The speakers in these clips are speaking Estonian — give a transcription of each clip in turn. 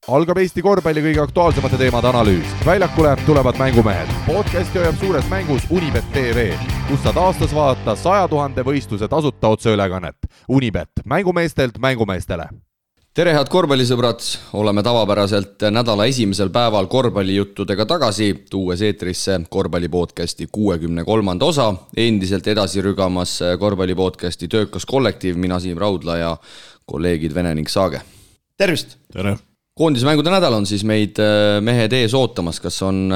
Algab Eesti korvpalli kõige aktuaalsemate teemade analüüs. Väljakule tulevad mängumehed. Podcasti hoiab suures mängus Unibet TV, kus saad aastas vaadata 100 000 võistluse tasuta otseülekannet. Unibet, mängumeestelt mängumeestele. Tere head korvpallisõbrad, oleme tavapäraselt nädala esimesel päeval korvpallijuttudega tagasi, tuues eetrisse korvpallipodcasti 63. osa. Endiselt edasi rügamas korvpallipodcasti töökas kollektiiv, mina Siim Raudla ja kolleegid Vene ning Saage. Tervist! Tere! Koondismängude nädal on siis meid mehed ees ootamas, kas on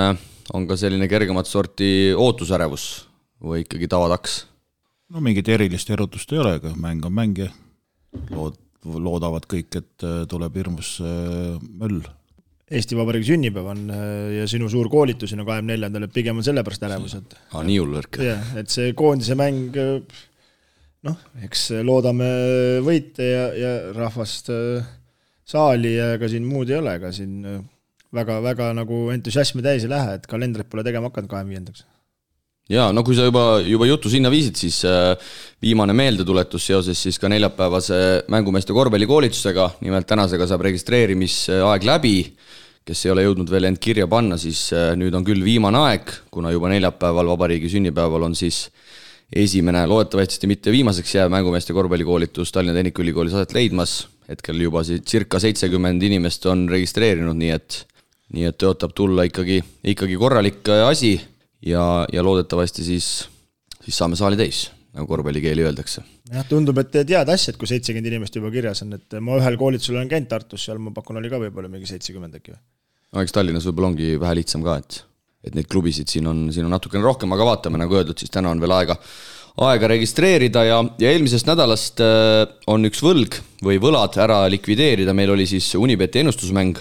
ka selline kergemat sorti ootusärevus või ikkagi tavataks? No mingit erilist erutust ei ole, aga mäng on mäng ja loodavad kõik, et tuleb hirmus möll. Eesti Vabariigi sünnipäev on ja sinu suur koolitus on 24. et pigem on sellepärast ärevused. Nii hullvõrk. Et see koondise mäng, eks loodame võite ja rahvast saali ja ega siin muud ei ole, ega siin väga nagu entusiasmi täis ei lähe, et kalendrit pole tegema hakanud 25. Jaa, no kui sa juba jutu sinna viisid, siis viimane meeldetuletus seoses siis ka neljapäevase mängumeeste korvpallikoolitusega, nimelt tänasega saab registreerimisaeg läbi, kes ei ole jõudnud veel end kirja panna, siis nüüd on küll viimane aeg, kuna juba neljapäeval vabariigi sünnipäeval on siis esimene, loodetavasti mitte viimaseks jääv mängumeeste korvpallikoolitus Tallinna Tehnikaülikoolis aset leidmas. Hetkel juba circa 70 inimest on registreerinud, nii et tõotab tulla ikkagi korralik asi ja loodetavasti siis saame saali täis, nagu korvpallikeeli öeldakse. Jah, tundub, et tead asjad, kui 70 inimest juba kirjas on, et ma ühel koolitusel olen käinud Tartus, seal ma pakun oli ka võib-olla mingi 70 äkki või? No, eks Tallinnas võib-olla ongi vähe lihtsam ka, et neid klubisid siin on natukene rohkem, aga vaatame, nagu öeldud, siis täna on veel aega registreerida ja eelmisest nädalast on üks võlg või võlad ära likvideerida. Meil oli siis Unibeti ennustusmäng,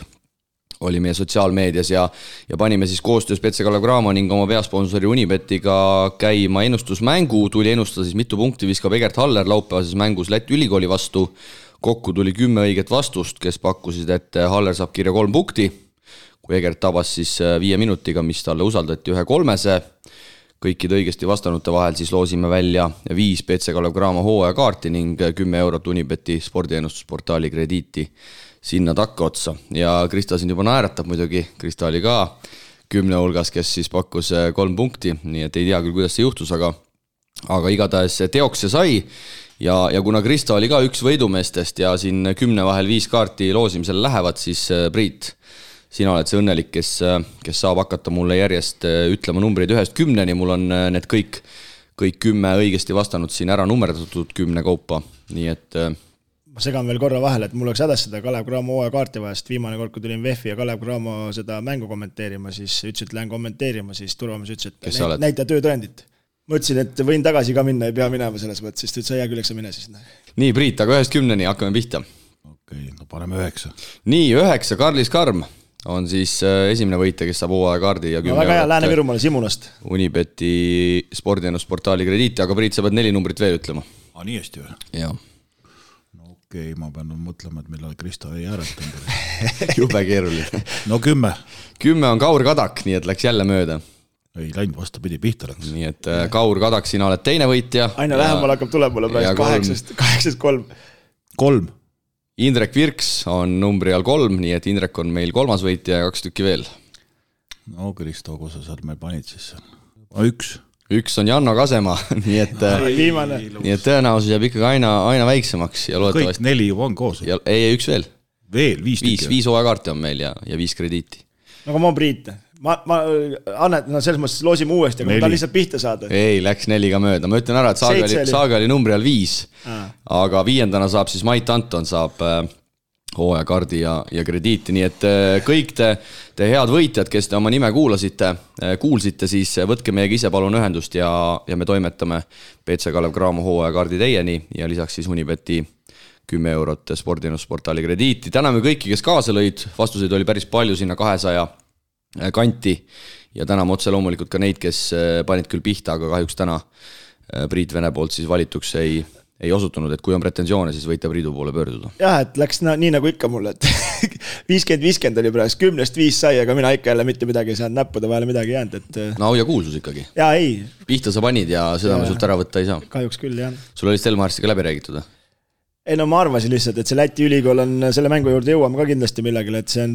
oli meie sotsiaalmeedias ja panime siis koostöös Petse Kalev Cramo ning oma peasponsori Unibetiga käima ennustusmängu. Tuli ennustada siis mitu punkti viskab Egert Haller laupäevases mängus Läti ülikooli vastu. Kokku tuli 10 õiget vastust, kes pakkusid, et Haller saab kirja 3 punkti. Kui Egert tabas siis 5 minutiga, mis talle usaldati 1-3. Kõikide õigesti vastanute vahel siis loosime välja 5 Petse Kalev Cramo hooajakaarti ning 10 eurot Unibeti spordiennustusportaali krediiti sinna takka otsa. Ja Krista siin juba naeratab muidugi, Krista oli ka 10 hulgas, kes siis pakkus 3 punkti, nii et ei tea küll, kuidas see juhtus, aga igatahes teoks see sai. Ja kuna Krista oli ka üks võidumeestest ja siin 10 vahel 5 kaarti loosimisel lähevad, siis Priit, sina oled see õnnelik, kes saab hakata mulle järjest ütlema numbreid 1-10, mul on need kõik 10 õigesti vastanud siin ära nummerdatud 10 kaupa, nii et ma segan veel korra vahele, et mul oleks hädas seda Kalev Cramo hooaja vahest. Viimane kord, kui tulin VEF-i ja Kalev Cramo seda mängu kommenteerima, siis ütles, et lähen kommenteerima, siis Turvamees ütles, et näita töötõendit. Ma ütlesin, et võin tagasi ka minna, ei pea minema selles mõttes, siis ta ütles, hea küll, eks sa mine siis. Nii, Priit, aga 1-10 hakkame pihta. Okei, no paneme 9. Nii, 9, Karlis Karm on siis esimene võitja, kes saab hooajakaardi ja 10 väga hea, Lääne-Virumaale Simulast. Unibeti spordiennusportaali krediiti, aga Priit, sa pead 4 numbrit veel ütlema. Nii hästi või? Jaa. No okei, ma pean mõtlema, et millal Krista ei hääletanud. Jube keeruline. No 10. 10 on Kaur Kadak, nii et läks jälle mööda. Ei läinud, vastupidi, pihta läks. Nii et Kaur Kadak, sina oled teine võitja. Aina lähemal hakkab tulema praegu 8-3. 3. Indrek Virks on numbri all 3, nii et Indrek on meil 3. võitja ja 2 tükki veel. No Kristo, kus sa sealt meil panid siis? 1. 1 on Janno Kasema, nii et tõenäosus jääb ikkagi aina väiksemaks. Ja kõik 4 juba on koos. Ei, 1 veel. Veel, 5 tükki. 5 hooajakaarti on meil ja 5 krediiti. No ma Priit. Ma annet, selles mõttes loosime uuesti, aga ta lihtsalt pihta saada. Ei, läks 4 ka mööda. Ma ütlen ära, et Saaga oli numbri all 5, aga 5. saab siis Mait Anton saab hooajakaardi ja krediiti, nii et kõik te head võitjad, kes te oma nime kuulsite, siis võtke meiega ise palun ühendust ja me toimetame Petse Kalev Cramo hooajakaardi teieni ja lisaks siis Unibeti 10 eurot spordiennusportaali krediiti. Täname kõiki, kes kaasa lõid, vastuseid oli päris palju sinna 200 kanti ja täname otse loomulikult ka neid, kes panid küll pihta, aga kahjuks täna Priit Vene poolt siis valituks ei osutunud, et kui on pretensioone, siis võite Priidu poole pöörduda. Jah, et läks nii nagu ikka mulle, et 50-50 oli praegu, 10-5 sai, aga mina ikka jälle mitte midagi ei saanud näppuda, vahele midagi jäänud. Et... No ja kuulsus ikkagi. Jaa, ei. Pihta sa panid ja seda me sult ära võtta ei saa. Kahjuks küll, jah. Sul oli Stelmarsiga läbi räägitud? Ei no ma arvasin lihtsalt, et see Läti ülikool on selle mängu juurde jõuame ka kindlasti millegil, et see on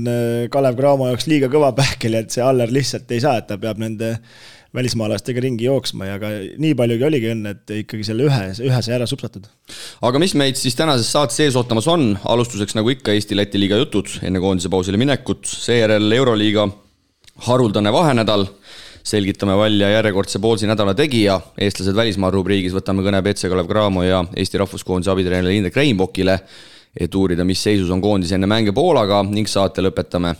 Kalev Cramo jaoks liiga kõva pähkel, et see Aller lihtsalt ei saa, et ta peab nende välismaalastega ringi jooksma ja ka nii paljugi oligi õnne, et ikkagi selle ühe sai ära supsatud. Aga mis meid siis tänases saates ees ootamas on? Alustuseks nagu ikka Eesti-Läti liiga jutud enne koondise pausile minekut, seejärel Euroliiga haruldane vahenädal, selgitame välja järjekordse poolsi nädala tegija, eestlased välismaa rubriigis võtame kõne BC Kalev Cramo ja Eesti rahvuskoondise abitreeneri Indrek Reinbokile, et uurida, mis seisus on koondis enne mänge Poolaga ning saate lõpetame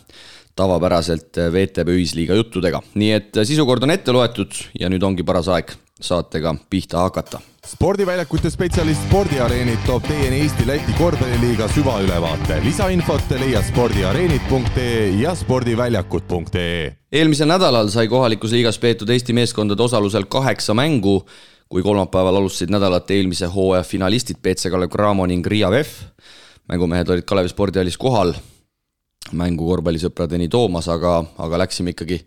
tavapäraselt VTB ühisliiga juttudega. Nii et sisukord on ette loetud ja nüüd ongi paras aeg saatega pihta hakata. Spordiväljakute spetsialist Spordiareenid toob teieni Eesti-Läti korvpalliliiga süvaülevaate. Lisainfot leia spordiareenid.ee ja spordiväljakud.ee. Eelmisel nädalal sai kohalikus liigas peetud Eesti meeskondade osalusel 8 mängu, kui kolmapäeval alustasid nädalat eelmise hooaja finalistid BC Kalev Cramo ning Riia VEF. Mängumehed olid Kalevi spordihallis kohal mängu korvpallisõpradeni toomas, aga läksime ikkagi,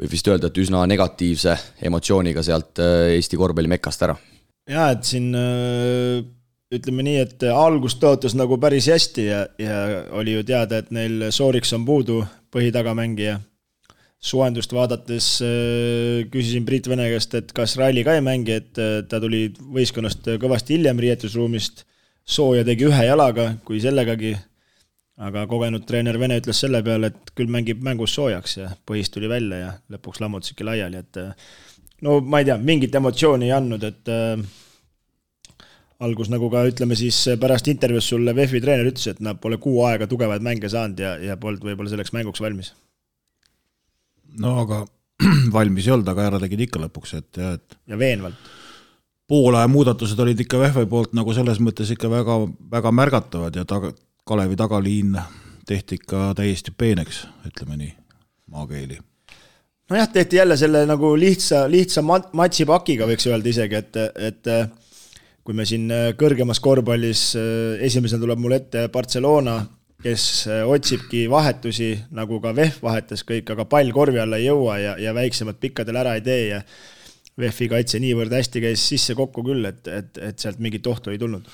võib vist öelda, et üsna negatiivse emotsiooniga sealt Eesti korvpallimekast ära. Ja, et siin ütleme nii, et algus tõotas nagu päris hästi ja oli ju teada, et neil Sooriks on puudu põhitagamängija. Suendust vaadates küsisin Priit Vene käest, et kas Raili ka ei mängi, et ta tuli võistkonnast kõvasti hiljem riietusruumist, sooja tegi ühe jalaga, kui sellegagi, aga kogenud treener Vene ütles selle peale, et küll mängib mängus soojaks ja põhist tuli välja ja lõpuks lammutasidki laiali, et no ma ei tea, mingit emotsiooni ei andnud, et algus nagu ka ütleme siis pärast intervjuus sulle VEF-i treener ütles, et nad pole 6 aega tugevaid mänge saanud ja polnud võib-olla selleks mänguks valmis. No aga valmis ei olnud, aga ära tegid ikka lõpuks, et ja veenvalt. Poolaja muudatused olid ikka VEF-i poolt nagu selles mõttes ikka väga, väga märgatavad ja Kalevi tagaliin tehti ikka täiesti peeneks, ütleme nii, maakeeli. No jah, tehti jälle selle nagu lihtsa matsipakiga võiks öelda isegi, et kui me siin kõrgemas korvpallis esimesena tuleb mul ette Barcelona, kes otsibki vahetusi, nagu ka VEF vahetas kõik, aga pall korvi alla ei jõua ja väiksemad pikkadel ära ei tee ja VEF-i kaitse niivõrd hästi käis sisse kokku küll, et sealt mingit ohtu ei tulnud.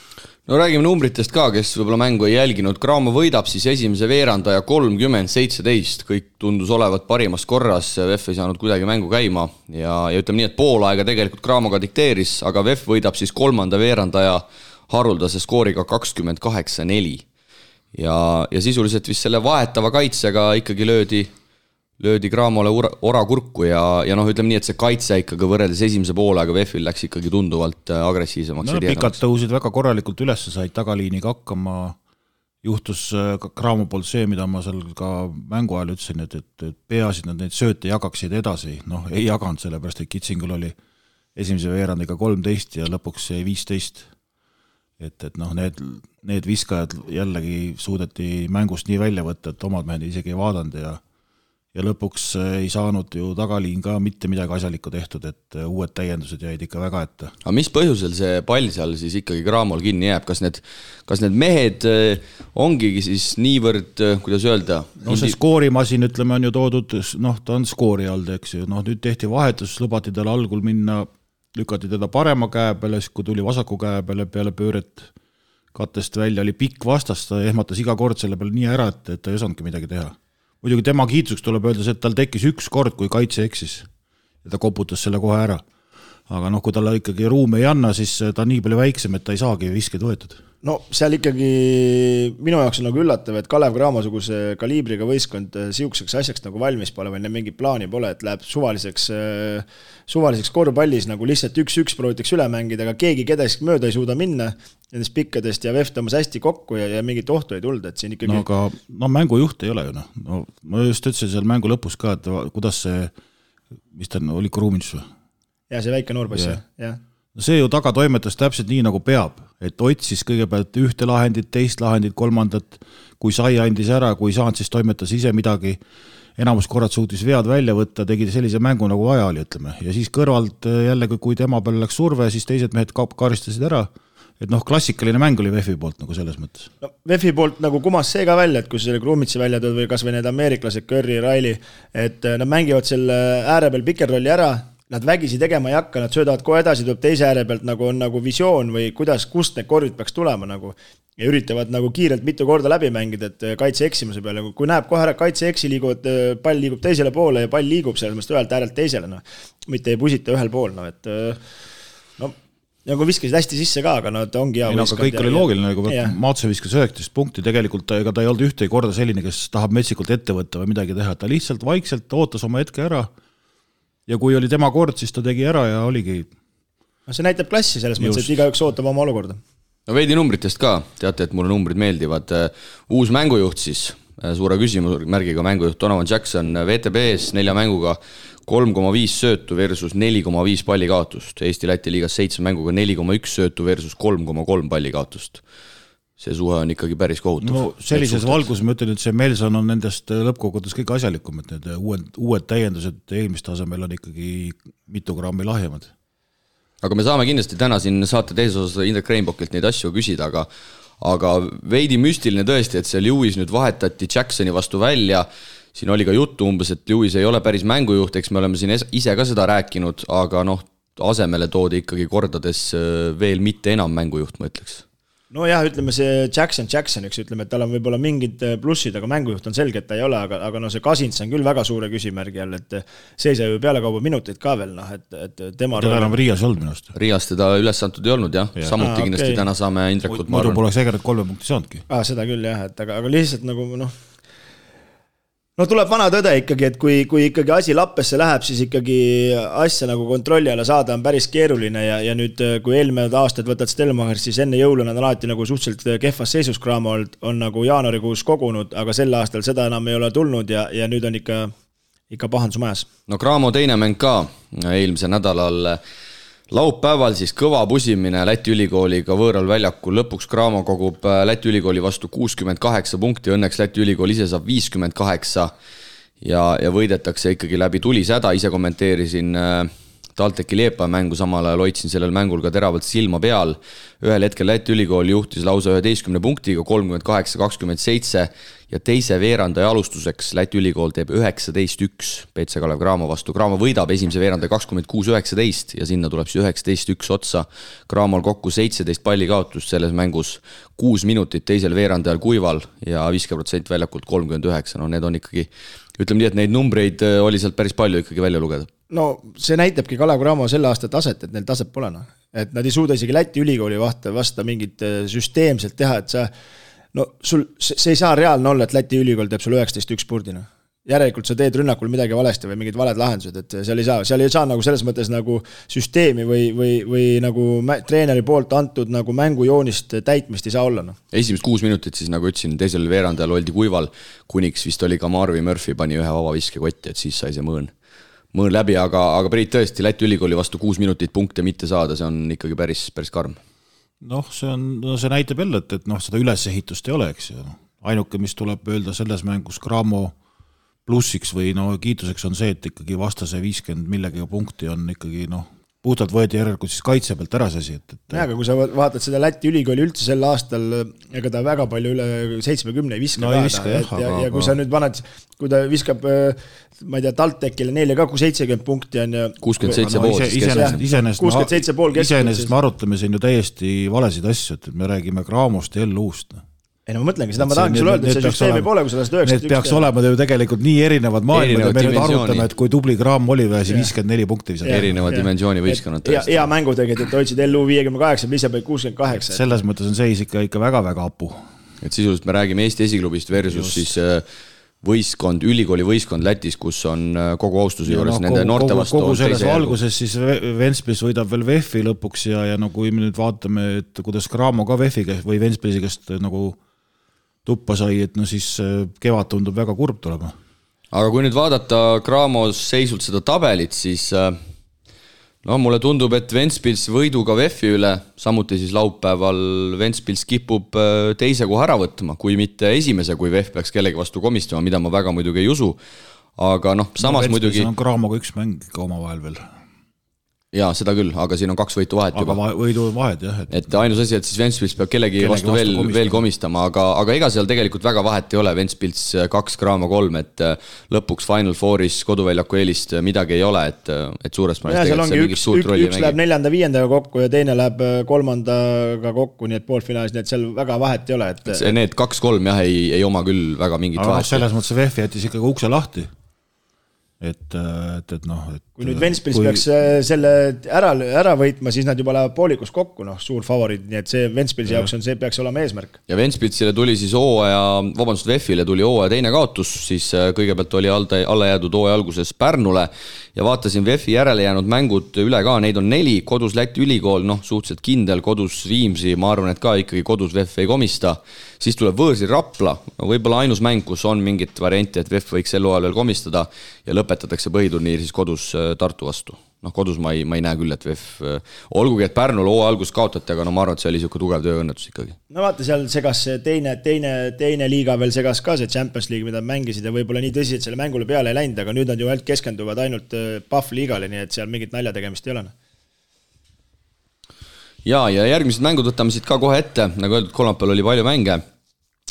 No räägime numbritest ka, kes võib-olla mängu ei jälginud. Cramo võidab siis esimese veerandaja 30-17, kõik tundus olevat parimas korras, VEF ei saanud kuidagi mängu käima ja ütleme nii, et pool aega tegelikult Cramoga dikteeris, aga VEF võidab siis kolmanda veerandaja haruldase skooriga 28-4 ja sisuliselt vist selle vahetava kaitsega ikkagi löödi Cramole ora kurku ja noh, ütleme nii, et see kaitse ikkagi võrreldes esimese poolega VEF-il läks ikkagi tunduvalt agressiivsemaks. No pikad tõusid väga korralikult üles, said tagaliiniga hakkama, juhtus Cramo poolt see, mida ma seal ka mängu ajal ütlesin, et peasid nad neid sööte jagaksid edasi, noh ei jaganud sellepärast, et Kitsingul oli esimese veerandiga 13 ja lõpuks 15. Et noh, need viskajad jällegi suudeti mängust nii välja võtta, et omad mehed isegi ei vaadanud ja lõpuks ei saanud ju tagaliin ka mitte midagi asjalikku tehtud, et uued täiendused jäid ikka väga ette. Aga mis põhjusel see pall seal siis ikkagi Cramol kinni jääb? Kas need mehed ongigi siis niivõrd, kuidas öelda? No see skoorimasin, ütleme, on ju toodud, noh, ta on skoori all, eks ju. Noh, nüüd tehti vahetus, lubati tal algul minna, lükati teda parema käe peale, kui tuli vasaku käe peale pööret kattest välja, oli pikk vastas, ta ehmatas iga kord selle peale nii ära, et ta ei osanudki midagi teha. Muidugi tema kiitsuks tuleb öelda, et tal tekkis üks kord, kui kaitse eksis ja ta koputas selle kohe ära. Aga noh, kui talle ikkagi ruumi ei anna, siis ta on nii palju väiksem, et ta ei saagi viskeid võetud. No seal ikkagi minu jaoks on nagu üllatav, et Kalev Cramo-suguse kaliibriga võistkond siukseks asjaks nagu valmis pole või mingi plaani pole, et läheb suvaliseks korvpallis nagu lihtsalt 1-1 proovitakse üle mängida, aga keegi kedagi mööda ei suuda minna nendest pikkadest ja VEF tõmbas hästi kokku ja mingit ohtu ei tulda, et siin ikkagi... No aga mängujuht ei ole ju, noh. No, ma just ütlesin seal mängu lõpus ka, et kuidas see, mis ta oli Kruumins või? Ja see väike noorposs, jah. No see ju taga toimetas täpselt nii, nagu peab, et otsis kõigepealt ühte lahendit, teist lahendit, kolmandat, kui sai andis ära, kui saanud, siis toimetas ise midagi, enamus korrad suutis vead välja võtta, tegi sellise mängu nagu vaja oli, ütleme, ja siis kõrvalt jällegi, kui tema peale läks surve, siis teised mehed karistasid ära, et noh, klassikaline mäng oli VEF-i poolt nagu selles mõttes. No, VEF-i poolt nagu kumas see ka välja, et kui selle Krumitsi välja tõid või kas või need ameeriklased, Curry, Riley, et nad mängivad selle ääre peal pikerrolli ära, nad vägisi tegema ei hakka, nad söödavad kohe edasi, tuleb teise ääre pealt nagu on nagu visioon või kust need korvid peaks tulema nagu ja üritavad nagu kiirelt mitu korda läbi mängida, et kaitse eksimuse peale, kui näeb kohe ära kaitse eksi liiguvad, pall liigub teisele poole ja pall liigub selles mõttes ühelt äärelt teisele, mitte ei pusita ühel pool, et nagu viskasid hästi sisse ka, aga nad ongi hea võistkond. Kõik oli loogiline, nagu Maatse viskas 19 punkti, tegelikult ega ta ei olnud ühtegi korda selline, kes tahab metsikult ette võtta või midagi teha, ta lihtsalt vaikselt ootas oma hetke ära ja kui oli tema kord, siis ta tegi ära ja oligi. See näitab klassi selles mõttes, et igaüks ootab oma olukorda. No veidi numbritest ka, teate, et mulle numbrid meeldivad. Uus mängujuht siis, suure küsimusmärgiga mängujuht Donovan Jackson VTB-s 4 mänguga 3,5 söötu versus 4,5 palli kaotust. Eesti Läti liigas 7 mänguga 4,1 söötu versus 3,3 palli kaotust. See suhe on ikkagi päris kohutav. No sellises valgus ma ütlen, et see Melson on nendest lõppkogudes kõik asjalikum, et need uued täiendused eelmist tasemel on ikkagi mitu grammi lahjemad. Aga me saame kindlasti täna siin saate teises osas Indrek Reinbokilt neid asju küsida, aga veidi müstiline tõesti, et see Lewis nüüd vahetati Jacksoni vastu välja. Siin oli ka juttu umbes, et Lewis ei ole päris mängujuht, eks me oleme siin ise ka seda rääkinud, aga asemele toodi ikkagi kordades veel mitte enam mängujuht, ma ütleks. No jah, ütleme see Jackson, ütleme, et tal on võib-olla mingid plussid, aga mängujuht on selge, et ta ei ole, aga see Kasins on küll väga suure küsimärgi all, et see sai ju pealekauba minuteid ka veel, et tema... Teda enam Riias olnud minust. Riias teda üles antud ei olnud, jah. Samuti kindlasti täna saame Indrekut... Muidu poleks Egeret 3 punkti saanudki. Seda küll, jah, aga lihtsalt nagu, tuleb vana tõde ikkagi, et kui ikkagi asi lappesse läheb, siis ikkagi asja nagu kontrolli alla saada on päris keeruline ja nüüd, kui eelmine aastad võtad Stelmacher, siis enne jõulu nad on alati nagu suhteliselt kehvas seisus Cramo on nagu jaanuarikuus kogunud, aga sel aastal seda enam ei ole tulnud ja nüüd on ikka pahandus majas. No Cramo teine mäng ka eelmise nädalal laupäeval siis kõva pusimine Läti ülikooliga võõral väljakul. Lõpuks Cramo kogub Läti ülikooli vastu 68 punkti, õnneks Läti ülikool ise saab 58 ja võidetakse ikkagi läbi tulisäda. Ise kommenteerisin TalTechi Liepa mängu, samal ajal hoidsin sellel mängul ka teravalt silma peal. Ühel hetkel Läti ülikool juhtis lausa 11 punktiga 38-27 ja teise veerandaja alustuseks Läti ülikool teeb 19-1 PC Kalev Cramo vastu. Cramo võidab esimese veerandaja 26-19 ja sinna tuleb siis 19-1 otsa. Cramol kokku 17 palli kaotust selles mängus, 6 minutit teisel veerandajal kuival ja 50% väljakult 39. No need on ikkagi, ütleme nii, et neid numbreid oli sealt päris palju ikkagi välja lugeda. No see näitabki Kalev Cramo selle aasta taset, et neil taset pole. Et nad ei suuda isegi Läti ülikooli vasta mingit süsteemselt teha, et see ei saa reaalne olla, et Läti ülikool teeb sul 19-1 purdina. Järelikult sa teed rünnakul midagi valesti või mingid valed lahendused, et seal ei saa nagu selles mõttes nagu süsteemi või nagu treeneri poolt antud nagu mängujoonist täitmist ei saa olla. Esimest 6 minutit siis, nagu ütlesin, teisel veerandajal oldi kuival, kuniks vist oli ka Marvi Murphy pani ühe vaba viskekotti, et siis sai see mõõn läbi, aga Priit tõesti Läti ülikooli vastu 6 minutit punkte mitte saada, see on ikkagi päris karm. See näitab jälle, et seda ülesehitust ei ole, eks ju. Ainuke, mis tuleb öelda selles mängus Cramo plussiks või kiituseks on see, et ikkagi vastase 50 millegagi punkti on ikkagi puhtalt võeti järelikult siis kaitse pealt ära see asi. Aga kui sa vaatad seda Läti ülikooli üldse sel aastal, ega ta väga palju üle 70 ei viska. Ja kui sa nüüd paned, kui ta viskab, ma ei tea, TalTechile neile ka 70 punkti on ja 67,5. Iseenesest me arutame siin ju täiesti valesid asju, et me räägime Cramost ja L-uust. Ei ma mõtlengi, seda ma tahangi sulle öelda, et see süsteemi pole, kui sa lähed 91. Need peaks olema ju tegelikult nii erinevad maailmad ja me nüüd arutame, et kui tubli Cramo oli või 54 punkti visata. Erineva dimensiooni võistkonnad tõesti. Hea mängu tegelikult, et hoidsid LU 58, ise peab 68. Selles mõttes on seis ikka väga-väga apu. Et sisuliselt me räägime Eesti esiklubist versus siis võistkond, ülikooli võistkond Lätis, kus on kogu austuse juures nende noorte vastu. Kogu selles valguses siis Ventspils võidab veel VEF-i lõpuks ja kui me nüüd vaatame, et kuidas Cramo ka VEF-i või Ventspilsi käest nagu tuppa sai, et siis kevad tundub väga kurb tulema. Aga kui nüüd vaadata Cramos seisult seda tabelit, siis mulle tundub, et Ventspils võiduga VEF-i üle, samuti siis laupäeval Ventspils kipub teise koha ära võtma, kui mitte esimese, kui VEF peaks kellegi vastu komistama, mida ma väga muidugi ei usu. Aga samas muidugi... on Cramoga üks mäng ka oma vahel veel. jaa, seda küll, aga siin on 2 võitu vahet juba. Aga võidu vahed, jah. Et ainus asi, et siis Ventspils peab kellegi vastu veel komistama, aga ega seal tegelikult väga vahet ei ole, Ventspils 2, Graamo 3, et lõpuks Final Fouris koduväljaku eelist midagi ei ole, et suures mõnes tegelikult see mingit suurt rolli mängib. Üks läheb 4.-5. kokku ja teine läheb 3. kokku, nii et poolfinaalis, nii et seal väga vahet ei ole. Need 2-3 jah, ei oma küll väga mingit vahet. Aga selles mõttes VF jättis ikkagi ukse lahti. Et kui nüüd Ventspils peaks selle ära võitma, siis nad juba lähevad poolikus kokku, suur favoriid, nii et see Ventspilsi jaoks see peaks olema eesmärk. Ja Ventspilsile tuli siis VF-ile tuli hooaja teine kaotus, siis kõigepealt oli alla jäädud hooaja alguses Pärnule ja vaatasin VF-i järele jäänud mängud üle ka, neid on 4, kodus Läti ülikool, suhteliselt kindel, kodus Viimsi, ma arvan, et ka ikkagi kodus VF ei komista, siis tuleb võõrsil Rapla, võib-olla ainus mäng, kus on mingit varianti, et VF võiks sel hooajal veel komistada ja lõpetatakse põhiturniir siis kodus Tartu vastu. Kodus ma ei näe küll, et VF, olgugi, et Pärnul hooaja algus kaotati, aga ma arvan, et see oli siuke tugev tööõnnetus ikkagi. No vaata, seal segas teine liiga veel segas ka see Champions League, mida mängisid ja võib-olla nii tõsi, et selle mängule peale ei läinud, aga nüüd nad ju keskenduvad ainult Pahv liigale, nii et seal mingit nalja tegemist ei ole. Ja järgmised mängud võtame siit ka kohe ette, nagu öeldud, kolmapäeval oli palju mänge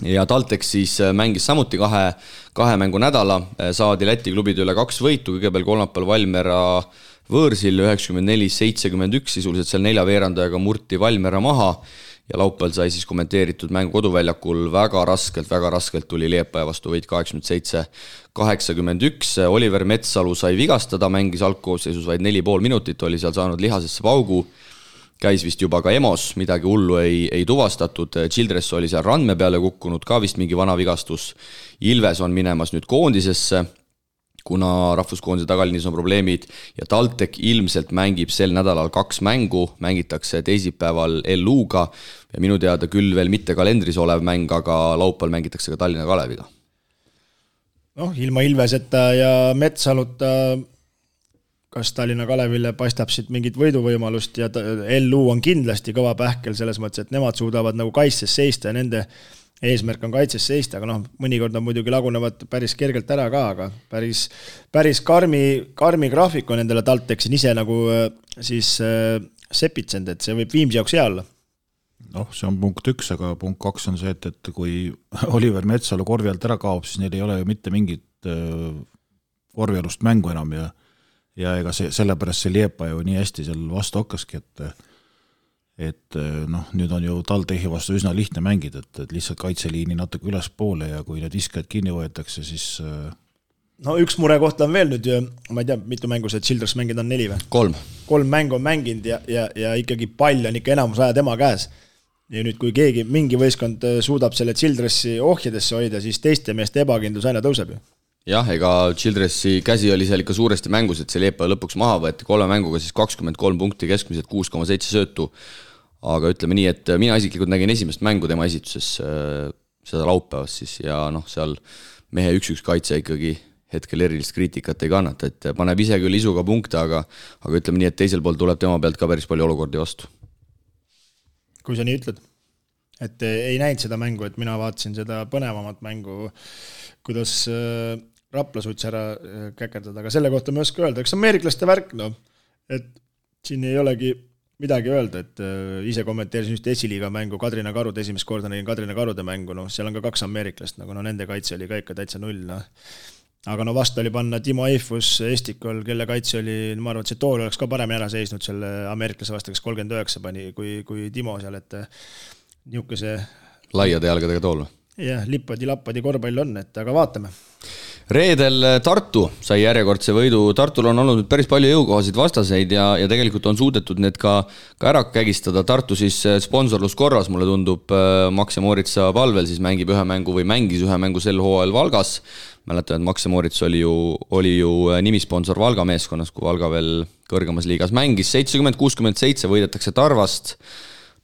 ja Taltex siis mängis samuti kahe mängu nädala, saadi Läti klubide üle 2 võitu, kõigepealt kolmapäeval Valmiera võõrsil 94-71, sisuliselt seal 4 veerandajaga murti Valmiera maha ja laupäeval sai siis kommenteeritud mängu koduväljakul väga raskelt tuli Liepaja vastu võit 87-81, Oliver Metsalu sai vigastada, mängis algkoosseisus vaid 4,5 minutit, oli seal saanud lihasesse paugu, käis vist juba ka EMOs, midagi hullu ei tuvastatud, Childress oli seal randme peale kukkunud, ka vist mingi vana vigastus, Ilves on minemas nüüd koondisesse, kuna rahvuskoondise tagalinis on probleemid ja Taltek ilmselt mängib sel nädalal 2 mängu, mängitakse teisipäeval LU-ga ja minu teada küll veel mitte kalendris olev mäng, aga laupäeval mängitakse ka Tallinna Kaleviga. Ilma Ilveseta ja Metsaluta kas Tallinna Kalevile paistab siit mingit võiduvõimalust ja LU on kindlasti kõva pähkel selles mõttes, et nemad suudavad nagu kaitses seista ja nende eesmärk on kaitses seista, aga mõnikord on muidugi lagunevad päris kergelt ära ka, aga päris karmi graafik on endale Taltexin ise nagu siis sepitsend, et see võib Viimsi jaoks hea olla. See on punkt 1, aga punkt 2 on see, et kui Oliver Metsalu korvi alt ära kaob, siis neil ei ole ju mitte mingit korvialust mängu enam ja ega sellepärast see Liepa ju nii hästi seal vastu hakkaski, et nüüd on ju Taltechi vastu üsna lihtne mängida, et lihtsalt kaitseliini natuke ülespoole ja kui need viskajad kinni võetakse, siis... üks murekoht on veel nüüd, ma ei tea, mitu mängu see Childress mängid on 4 või? 3 mängu on mänginud ja ikkagi pall on ikka enamus aja tema käes. Ja nüüd, kui mingi võistkond suudab selle Childressi ohjadesse hoida, siis teiste meeste ebakindlus aina tõuseb ju. Jah, ega Childressi käsi oli seal ikka suuresti mängus, et see Liepa lõpuks maha võeti 3 mänguga siis 23 punkti, keskmiselt 6,7 söötu. Aga ütleme nii, et mina isiklikult nägin esimest mängu tema esituses seda laupäevas siis ja seal mehe 1-1 kaitse ikkagi hetkel erilist kriitikat ei kannata, et paneb ise küll isuga punkte, aga ütleme nii, et teisel pool tuleb tema pealt ka päris palju olukordi vastu. Kui sa nii ütled, et ei näinud seda mängu, et mina vaatasin seda põnevamat mängu, kuidas Rapla suutis ära käkerdada, aga selle kohta ma ei oska öelda, eks ameeriklaste värk, et siin ei olegi midagi öelda, et ise kommenteerisin just esiliiga mängu Kadrina Karud, esimest korda nägin Kadrina Karude mängu, seal on ka 2 ameeriklast, nende kaitse oli ka ikka täitsa 0. Aga vastu oli panna Timo Eifus Estikol, kelle kaitse oli, ma arvan, et see tool oleks ka paremini ära seisnud selle ameeriklase vastu, kes 39 pani, kui Timo seal, et niisuguse laiade jalgadega tool. Jah, lippadi korvpall on, et aga vaatame. Reedel Tartu sai järjekordse võidu. Tartul on olnud päris palju jõukohasid vastaseid ja tegelikult on suudetud need ka ära kägistada. Tartu siis sponsorluskorras, mulle tundub, Max ja Moritsa palvel siis mängib ühe mängu või mängis ühe mängu sel hooajal Valgas. Mäletan, et Max ja Morits oli ju nimisponsor Valga meeskonnas, kui Valga veel kõrgemas liigas mängis. 70-67 võidetakse Tarvast.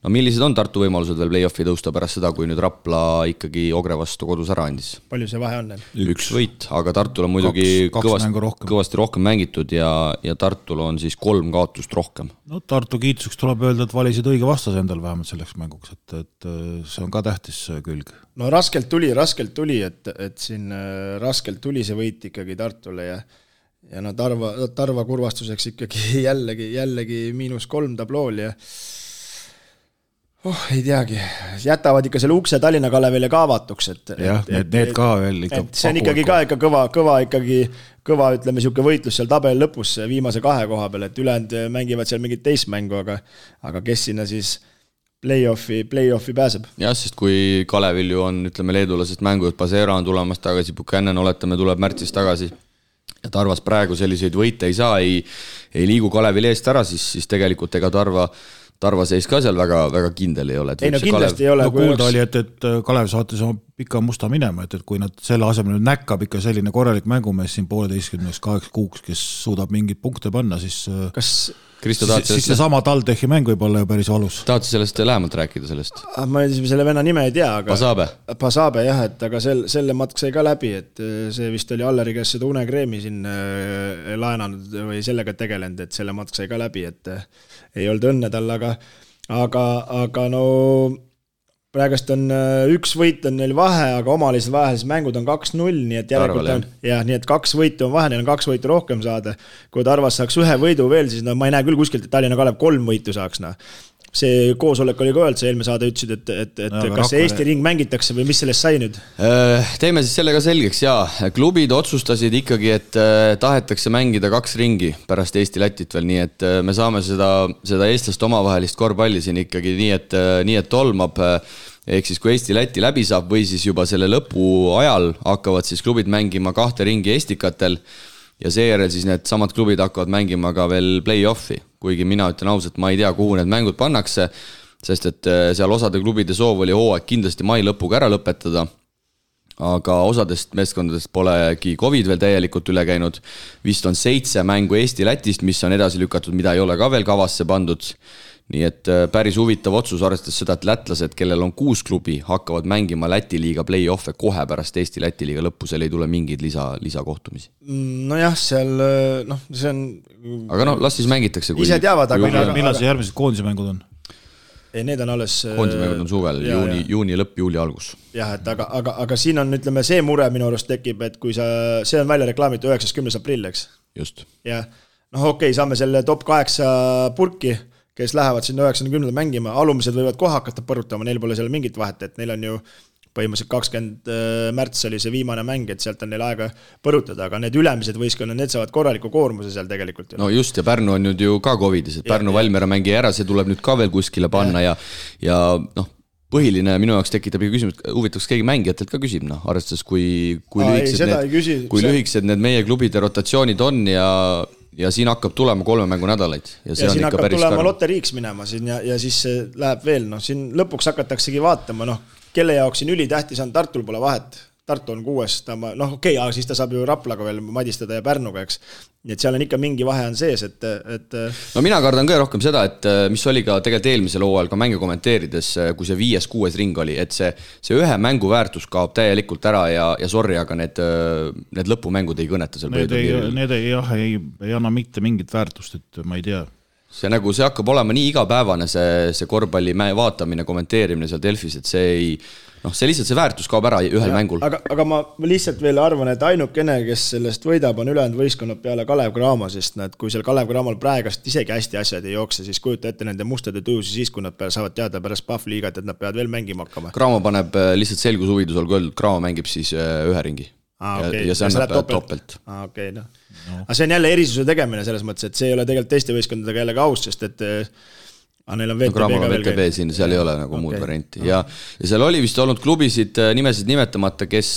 Millised on Tartu võimalused veel play-offi tõusta pärast seda, kui nüüd Rapla ikkagi Ogre vastu kodus ära andis? Palju see vahe on? 1 võit, aga Tartul on muidugi kõvasti rohkem mängitud ja Tartul on siis 3 kaotust rohkem. Tartu kiituseks tuleb öelda, et valisid õige vastase endal vähemalt selleks mänguks, et see on ka tähtis külg. Raskelt tuli, et siin raskelt tuli see võit ikkagi Tartule ja no Tarva kurvastuseks ikkagi jällegi -3 tablool ja ei teagi, jätavad ikka selle ukse Tallinna Kalevile ka avatuks, jah, need ka veel ikka see on ikkagi ka ikka kõva, ütleme, siuke võitlus seal tabeli lõpus viimase 2 koha peal, et ülejäänud mängivad seal mingit teist mängu, aga kes sinna siis play-offi pääseb. Jah, sest kui Kalevil ju on, ütleme, leedulasest mängujuht Pasera on tulemas tagasi, Buchanan oletame tuleb märtsis tagasi ja Tarvas praegu selliseid võite ei saa, ei liigu Kalevil eest ära, siis tegelikult ega Tarva seis ka seal väga kindel ei ole. Ei no kindlasti ei ole. No kuulda oli, et Kalev saatis oma pika musta minema, et kui nad selle asemel näkkab ikka selline korralik mängumees siin 1,5-8 kuuks, kes suudab mingeid punkte panna, siis siis seesama TalTechi mäng võib olla ju päris valus. Tahad sa sellest lähemalt rääkida sellest? Ma selle venna nime ei tea, aga Pasabe jah, et aga selle matk sai ka läbi, et see vist oli Alleri käest seda unekreemi siin laenanud või sellega tegelenud, et selle matk sai ka läbi, et ei olnud õnne tal, aga no praegust on 1 võit on neil vahe, aga omalised vahelised mängud on 2-0, nii et järelikult on, nii et 2 võitu on vahe, neil on 2 võitu rohkem saada. Kui Tarvas saaks 1 võidu veel, siis ma ei näe küll kuskilt, et Tallinna Kalev 3 võitu saaks. See koosolek oli ka öelnud, see eelme saade ütlesid, et kas see Eesti ring mängitakse või mis sellest sai nüüd? Teeme siis sellega selgeks, jaa. Klubid otsustasid ikkagi, et tahetakse mängida 2 ringi pärast Eesti-Lätit veel, nii et me saame seda eestlast omavahelist korvpalli siin ikkagi nii, et tolmab. Ehk siis kui Eesti-Läti läbi saab või siis juba selle lõpu ajal hakkavad siis klubid mängima 2 ringi Estikatel ja seejärel siis need samad klubid hakkavad mängima ka veel play-offi, kuigi mina ütlen ausalt, ma ei tea, kuhu need mängud pannakse, sest et seal osade klubide soov oli hooaeg kindlasti mai lõpuga ära lõpetada, aga osadest meeskondadest polegi COVID veel täielikult üle käinud, vist on 7 mängu Eesti-Lätist, mis on edasi lükatud, mida ei ole ka veel kavasse pandud. Nii et päris huvitav otsus arvestades seda, et lätlased, kellel on 6 klubi, hakkavad mängima Läti liiga play-offe kohe pärast Eesti-Läti liiga lõppu, seal ei tule mingeid lisakohtumisi. Nojah, seal, see on... Aga las siis mängitakse. Ise teavad, aga... Millal see järgmised koondismängud on? Ei, need on alles... Koondismängud on suvel, juuni lõpp, juuli algus. Jah, et aga siin on, ütleme, see mure minu arust tekib, et kui see on välja reklaamitud 9.10. aprill, eks? Just. Ja, okei, saame selle top 8 purki, kes lähevad sinna 90 mängima, alumised võivad kohe hakata põrutama, neil pole seal mingit vahet, et neil on ju põhimõtteliselt 20 märts oli see viimane mäng, et sealt on neil aega põrutada, aga need ülemised võistkonnad, need saavad korraliku koormuse seal tegelikult. No just, ja Pärnu on nüüd ju ka COVIDis, et Pärnu Valmiera mängi ära, see tuleb nüüd ka veel kuskile panna ja põhiline minu jaoks tekitab küsimus, huvitaks keegi mängijatelt ka küsib, arvestades kui lühikesed need meie klubide rotatsioonid on ja siin hakkab tulema 3 mängu nädalaid. Ja siin hakkab tulema loteriiks minema siin ja siis läheb veel, siin lõpuks hakataksegi vaatama, kelle jaoks siin ülitähtis on, Tartul pole vahet, Tartu on 6, aga siis ta saab ju Raplaga veel madistada ja Pärnuga, eks. Nii et seal on ikka mingi vahe on sees, et... No mina kardan ka rohkem seda, et mis oli ka tegelikult eelmisel hooajal ka mänge kommenteerides, kui see 5-6 ring oli, et see ühe mängu väärtus kaob täielikult ära ja sorry, aga need lõpumängud ei kõneta seal. Need ei anna mitte mingit väärtust, et ma ei tea. See hakkab olema nii igapäevane see korvpalli vaatamine, kommenteerimine seal Delfis, et see lihtsalt see väärtus kaob ära ühel mängul. Aga ma lihtsalt veel arvan, et ainukene, kes sellest võidab, on ülejäänud võistkonnad peale Kalev Cramo, sest kui seal Kalev Cramo'l praegast isegi hästi asjad ei jookse, siis kujuta ette nende mustade tujusi siis, kui nad saavad teada pärast PAF-liigat, et nad peavad veel mängima hakkama. Cramo paneb lihtsalt selgushuvidus olgu öeldud, Cramo mängib siis ühe ringi. Ja see annab toppelt. Okei. Aga see on jälle erisuse tegemine selles mõttes, et see ei ole tegelikult teiste võistkondadega jälle ka aus, sest et neil on VTB siin, seal ei ole nagu muud varianti. Ja seal oli vist olnud klubisid nimesid nimetamata, kes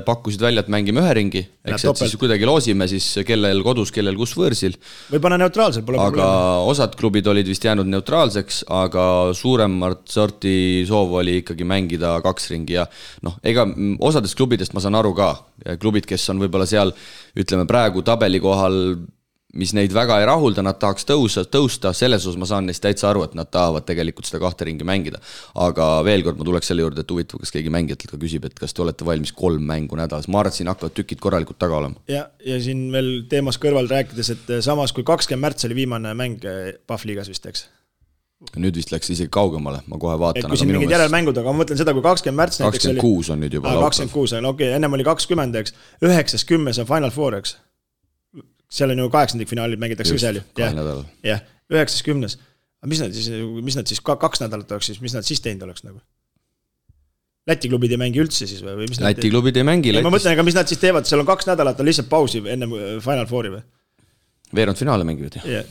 pakkusid välja, et mängime ühe ringi, eks et siis kuidagi loosime siis kellel kodus, kellel kus võõrsil. Või pane neutraalsel, pole aga osad klubid olid vist jäänud neutraalseks, aga suuremat sorti soov oli ikkagi mängida 2 ringi ja ega osadest klubidest ma saan aru ka, klubid, kes on võib-olla seal, ütleme praegu tabeli kohal, mis neid väga ei rahulda, nad tahaks tõusta, selles osas ma saan neist täitsa aru, et nad tahavad tegelikult seda 2 ringi mängida. Aga veel kord ma tuleks selle juurde, et huvitav, kas keegi mängijatelt ka küsib, et kas te olete valmis 3 mängu nädalas. Ma arvan, et siin hakkavad tükid korralikult taga olema. Ja siin veel teemas kõrval rääkides, et samas kui 20 märts oli viimane mäng PAF-liigas vist, eks? Nüüd vist läks isegi kaugemale, ma kohe vaatan. Et kui siin mingid järelmängud, aga ma mõtlen seda, kui 20 märts 26 on nüüd juba. 26 on, okei, ennem oli 20, eks. 9.10 on Final Four, eks. seal on ju 8. finaalid mängitakse seal ju. Jah, 9.10. Mis nad siis 2 nädalat oleks siis, mis nad siis teinud oleks nagu? Läti klubid ei mängi üldse siis või? Läti klubid ei mängi. Ma mõtlen, aga mis nad siis teevad, seal on 2 nädalat, on lihtsalt pausi enne Final Fouri või? Veerand finaale mängivad ju.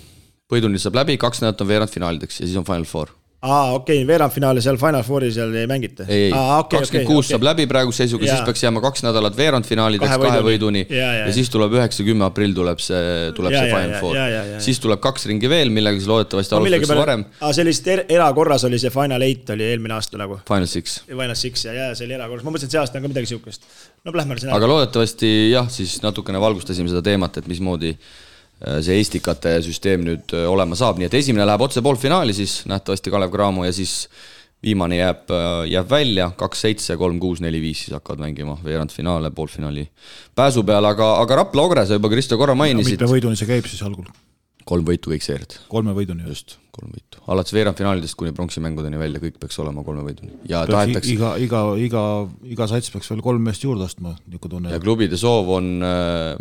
Võiduni saab läbi, 2 nädalat on veerand finaalideks ja siis on Final Four. Okei, veerand finaali seal Final Fouri seal ei mängita. Ei, 26 saab läbi praegu seisuga, siis peaks jääma 2 nädalat veerand finaalideks 2 võiduni ja siis tuleb 9-10 aprill tuleb see Final Four. Siis tuleb 2 ringi veel, millega siis loodetavasti alustatakse varem. Sellist erakorras oli see Final 8 oli eelmine aasta nagu. Final 6. Final 6 ja see oli erakorras. Ma mõtlesin, et see aasta on ka midagi siukest. No lähme sinna. Aga loodetavasti jah, siis natukene valgustasime seda teemat, et mismoodi see Estikate süsteem nüüd olema saab, nii et esimene läheb otse poolfinaali siis nähtavasti Kalev Cramo ja siis viimane jääb välja 2-7, 3-6, 4-5 siis hakkavad mängima veerandfinaale, poolfinaali pääsu peal, aga Rapla Ogre, sa juba Kristo korra mainisid. Mitme võiduni see käib siis algul? 3 võitu kõik seerid. 3 võiduni. Just, 3 võitu. Alates veerandfinaalidest kuni pronksimängudeni välja, kõik peaks olema 3 võiduni. Ja tahetakse... Iga sats peaks veel 3 meest juurde ostma. Ja klubide soov on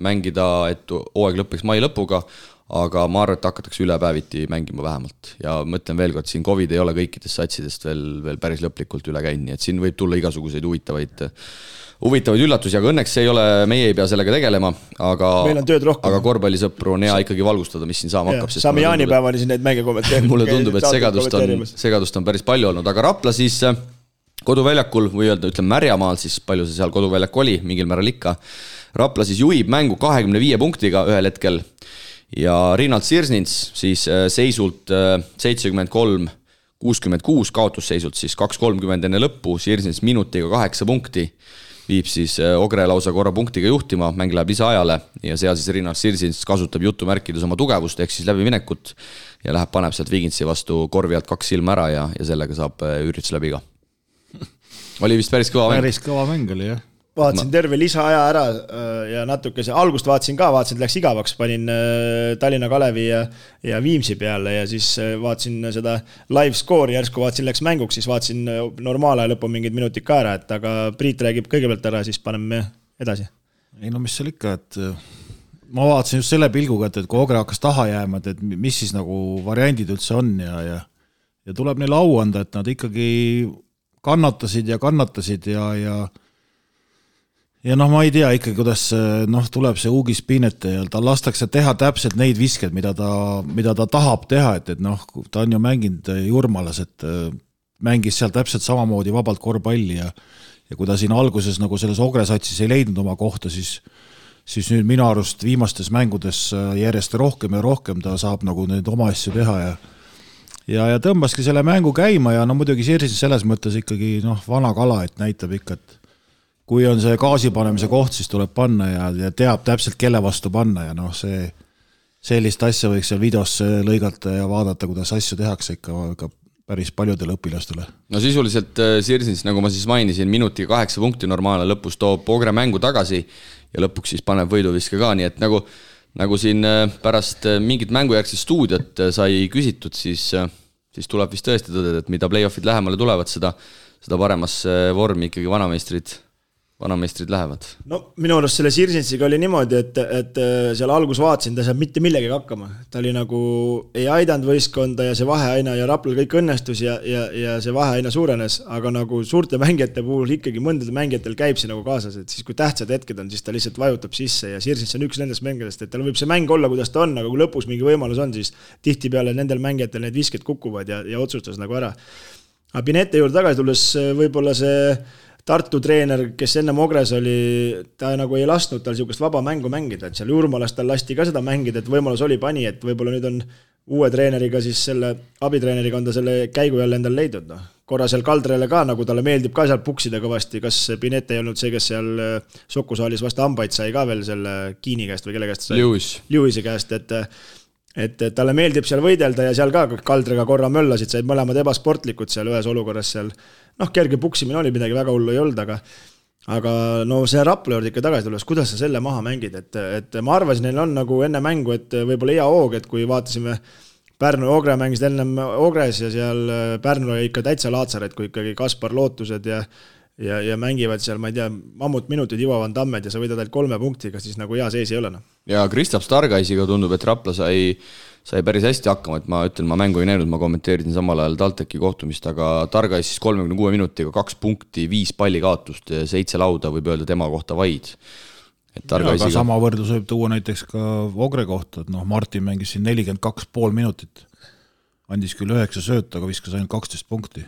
mängida, et hooaeg lõppeks mai lõpuga, aga ma arvan, et hakatakse ülepäeviti mängima vähemalt. Ja mõtlen veel kord, siin COVID ei ole kõikidest satsidest veel päris lõplikult üle käinud, nii et siin võib tulla igasuguseid huvitavaid üllatusi, aga õnneks meie ei pea sellega tegelema, aga korvpallisõpru on hea ikkagi valgustada, mis siin saama hakkab. Saame jaanipäevani siin neid mänge kommenteerida. Mulle tundub, et segadust on päris palju olnud, aga Rapla siis koduväljakul või ütleme Märjamaal, siis palju see seal koduväljak oli, mingil määral ikka. Rapla siis juhib mängu 25 punktiga ühel hetkel ja Rinald Sirsnins siis seisult 73-66 kaotusseisult siis 2.30 enne lõppu, Sirsnins minutiga 8 punkti viib siis Ogre lausa korra punktiga juhtima, mäng läheb lisaajale ja seal siis Rinald Sirsnins kasutab jutumärkides oma tugevust ehk siis läbiminekut ja paneb sealt Vigintsi vastu korvi alt 2 silma ära ja sellega saab üritus läbi ka. Oli vist päris kõva mäng. Päris kõva mäng oli, jah. Vaatasin terve lisaaja ära ja natuke algust vaatasin, et läks igavaks, panin Tallinna Kalevi ja Viimsi peale ja siis vaatasin seda live score'i järsku, vaatasin läks mänguks, siis vaatasin normaalaja lõpu mingid minutid ka ära, et aga Priit räägib kõigepealt ära, siis paneme edasi. Ei no mis seal ikka, et ma vaatasin just selle pilguga, et kui Ogre hakkas taha jääma, et mis siis nagu variandid üldse on ja tuleb neile au anda, et nad ikkagi kannatasid ja ma ei tea ikka, kuidas tuleb see Uugis Piinete ja ta lastakse teha täpselt neid visked, mida ta tahab teha, et ta on ju mänginud Jurmalas, et mängis seal täpselt samamoodi vabalt korvpalli ja kui ta siin alguses nagu selles Ogre-satsis ei leidnud oma kohta, siis nüüd minu arust viimastes mängudes järjest rohkem ja rohkem ta saab nagu neid oma asju teha ja tõmbaski selle mängu käima ja muidugi Sirsis selles mõttes ikkagi vana kala, et näitab ikka, et kui on see gaasi panemise koht, siis tuleb panna ja teab täpselt, kelle vastu panna ja sellist asja võiks seal videos lõigata ja vaadata, kuidas asju tehakse ikka päris paljudele õpilastele. No sisuliselt Sirsins, nagu ma siis mainisin, minutiga 8 punkti normaalne lõpus toob Ogre mängu tagasi ja lõpuks siis paneb võiduviske ka, nii et nagu siin pärast mingit mängujärgset stuudiot sai küsitud, siis tuleb vist tõesti tõdeda, et mida play-offid lähemale tulevad, seda paremasse vormi ikkagi vanameistrid lähevad. No minu arust selle Sirsinsiga oli niimoodi, et seal algus vaatasin, ta saab mitte millegagi hakkama. Ta oli nagu ei aidanud võistkonda ja see vahe aina ja Raplal kõik õnnestus ja see vahe aina suurenes, aga nagu suurte mängijate puhul ikkagi mõndade mängijatel käib see nagu kaasas, et siis kui tähtsad hetked on, siis ta lihtsalt vajutab sisse ja Sirsins on üks nendest mängijatest, et tal võib see mäng olla, kuidas ta on, aga kui lõpus mingi võimalus on, siis tihtipeale nendel mängijatel need visked kukuvad ja otsustas nagu ära. Aga Pinete juurde tagasi tulles võib-olla see Tartu treener, kes ennem Ogres oli, ta nagu ei lasknud tal niisugust vaba mängu mängida, et seal Jurmalas tal lasti ka seda mängida, et võimalus oli pani, et võib-olla nüüd on uue treeneriga, siis selle abitreeneriga on ta selle käigu jälle endal leidnud. Korra seal Kaldrele ka, nagu talle meeldib ka seal puksida kõvasti, kas Pinete ei olnud see, kes seal Sokusaalis vastu hambaid sai ka veel selle Kiini käest või kelle käest sai? Lewisi käest, et talle meeldib seal võidelda ja seal ka Kaldrega korra möllasid, said mõlemad ebasportlikud seal ühes olukorras seal. Kerge puksimine oli, midagi väga hullu ei olnud, aga see Rapla juurde ikka tagasi tulles, kuidas sa selle maha mängid, et ma arvasin, neil on nagu enne mängu, et võib-olla hea hoog, et kui vaatasime Pärnu ja Ogre mängisid ennem Ogres ja seal Pärnu oli ikka täitsa laatsar, et kui ikkagi Kaspar Lootused ja ja mängivad seal, ma ei tea, mammutminutid jõuavad Tammed ja sa võidad ainult 3 punktiga, siis nagu hea sees ei ole. Ja Kristaps Targaisiga tundub, et Rapla sai päris hästi hakkama, et ma ütlen, ma mängu ei näinud, ma kommenteerisin samal ajal TalTechi kohtumist, aga Targais siis 36 minutiga 2 punkti, 5 palli kaotust, 7 lauda võib öelda tema kohta vaid. Aga sama võrdlus võib tuua näiteks ka Ogre kohta, et Martin mängis siin 42,5 minutit, andis küll 9 sööta, aga viskas ainult 12 punkti.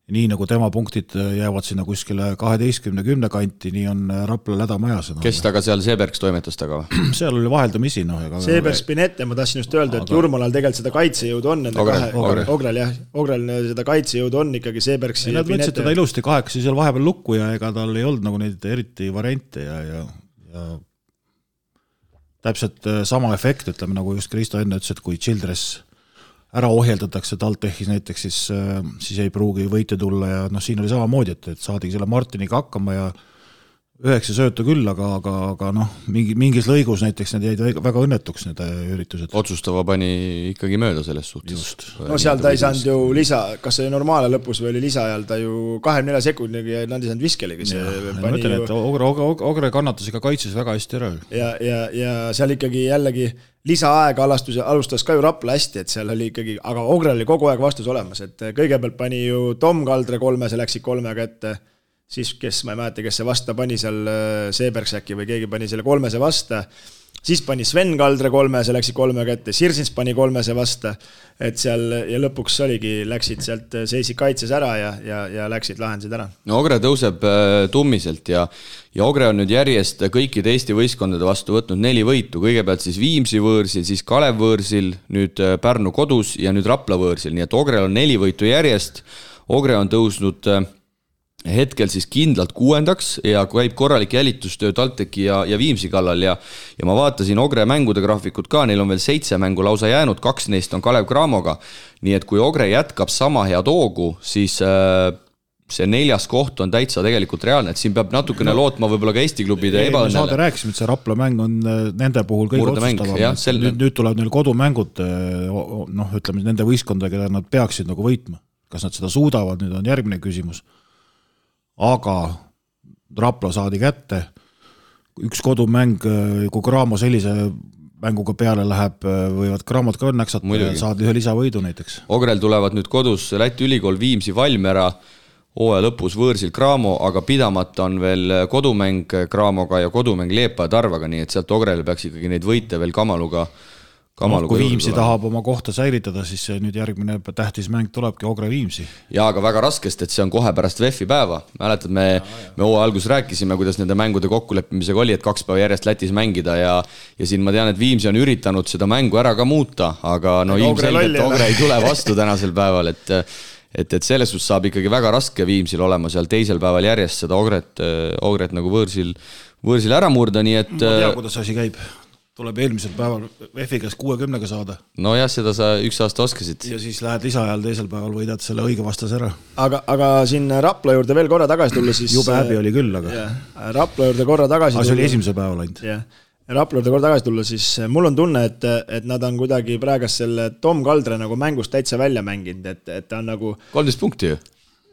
Nii nagu tema punktid jäävad sinna kuskile 12-10 kanti, nii on Rapla lädamajas. Kes taga seal Seebergs toimetas taga või? Seal oli vaheldamisi. Seebergs Spinette, ma tahtsin just öelda, et Jurmalal tegelikult seda kaitsejõudu on. Ogrel seda kaitsejõudu on ikkagi Seebergs ja Spinette. Nad teda ilusti 8 seal vahepeal lukku ja ega tal ei olnud nagu neid eriti variante ja täpselt sama efekt, ütleme nagu just Kristo enne ütles, et kui Childress ära ohjeldatakse TalTechis näiteks, siis ei pruugi võite tulla ja siin oli samamoodi, et saadigi selle Martiniga hakkama ja 9 söötu küll, aga mingis lõigus näiteks need jäid väga õnnetuks need üritused. Otsustava pani ikkagi mööda selles suhtes. Just. No seal ta ei saanud ju lisa, kas see normaale lõpus või oli lisa ajal, ta ju 24 sekundiga ja nad ei saanud viskelegi. Ma ütlen, et Ogre kannatas ega kaitses väga hästi ära. Ja seal ikkagi jällegi lisaaega alustas ka ju Rapla hästi, et seal oli ikkagi, aga Ogrel oli kogu aeg vastus olemas, et kõigepealt pani ju Tom Kaldre 3, see läksid 3 ette, siis kes, ma ei mäleta, kes see vasta pani seal Seebergs äkki või keegi pani selle 3 vasta, siis pani Sven Kaldre 3, see läksid 3 ette, Sirsins pani 3 vasta, et seal ja lõpuks oligi, läksid sealt, seisid kaitses ära ja läksid, lahendasid ära. No Ogre tõuseb tummiselt ja Ogre on nüüd järjest kõikide Eesti võistkondade vastu võtnud 4 võitu, kõigepealt siis Viimsi võõrsil, siis Kalev võõrsil, nüüd Pärnu kodus ja nüüd Rapla võõrsil, nii et Ogrel on 4 võitu järjest, Ogre on tõusnud hetkel siis kindlalt 6. ja käib korralik jälitustöö TalTechi ja Viimsi kallal ja ma vaatasin Ogre mängude graafikut ka, neil on veel 7 mängu lausa jäänud, 2 neist on Kalev Cramoga, nii et kui Ogre jätkab sama head hoogu, siis see 4. koht on täitsa tegelikult reaalne, et siin peab natukene lootma võib-olla ka Eesti klubide ebaõnnele. Saade rääkisime, et see Rapla mäng on nende puhul kõige otsustavam. Nüüd tulevad neil kodumängud, ütleme nende võistkonda, keda nad peaksid nagu võitma. Kas nad seda suudavad, nüüd on järgmine küsimus. Aga Rapla saadi kätte, üks kodumäng, kui Cramo sellise mänguga peale läheb, võivad Cramot ka õnneks saada ühe lisavõidu näiteks. Ogrel tulevad nüüd kodus Läti ülikool Viimsi Valmiera, hooaja lõpus võõrsil Cramo, aga pidamata on veel kodumäng Cramoga ja kodumäng Leepa ja Tarvaga, nii et sealt Ogrel peaks ikkagi neid võite veel Kamaluga kui Viimsi tahab oma kohta säilitada, siis nüüd järgmine tähtis mäng tulebki Ogre Viimsi. Jaa, aga väga raskest, et see on kohe pärast VEF-i päeva. Mäletad, me hooaja algus rääkisime, kuidas nende mängude kokkuleppimisega oli, et 2 päeva järjest Lätis mängida ja siin ma tean, et Viimsi on üritanud seda mängu ära ka muuta, aga ilmselgelt Ogre ei tule vastu tänasel päeval, et selles suhtes saab ikkagi väga raske Viimsil olema seal teisel päeval järjest seda Ogret nagu võõrsil ära murda, nii et ma tea, kuidas asi käib. Tuleb eelmisel päeval VEF-igas 60 saada. No jah, seda sa üks aasta oskasid. Ja siis lähed lisaajal teisel päeval võidad selle õige vastase ära. Aga siin Rapla juurde veel korra tagasi tulla, siis jube häbi oli küll, aga Rapla juurde korra tagasi tulla. See oli esimesel päeval ainult. Rapla juurde korra tagasi tulla, siis mul on tunne, et nad on kuidagi praegas selle Tom Kaldre nagu mängust täitsa välja mänginud, et ta on nagu 13 punkti ju.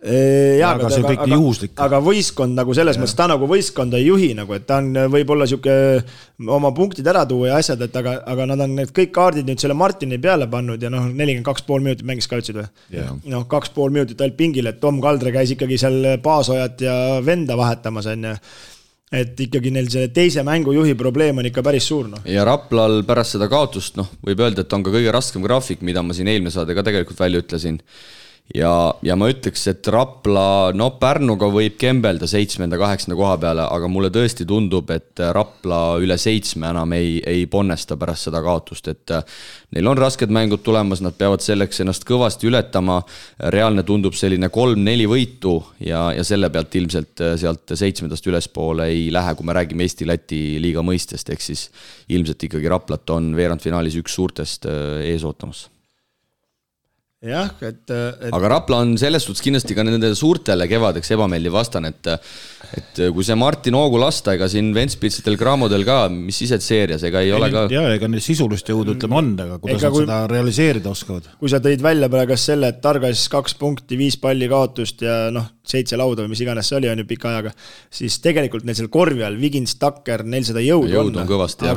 Aga võistkond nagu selles mõttes, ta nagu võistkonda ei juhi, nagu, et ta on võib-olla siuke oma punktid ära tuua ja asjad, et aga nad on need kõik kaardid nüüd selle Martini peale pannud ja 42,5 minutit mängis ka ütlesid või? 2,5 minutit ainult pingil, et Tom Kaldre käis ikkagi seal Paasojat ja Venda vahetamas, et ikkagi neil selle teise mängujuhi probleem on ikka päris suur. Ja Raplal pärast seda kaotust, võib öelda, et on ka kõige raskem graafik, mida ma siin eelmine saade ka tegelikult välja ütlesin. Ja ma ütleks, et Rapla, Pärnuga võib kembelda 7.-8. koha peale, aga mulle tõesti tundub, et Rapla üle 7 enam ei ponnesta pärast seda kaotust, et neil on rasked mängud tulemas, nad peavad selleks ennast kõvasti ületama, reaalne tundub selline 3-4 võitu ja selle pealt ilmselt sealt 7. ülespoole ei lähe, kui me räägime Eesti-Läti liiga mõistest, ehk siis ilmselt ikkagi Raplat on veerandfinaalis üks suurtest ees ootamas. Jah, aga Rapla on selles suhtes kindlasti ka nende suurtele kevadeks ebameeldiv vastane, et kui see Martin Oogu lasta, ega siin Ventspitsitel Cramodel ka, mis sised seerias, ega ei ole ka... Jaa, ega neil sisulist jõudu ütleme on, aga kuidas nad seda realiseerida oskavad? Kui sa tõid välja praegu selle, et Targas 2 punkti, 5 palli kaotust ja 7 lauda või mis iganes see oli, on ju pika ajaga, siis tegelikult neil seal korvi all, Vigins, Takker, neil seda jõudu on kõvasti.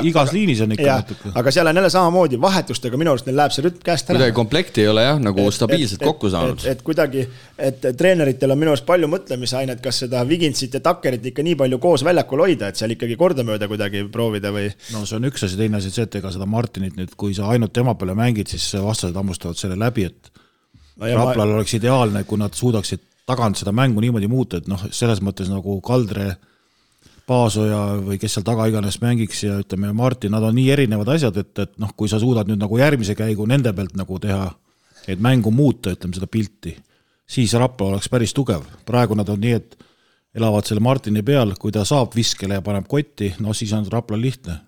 Igas liinis on ikka natuke. Aga seal on jälle samamoodi vahetustega, minu arust neil läheb see rütm käest ära. Kuidagi komplekti ei ole jah, nagu stabiilselt kokku saanud. Et kuidagi, et treeneritel on minu arust palju mõtlemisainet, kas seda Viginsit ja Takkerit ikka nii palju koos väljakul hoida, et seal ikkagi kordamööda kuidagi proovida või... No see on üks asi, teine asi, et ega seda Martinit nüüd, kui sa ainult tema peale mängid, siis vastased hammustavad selle läbi, et Raplal oleks ideaalne, kui nad suudaksid tagant seda mängu niimoodi muuta, et noh, selles mõttes nagu Kaldre, Paasoja või kes seal taga iganes mängiks ja ütleme Martin, nad on nii erinevad asjad, et noh, kui sa suudad nüüd nagu järgmise käigu nende pealt nagu teha, et mängu muuta, ütleme seda pilti, siis Rapla oleks päris tugev. Praegu nad on nii, et elavad selle Martini peal, kui ta saab viskele ja paneb kotti, no siis on Rapla lihtne.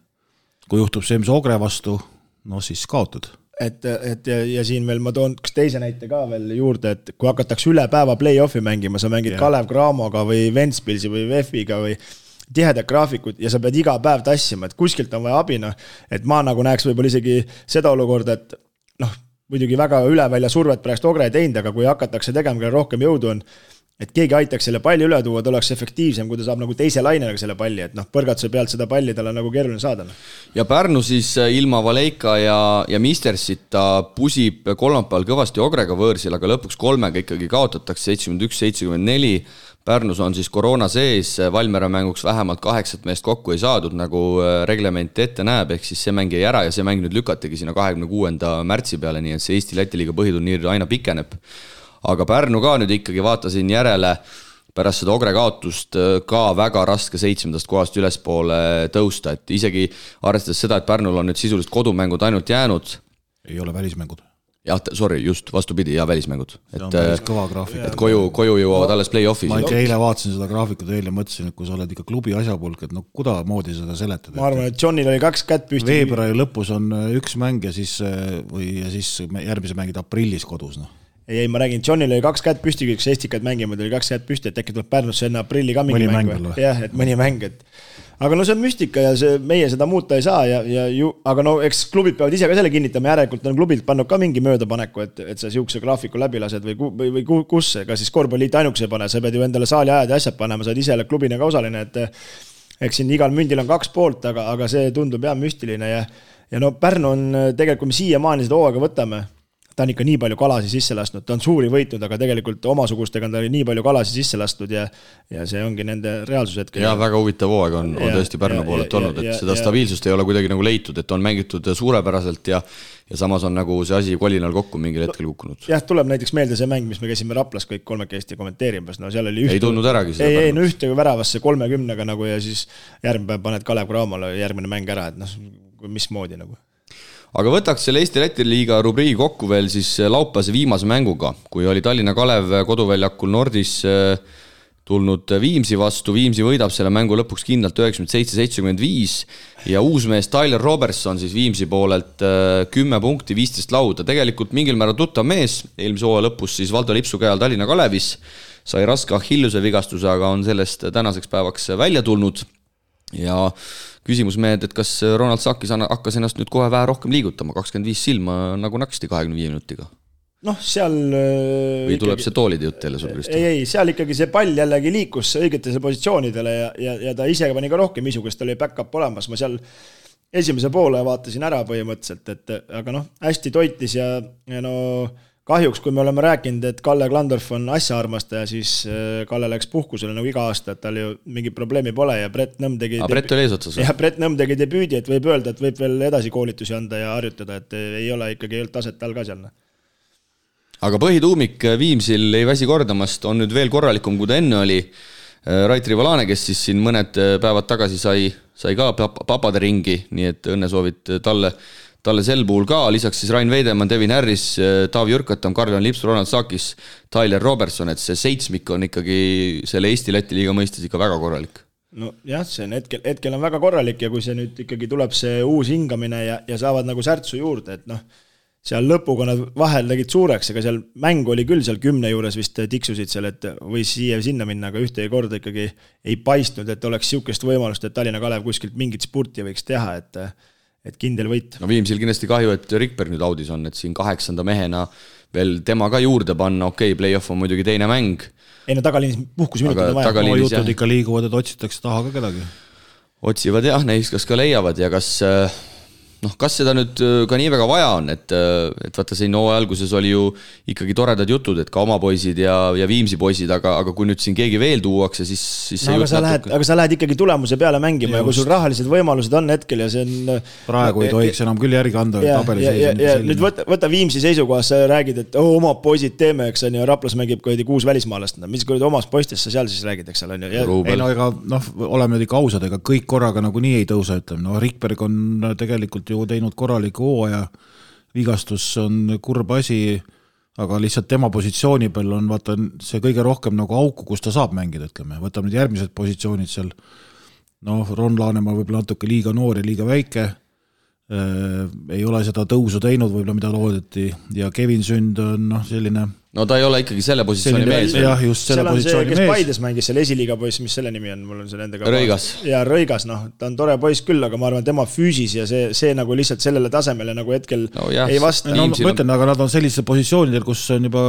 Kui juhtub see, mis Ogre vastu, no siis kaotad. Ja siin veel ma toon teise näite ka veel juurde, et kui hakatakse üle päeva play-offi mängima, sa mängid Kalev Cramoga või Ventspilsi või VEF-iga või tihedad graafikud ja sa pead iga päev tassima, et kuskilt on vaja abina, et ma nagu näeks võib-olla isegi seda olukorda, et noh, muidugi väga üle välja survet pärast Ogre teinud, aga kui hakatakse tegema, kelle rohkem jõudu on, et keegi aitaks selle palli üle tuua, ta oleks efektiivsem, kui ta saab nagu teise lainega selle palli, et noh, põrgatuse pealt seda palli tal on nagu keeruline saada. Ja Pärnu siis ilma Valeika ja Mistersita pusib kolmapäeval kõvasti Ogrega võõrsil, aga lõpuks 3 ikkagi kaotatakse 71-74. Pärnus on siis koroona sees, Valmiera mänguks vähemalt 8 meest kokku ei saadud, nagu reglement ette näeb, ehk siis see mäng jäi ära ja see mäng nüüd lükatigi sinna 26. märtsi peale, nii et see Eesti Läti liiga põhiturniir aina pikeneb. Aga Pärnu ka nüüd ikkagi vaatasin järele pärast seda Ogre kaotust ka väga raske 7. kohast ülespoole tõusta, et isegi arvestades seda, et Pärnul on nüüd sisuliselt kodumängud ainult jäänud. Ei ole välismängud. Jah, sorry, just vastupidi, ja välismängud. See on päris kõva graafik. Et koju jõuavad alles play-offis. Ma eile vaatasin seda graafikut ja mõtlesin, et kui sa oled ikka klubi asjapulk, et no kuda moodi seda seletad. Ma arvan, et Johnil oli 2 kätt püsti. Veebruari lõpus on 1 mäng ja siis järgmise mängid aprillis kodus, noh. Ei, ma räägin, Johnil oli 2 kätt püsti, kui Estikad mängima, oli 2 kätt püsti, et äkki tuleb Pärnusse enne aprilli ka mingi mäng. Jah, et mõni mäng. Aga no see on müstika ja meie seda muuta ei saa, aga no eks klubid peavad ise ka selle kinnitama, järelikult on klubilt pannud ka mingi möödapaneku, et sa siukse graafiku läbi lased või kus, ega siis korvpalliit ainukese ei pane, sa pead ju endale saali ajad ja asjad panema, sa oled ise klubina ka osaline, et eks siin igal mündil on 2 poolt, aga see tundub jah müstiline ja no Pärnu on tegelikult, kui me siiamaani seda hooaega võtame, ta on ikka nii palju kalasi sisse lastnud, ta on suuri võitnud, aga tegelikult omasugustega on ta nii palju kalasi sisse lastnud ja see ongi nende reaalsus hetkel. Ja väga huvitav hooaeg on tõesti Pärnu poolelt olnud, et seda stabiilsust ei ole kuidagi nagu leitud, et on mängitud suurepäraselt ja samas on nagu see asi kolinal kokku mingil hetkel kukkunud. Jah, tuleb näiteks meelde see mäng, mis me käisime Raplas kõik 3 Eesti kommenteerimas, no seal oli ei tundnud äragi seda Pärnust. No ühte väravasse 30-ga nagu ja siis järgmine päev paned Kalev Cramole järgmine mäng ära, et noh, mismoodi nagu. Aga võtaks selle Eesti Läti liiga rubriigi kokku veel siis laupäevase viimase mänguga, kui oli Tallinna Kalev koduväljakul Nordis tulnud Viimsi vastu, Viimsi võidab selle mängu lõpuks kindlalt 97-75 ja uusmees Tyler Robertson siis Viimsi poolelt 10 punkti, 15 lauda, tegelikult mingil määral tuttav mees, eelmise hooaja lõpus siis Valdo Lipsu käe all Tallinna Kalevis, sai raske Achilluse vigastuse, aga on sellest tänaseks päevaks välja tulnud ja küsimus mehed, et kas Ronald Sakis hakkas ennast nüüd kohe vähe rohkem liigutama, 25 silma nagu naksti 25 minutiga? Noh, seal või tuleb ikkagi see toolide jutt jälle sul, Kristo? Ei, seal ikkagi see pall jällegi liikus õigetele positsioonidele ja ta ise pani ka rohkem isu, kes tal oli back-up olemas. Ma seal esimese poole vaatasin ära põhimõtteliselt, aga noh, hästi toitis ja no kahjuks, kui me oleme rääkinud, et Kalle Klandorf on asjaarmastaja, siis Kalle läks puhkusele nagu iga aasta, et tal ju mingi probleemi pole ja Brett Nõmm tegi Brett oli eesotsas. Ja Brett Nõmm tegi debüüdi, et võib öelda, et võib veel edasi koolitusi anda ja harjutada, et ei ole ikkagi taset all ka seal. Aga põhituumik Viimsil ei väsi kordamast, on nüüd veel korralikum, kui ta enne oli. Rait Rivalane, kes siis siin mõned päevad tagasi sai ka papade ringi, nii et õnnesoovid talle sel puhul ka, lisaks siis Rain Veidemann, Devin Harris, Taavi Jürkatam, Karl-Jan Lips, Ronald Sakis, Tyler Robertson, et see 7 on ikkagi selle Eesti Läti liiga mõistes ikka väga korralik. No jah, see on hetkel on väga korralik ja kui see nüüd ikkagi tuleb see uus hingamine ja saavad nagu särtsu juurde, et noh, seal lõpuga nad vahel tegid suureks, aga seal mäng oli küll seal 10 juures vist tiksusid seal, et või siia sinna minna, aga ühte korda ikkagi ei paistnud, et oleks siukest võimalust, et Tallinna Kalev kuskilt mingit spurti võiks teha, et kindel võit. No Viimsil kindlasti kahju, et Rikberg nüüd audis on, et siin 8. mehena veel tema ka juurde panna, okei, play-off on muidugi teine mäng. Ei no tagaliinis puhkusminutid on vaja. Jutud ikka liiguvad, et otsitakse taha ka kedagi. Otsivad jah, neist kas ka leiavad ja kas seda nüüd ka nii väga vaja on, et vaata siin alguses oli ju ikkagi toredad jutud, et ka oma poisid ja Viimsi poisid, aga kui nüüd siin keegi veel tuuakse, siis no, aga sa lähed ikkagi tulemuse peale mängima ja kui sul rahalised võimalused on hetkel ja see on praegu ei tohiks enam küll järgi anda tabelis. Ja nüüd võta Viimsi seisukohas, sa räägid, et oma poisid teeme, eks on ju, Raplas mängib 6 välismaalast, mis omast poistest sa seal siis räägid, eks on ju. Ei no ega, oleme nüüd ikka ausad, ega kõik korraga nagu nii ei tõusa, ütleme, no Rikberg on tegelikult ju teinud korraliku hooaja, vigastus on kurb asi, aga lihtsalt tema positsiooni peal on vaata see kõige rohkem nagu auku, kus ta saab mängida, ütleme. Võtab nüüd järgmised positsioonid seal, Ron Laanemaa võib-olla natuke liiga noor ja liiga väike, ei ole seda tõusu teinud võib-olla, mida loodeti, ja Kevin Sünd on selline... No ta ei ole ikkagi selle positsiooni mees. Jah, just selle positsiooni mees. Kes Paides mängis selle esiliiga poiss, mis selle nimi on, mul on selle endaga... Rõigas. Ja Rõigas, ta on tore poiss küll, aga ma arvan, tema füüsis ja see nagu lihtsalt sellele tasemele nagu hetkel ei vasta. Ma ütlen, aga nad on sellised positsioonidel, kus on juba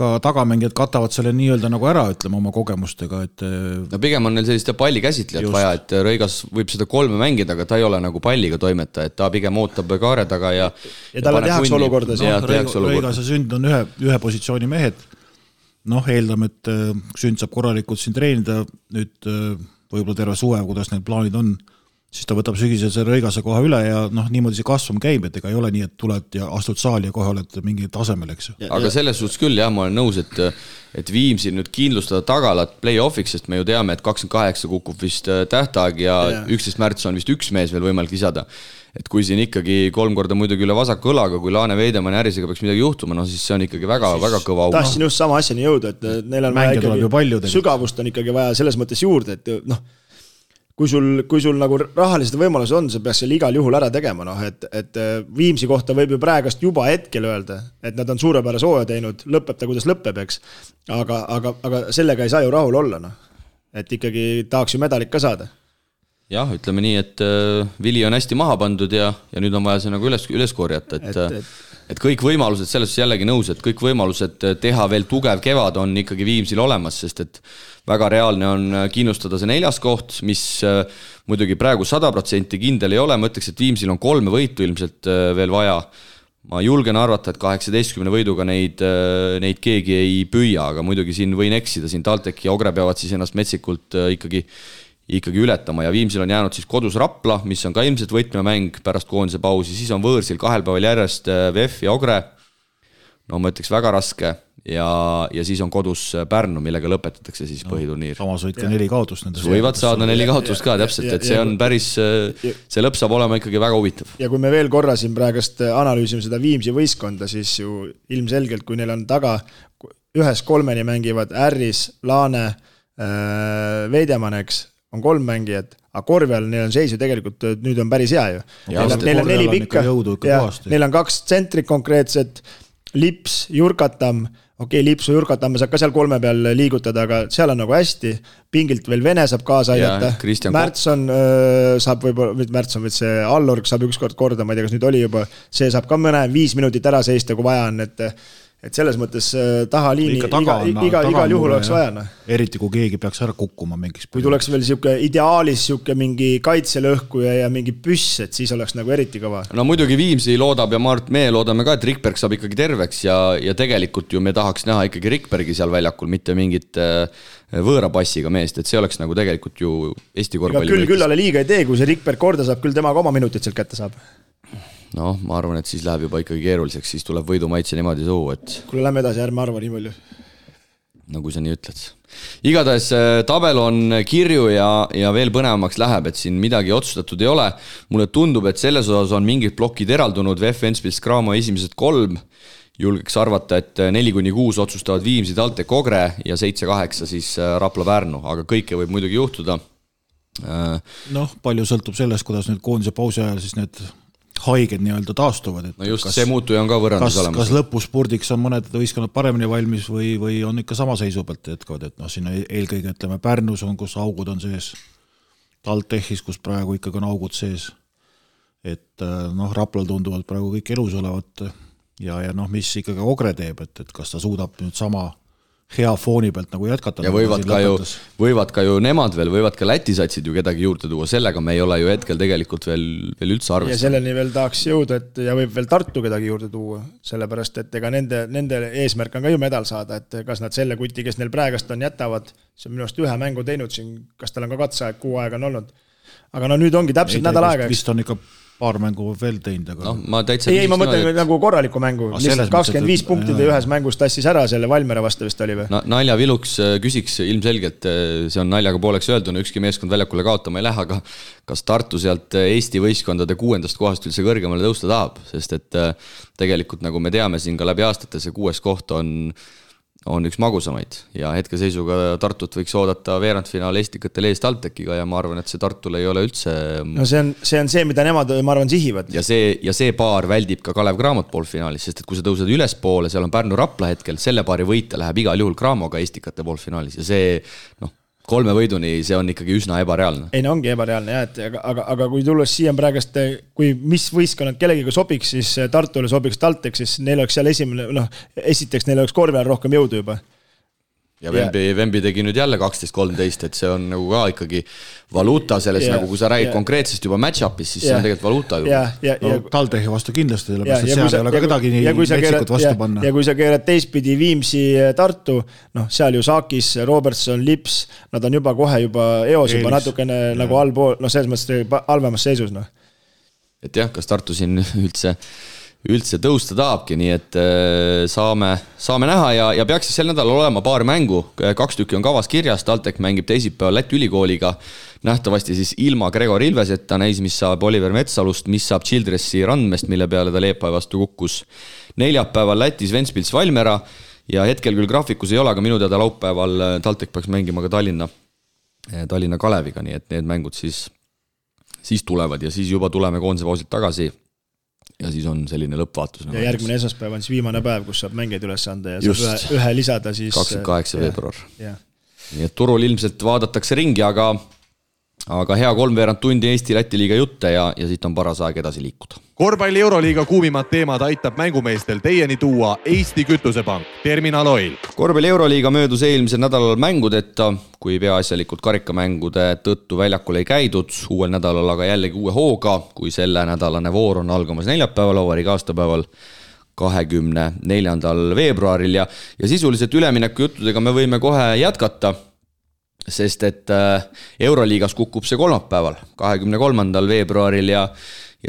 ka tagamängijad katavad selle nii-öelda nagu ära, ütleme, oma kogemustega, et... No pigem on neil selliste palli käsitlejat vaja, et Rõigas võib seda 3 mängida, aga ta ei ole nagu palliga toimeta, et ta pigem ootab kaare taga ja talle tehakse olukorda. Rõigas ja Sünd on ühe positsiooni mehed. Eeldame, et Sünd saab korralikult siin treenida nüüd võib-olla terve suve, kuidas need plaanid on, siis ta võtab sügisel selle Rõigase koha üle ja niimoodi see kasvum käib, et ega ei ole nii, et tuled ja astud saali ja kohe oled mingi tasemel, eks. Aga selles suhtes küll, jah, ma olen nõus, et Viimsil nüüd kindlustada tagalat play-offiks, sest me ju teame, et 28 kukub vist tähtaeg ja 11. märts on vist üks mees veel võimalik lisada. Et kui siin ikkagi 3 korda muidugi üle vasaku õlaga, kui Laane Veidemann Ärisega peaks midagi juhtuma, siis see on ikkagi väga kõva auk. Tahtsin just sama asjani jõuda, et neil on vaja ikkagi sügavust on ikkagi vaja selles mõttes juurde, et kui sul nagu rahalised võimalused on, sa peaks selle igal juhul ära tegema, et Viimsi kohta võib ju praegast juba hetkel öelda, et nad on suurepärase hooaja teinud, lõpeb ta, kuidas lõpeb, eks. Aga sellega ei saa ju rahul olla, et ikkagi tahaks ju medalit ka saada. Jah, ütleme nii, et vili on hästi maha pandud ja nüüd on vaja see nagu üles korjata, et kõik võimalused, selles jällegi nõus, et kõik võimalused teha veel tugev kevad on ikkagi Viimsil olemas, sest et väga reaalne on kindlustada see 4. koht, mis muidugi praegu 100% kindel ei ole, ma ütleks, et Viimsil on 3 võitu ilmselt veel vaja. Ma julgen arvata, et 18 võiduga neid keegi ei püüa, aga muidugi siin võin eksida, siin Taltek ja Ogre peavad siis ennast metsikult ikkagi ületama ja Viimsil on jäänud siis kodus Rapla, mis on ka ilmselt võtmemäng pärast koondise pausi, siis on võõrsil 2 päeval järjest VF ja Ogre, ma ütleks väga raske ja siis on kodus Pärnu, millega lõpetatakse siis põhiturniir. Samas võid ka 4 kaotust. Võivad saada 4 kaotust ka täpselt, et see on päris, see lõpp saab olema ikkagi väga huvitav. Ja kui me veel korra siin praegust analüüsime seda Viimsi võistkonda, siis ju ilmselgelt, kui neil on taga 1-3 mängivad Ärris, Laane, Veidemanneks, on 3 mängijad, aga korvi all neil on seis ju tegelikult, nüüd on päris hea ju. Neil on 4 pikka, neil on 2 tsentrit konkreetset, Lips, Jurkatam, Lipsu Jurkatam saab ka seal 3 peal liigutada, aga seal on nagu hästi, pingilt veel Vene saab kaasa aidata, Märtson saab võib-olla see Allorg saab ükskord korda, ma ei tea, kas nüüd oli juba, see saab ka mõne 5 minutit ära seista, kui vaja on, et selles mõttes tahaliini igal juhul oleks vaja. Eriti kui keegi peaks ära kukkuma mingiks. Kui tuleks veel ideaalis mingi kaitselõhkuja ja mingi püss, et siis oleks nagu eriti kõva. No muidugi Viimsi loodab ja Mart Mee loodame ka, et Rikberg saab ikkagi terveks ja tegelikult ju me tahaks näha ikkagi Rikbergi seal väljakul, mitte mingit võõra passiga meest, et see oleks nagu tegelikult ju Eesti korvpalli. Küll ale liiga ei tee, kui see Rikberg korda saab, küll temaga oma minutit sealt kätte saab. Ma arvan, et siis läheb juba ikkagi keeruliseks, siis tuleb võidumaitse niimoodi suu, et... Kuule, lähme edasi, ärme arva nii palju. No kui sa nii ütled. Igatahes tabel on kirju ja veel põnevamaks läheb, et siin midagi otsustatud ei ole. Mulle tundub, et selles osas on mingid plokid eraldunud, VF Ventspils Cramo esimesed 3, julgeks arvata, et 4-6 otsustavad Viimsi, Taltek, Ogre ja 7-8 siis Rapla Pärnu, aga kõike võib muidugi juhtuda. Palju sõltub sellest, kuidas nüüd koondise pausi ajal siis need haiged nii-öelda taastuvad. No just, see muutuja on ka võrrandus olemas. Kas lõpuspurdiks on mõned võistkonnad paremini valmis või on ikka sama seisu pealt jätkavad, et siin eelkõige ütleme Pärnus on, kus augud on sees, TalTechis, kus praegu ikkagi on augud sees. et noh, Raplal tunduvad praegu kõik elus olevat ja noh, mis ikkagi Ogre teeb, et kas ta suudab nüüd sama hea fooni pealt nagu jätkata. Ja võivad ka ju nemad veel, võivad ka Läti satsid ju kedagi juurde tuua, sellega me ei ole ju hetkel tegelikult veel üldse arvestanud. Ja selleni veel tahaks jõuda, et ja võib veel Tartu kedagi juurde tuua, sellepärast, et ega nende eesmärk on ka ju medal saada, et kas nad selle kuti, kes neil praegast on, jätavad, see on minu arust ühe mängu teinud siin, kas tal on ka katseaeg 6 aega on olnud. Aga no nüüd ongi täpselt nädal aega. Vist on ikka paar mängu veel teinud, aga... No, ma mõtlen nagu korraliku mängu, lihtsalt 25 punktide ühes mängus tassis ära selle Valmiera vastu vist oli või? Naljaviluks küsiks ilmselgelt, see on naljaga pooleks öelduna, ükski meeskond väljakule kaotama ei lähe, aga kas Tartu sealt Eesti võistkondade 6. kohast üldse kõrgemale tõusta tahab, sest et tegelikult nagu me teame siin ka läbi aastate, see 6. koht on üks magusamaid ja hetkeseisuga Tartut võiks oodata veerandfinaal Estikatel eest TalTechiga ja ma arvan, et see Tartul ei ole üldse... No see on see, mida nemad, ma arvan, sihivad. Ja see paar väldib ka Kalev Cramot poolfinaalis, sest et kui sa tõused ülespoole, seal on Pärnu Rapla hetkel, selle paari võita läheb igal juhul Cramoga Estikate poolfinaalis ja see 3 võiduni, see on ikkagi üsna ebareaalne. Ei, no ongi ebareaalne, jah, aga kui tulles siia praegast, kui mis võistkonnad kellegiga sobiks, siis Tartule sobiks TalTech, siis neil oleks seal esiteks neil oleks korvi all rohkem jõudu juba. Ja Vembi tegi nüüd jälle 12-13, et see on nagu ka ikkagi valuuta selles, nagu kui sa räägid konkreetsest juba match-upis, siis see on tegelikult valuuta juba. TalTechi vastu kindlasti, sellepärast, et seal ei ole ka kedagi nii metsikut vastu panna. Ja kui sa keerad teistpidi Viimsi Tartu, seal ju Saakis, Robertson, Lips, nad on juba kohe eos juba natukene nagu allpool, selles mõttes halvemas seisus. Et jah, kas Tartu siin üldse tõusta tahabki, nii et saame näha ja peaks sel nädalal olema paar mängu, 2 tükki on kavas kirjas, TalTech mängib teisipäeval Läti ülikooliga, nähtavasti siis ilma Gregor Ilveseta, näis, mis saab Oliver Metsalust, mis saab Childressi Randmest, mille peale ta Leepai vastu kukkus. Neljapäeval Lätis Ventspils Valmiera ja hetkel küll graafikus ei ole, aga minu teada laupäeval TalTech peaks mängima ka Tallinna Kaleviga, nii et need mängud siis tulevad ja siis juba tuleme koondise pausilt tagasi. Ja siis on selline lõppvaatus. Ja järgmine esmaspäev on siis viimane päev, kus saab mängeid üles anda ja saab ühe lisada siis... 28. veebruar. Nii et turul ilmselt vaadatakse ringi, aga hea 3 tundi Eesti-Läti liiga jutte ja siit on paras aeg edasi liikuda. Korvpalli Euroliiga kuumimad teemad aitab mängumeestel teieni tuua Eesti Kütusepank, Terminal Oil. Korvpalli Euroliiga möödus eelmisel nädalal mängudeta, kui peaasjalikult karikamängude tõttu väljakul ei käidud, uuel nädalal aga jällegi uue hooga, kui selle nädalane voor on algamas neljapäeval, vabariigi aastapäeval 24. veebruaril ja sisuliselt ülemineku juttudega me võime kohe jätkata, sest et Euroliigas kukub see kolmapäeval, 23. veebruaril ja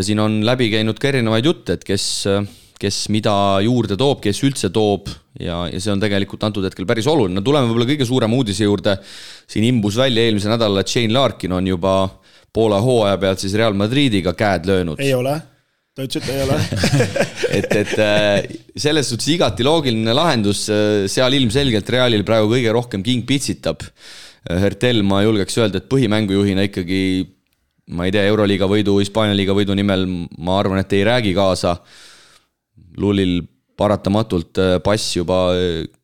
siin on läbi käinud ka erinevaid jutte, et kes mida juurde toob, kes üldse toob ja see on tegelikult antud hetkel päris oluline. Tuleme võib-olla kõige suurema uudise juurde, siin imbus välja eelmise nädala, et Shane Larkin on juba poole hooaja pealt siis Real Madridiga käed löönud. Ei ole, ta ütles, et ei ole. et selles suhtes igati loogiline lahendus, seal ilmselgelt Realil praegu kõige rohkem king pitsitab. Hertel, ma julgeks öelda, et põhimängujuhina ikkagi, ma ei tea, Euroliiga võidu, Hispaania liiga võidu nimel, ma arvan, et ei räägi kaasa. Lulil paratamatult pass juba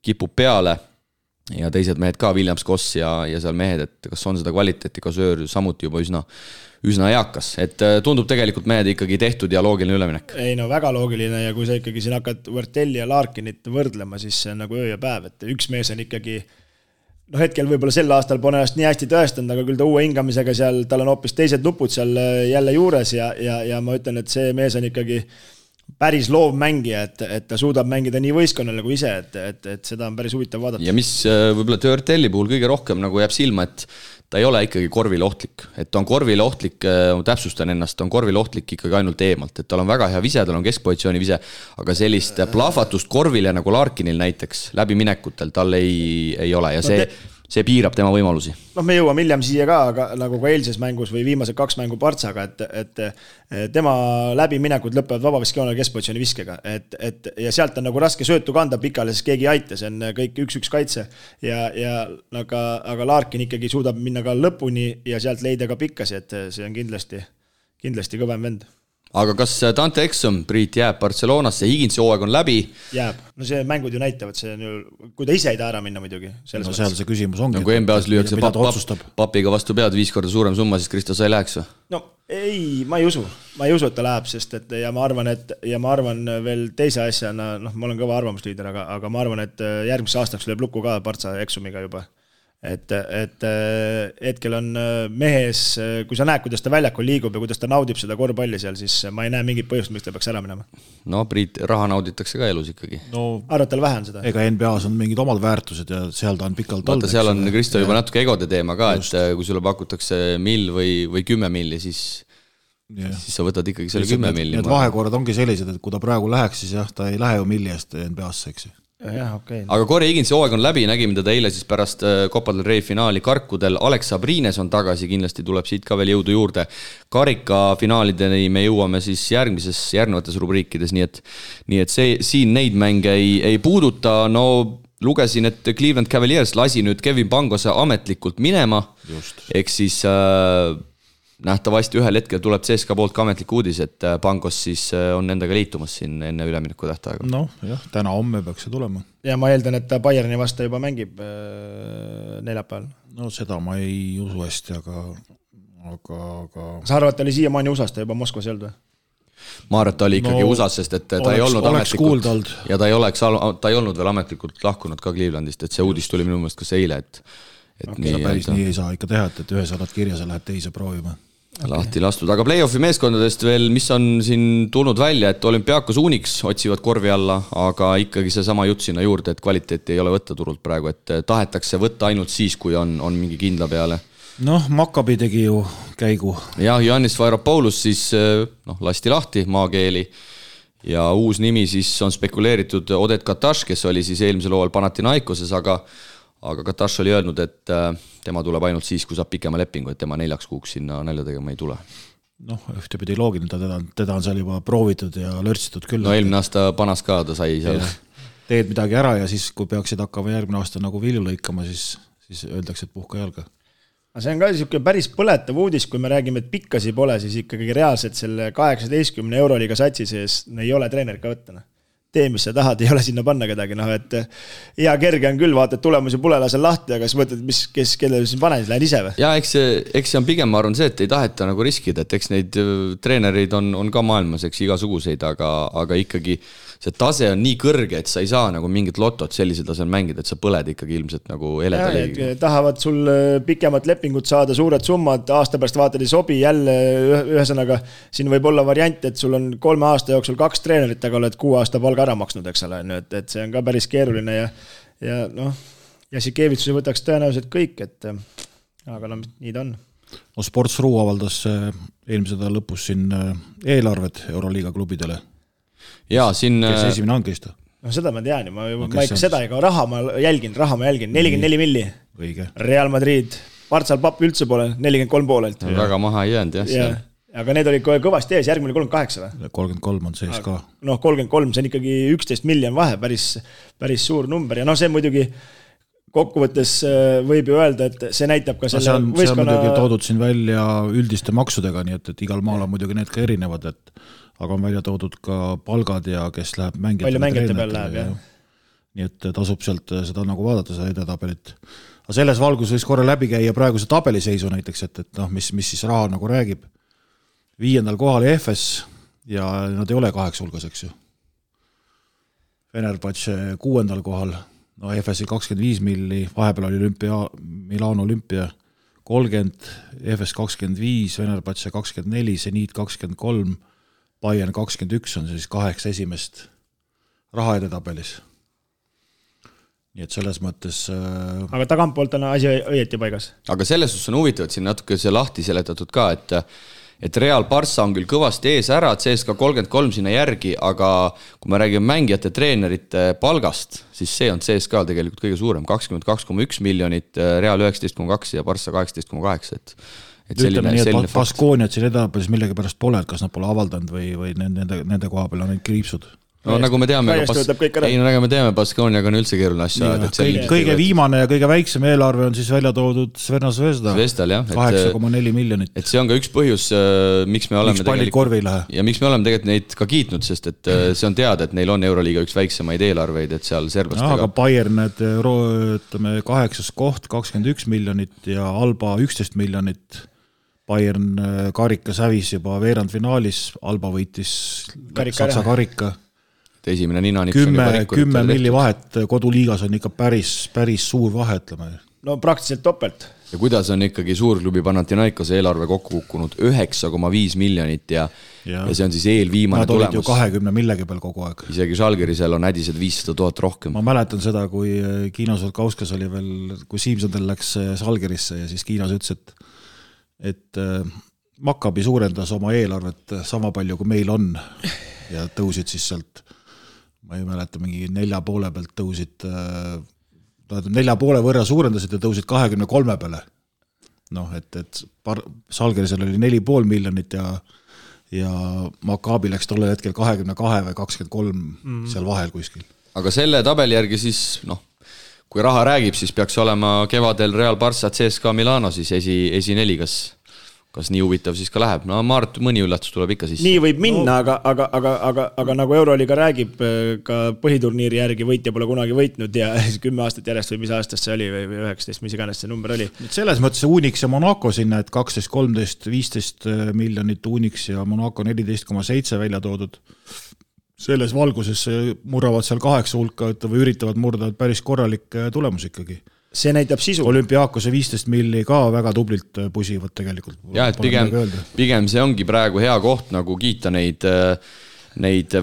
kipub peale ja teised mehed ka, Williams Koss ja seal mehed, et kas on seda kvaliteeti, Kasöör samuti juba üsna eakas, et tundub tegelikult mehed ikkagi tehtud ja loogiline üleminek. Ei no väga loogiline ja kui sa ikkagi siin hakkad Vertelli ja Larkinit võrdlema, siis see on nagu öö ja päev, et üks mees on ikkagi hetkel võib-olla sel aastal pole ennast nii hästi tõestanud, aga küll ta uue hingamisega seal, tal on hoopis teised nupud seal jälle juures ja ma ütlen, et see mees on ikkagi päris loov mängija, et ta suudab mängida nii võistkonnale kui ise, et seda on päris huvitav vaadata. Ja mis võib-olla Törtelli puhul kõige rohkem nagu jääb silma, et ta ei ole ikkagi korvile ohtlik. Et ta on korvile ohtlik, täpsustan ennast, ta on korvile ohtlik ikkagi ainult eemalt. Et tal on väga hea vise, tal on keskpositsiooni vise, aga sellist plahvatust korvile nagu Larkinil näiteks läbi minekutel tal ei ole ja see piirab tema võimalusi. Me jõuame hiljem siia ka, aga nagu ka eilses mängus või viimased 2 mängu Partsaga, et tema läbiminekud lõpevad vabaviskjoonel keskpositsiooni viskega. Ja sealt on nagu raske söötu kanda pikale, sest keegi ei aita, see on kõik 1-1 kaitse. Aga Larkin ikkagi suudab minna ka lõpuni ja sealt leida ka pikkasi, et see on kindlasti kõvem vend. Aga kas Dante Exum, Priit, jääb Barcelonasse, Higinsi hooaeg on läbi? Jääb. No see mängud ju näitavad, see on ju, kui ta ise ei taha ära minna muidugi. No seal see küsimus ongi. Kui NBA-s lüüakse papiga vastu pead 5 korda suurem summa, siis Kristos ei läheks või? No Ei, ma ei usu, et ta läheb, sest et ja ma arvan veel teise asjana, ma olen kõva arvamusliider, aga ma arvan, et järgmise aastaks lööb lukku ka Partsa eksumiga juba. Et hetkel on mehes, kui sa näed, kuidas ta väljakul liigub ja kuidas ta naudib seda korvpalli seal, siis ma ei näe mingit põhjust, miks ta peaks ära minema. No Priit, raha nauditakse ka elus ikkagi. Arvad, tal vähe on seda? Ega NBAs on mingid omad väärtused ja seal ta on pikalt olnud. Seal on Kristo juba natuke egode teema ka, et kui sulle pakutakse mill või 10 milli, siis sa võtad ikkagi selle 10 milli. Need vahekorrad ongi sellised, et kui ta praegu läheks, siis jah, ta ei lähe ju milli eest NBA-sse, eks ju. Okay. Aga Corey Higginsi hooaeg on läbi, nägime teda eile siis pärast Copa del Rey finaali Karkudel. Alex Sabrines on tagasi, kindlasti tuleb siit ka veel jõudu juurde. Karika finaalideni me jõuame siis järgnevates rubriikides, nii et siin neid mänge ei puuduta. No lugesin, et Cleveland Cavaliers lasi nüüd Kevin Pangose ametlikult minema. Eks siis nähtavasti ühel hetkel tuleb CSKA poolt ka ametlik uudis, et Pangos siis on endaga liitumas siin enne ülemineku tähtaega. Noh, jah, täna-homme peaks see tulema. Ja ma eeldan, et ta Bayerni vastu juba mängib neljapäeval. No seda ma ei usu hästi, aga... Sa arvad, ta oli siiamaani USA-st ja juba Moskvas ei olnud või? Ma arvan, et ta oli ikkagi USA-s, sest et ta ei olnud ametlikult ja ta ei olnud veel ametlikult lahkunud ka Clevelandist, et see uudis tuli minu meelest kas eile, et päris nii ei saa ikka teha, et ühe saadad kirja, sa lähed teise proovima. Lahti lastud, aga play-offi meeskondadest veel, mis on siin tulnud välja, et Olympiakos Unix otsivad korvi alla, aga ikkagi see sama jutt sinna juurde, et kvaliteeti ei ole võtta turult praegu, et tahetakse võtta ainult siis, kui on mingi kindla peale. Noh, Maccabi tegi ju käigu. Ja Giannis Varopoulos siis lasti lahti maakeeli ja uus nimi siis on spekuleeritud Odet Kataš, kes oli siis eelmisel hooajal Panathinaikoses, aga Kataš oli öelnud, et tema tuleb ainult siis, kui saab pikema lepingu, et tema 4 kuuks sinna nälja tegema ei tule. Noh, ühtepidi loogiline, teda on seal juba proovitud ja lörtsitud küll. No eelmine aasta panas ka, ta sai seal. Teed midagi ära ja siis, kui peaksid hakkama järgmine aasta nagu vilju lõikama, siis öeldakse, et puhka jalga. See on ka päris põletav uudis, kui me räägime, et pikkasi pole, siis ikkagi reaalselt selle 18 euroliiga satsi sees ei ole treener ka võttana. Tee, mis sa tahad, ei ole sinna panna kedagi, et hea kerge on küll, vaata, et tulemusi pole lasel lahti, aga siis mõtled, kelle siin panen, lähen ise või? Ja eks see on pigem, ma arvan see, et ei taheta nagu riskida, et eks neid treenereid on ka maailmas, eks igasuguseid, aga ikkagi see tase on nii kõrge, et sa ei saa nagu mingit lotot sellisel tasel mängida, et sa põled ikkagi ilmselt nagu eleda liigiga. Tahavad sul pikemat lepingut saada, suured summad, aasta pärast vaatad ei sobi, jälle ühesõnaga, siin võib olla variant, et sul on 3 aasta jooksul 2 treenerit, aga oled 6 aasta palga ära maksnud, eks ole, et see on ka päris keeruline ja Jassikevitsus võtaks tõenäoliselt kõik, aga nii ta on. No Sports.ru avaldas eelmise nädala lõpus siin eelarved Euroliiga klubidele. Ja, siin... Kes esimene hankist? No seda ma tean, ma ikka seda, ega raha ma jälgin, 44 milli. Õige. Real Madrid, Partsal papp üldse pole, 43 poolelt. Väga maha ei jäänud, jah. Aga need olid kõvasti ees, järgmine 38 või? 33 on sees ka. 33, see on ikkagi 11 miljon vahe, päris suur number ja see muidugi kokkuvõttes võib ju öelda, et see näitab ka selle võistkonna... See on muidugi toodud siin välja üldiste maksudega, nii et igal maal on muidugi need ka erinevad, aga on välja toodud ka palgad ja kes läheb mängijate peal läheb, jah. Nii et tasub sealt seda nagu vaadata, seda edetabelit. Aga selles valgus võiks korra läbi käia praeguse tabeliseisu näiteks, et mis siis raha nagu räägib. 5. kohal EFS ja nad ei ole 8 hulgas, eks ju. Fenerbahce 6. kohal, no EFS-i 25 milli, vahepeal oli Milano Olümpia 30, EFS 25, Fenerbahce 24, Zenit 23, Bayern 21 on siis 8 esimest raha edetabelis. Nii et selles mõttes... Aga tagantpoolt on asi õieti paigas. Aga selles suhtes on huvitav, et siin natuke see lahti seletatud ka, et Real Barca on küll kõvasti ees ära, CSKA 33 sinna järgi, aga kui me räägime mängijate treenerite palgast, siis see on CSKA tegelikult kõige suurem, 22,1 miljonit, Real 19,2 ja Barca 18,8, et ütleme nii, et Baskooniat siin edapäris millegi pärast pole, et kas nad pole avaldanud või nende koha peal on neid kriipsud. No nagu me teame, Baskooniaga on üldse keeruline asja. Kõige viimane ja kõige väiksem eelarve on siis välja toodud Sverna Zvezda, 8,4 miljonit. Et see on ka üks põhjus, miks me oleme tegelikult neid ka kiitnud, sest et see on teada, et neil on Euroliiga üks väiksemaid eelarveid, et seal serblastega. Aga Bayern, 8. koht, 21 miljonit ja Alba 11 miljonit. Bayern karikas hävis juba veerandfinaalis, Alba võitis Saksa karika. Esimene nina 10 milli vahet koduliigas on ikka päris suur vahe, ütleme. No praktiliselt topelt. Ja kuidas on ikkagi suurklubi Panathinaikose eelarve kokku kukkunud 9,5 miljonit ja see on siis eelviimane tulemus. Nad olid ju 20 millegi peal kogu aeg. Isegi Žalgirisel on hädised 500 000 rohkem. Ma mäletan seda, kui Kiino Solkauskas oli veel, kui Siimsondel läks Žalgirisse ja siis Kiinos ütles, et Maccabi suurendas oma eelarvet sama palju, kui meil on ja tõusid siis sealt, ma ei mäleta, mingi 4,5 pealt tõusid 4,5 võrra suurendasid ja tõusid 23 peale. Noh, et Žalgirisel oli 4,5 miljonit ja Maccabi läks tollel hetkel 22 või 23 seal vahel kuskil. Aga selle tabeli järgi siis, kui raha räägib, siis peaks olema kevadel Real Barça CSKA Milano siis esi 4, kas nii huvitav siis ka läheb. No ma arvan, mõni üllatus tuleb ikka siis. Nii võib minna, aga nagu Euroliiga räägib, ka põhiturniiri järgi võitja pole kunagi võitnud ja 10 aastat järjest või mis aastast see oli või 19, mis iganes see number oli. Selles mõttes Unix ja Monaco sinna, et 12, 13, 15 miljonit Unix ja Monaco 14,7 välja toodud. Selles valguses murravad seal 8 hulka või üritavad murda päris korralik tulemus ikkagi. See näitab sisu. Olümpiaakose 15 milli ka väga tublilt pusivad tegelikult. Ja, et pigem see ongi praegu hea koht nagu kiita neid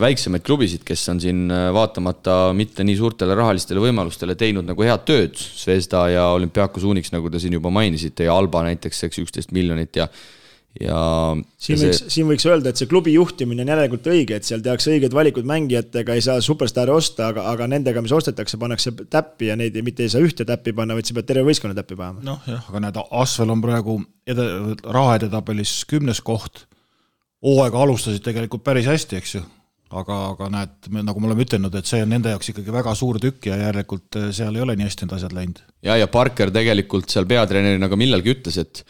väiksemaid klubisid, kes on siin vaatamata mitte nii suurtele rahalistele võimalustele teinud nagu head tööd. Zvezda ja Olümpiakos Unix, nagu te siin juba mainisite, ja Alba näiteks 11 miljonit ja siin võiks öelda, et see klubi juhtimine on järelikult õige, et seal tehakse õiged valikud mängijatega, ei saa superstaari osta, aga nendega, mis ostetakse, pannakse täppi ja neid mitte ei saa ühte täppi panna, vaid sa pead terve võistkonna täppi panema. Noh jah, aga näed, Asvel on praegu rahaedetabelis 10. koht. Hooaega alustasid tegelikult päris hästi, eks ju. Aga näed, nagu me oleme ütelnud, et see on nende jaoks ikkagi väga suur tükk ja järelikult seal ei ole nii hästi need asjad läinud. Ja Parker tegelikult seal peatreenerina ka millalgi ütles, et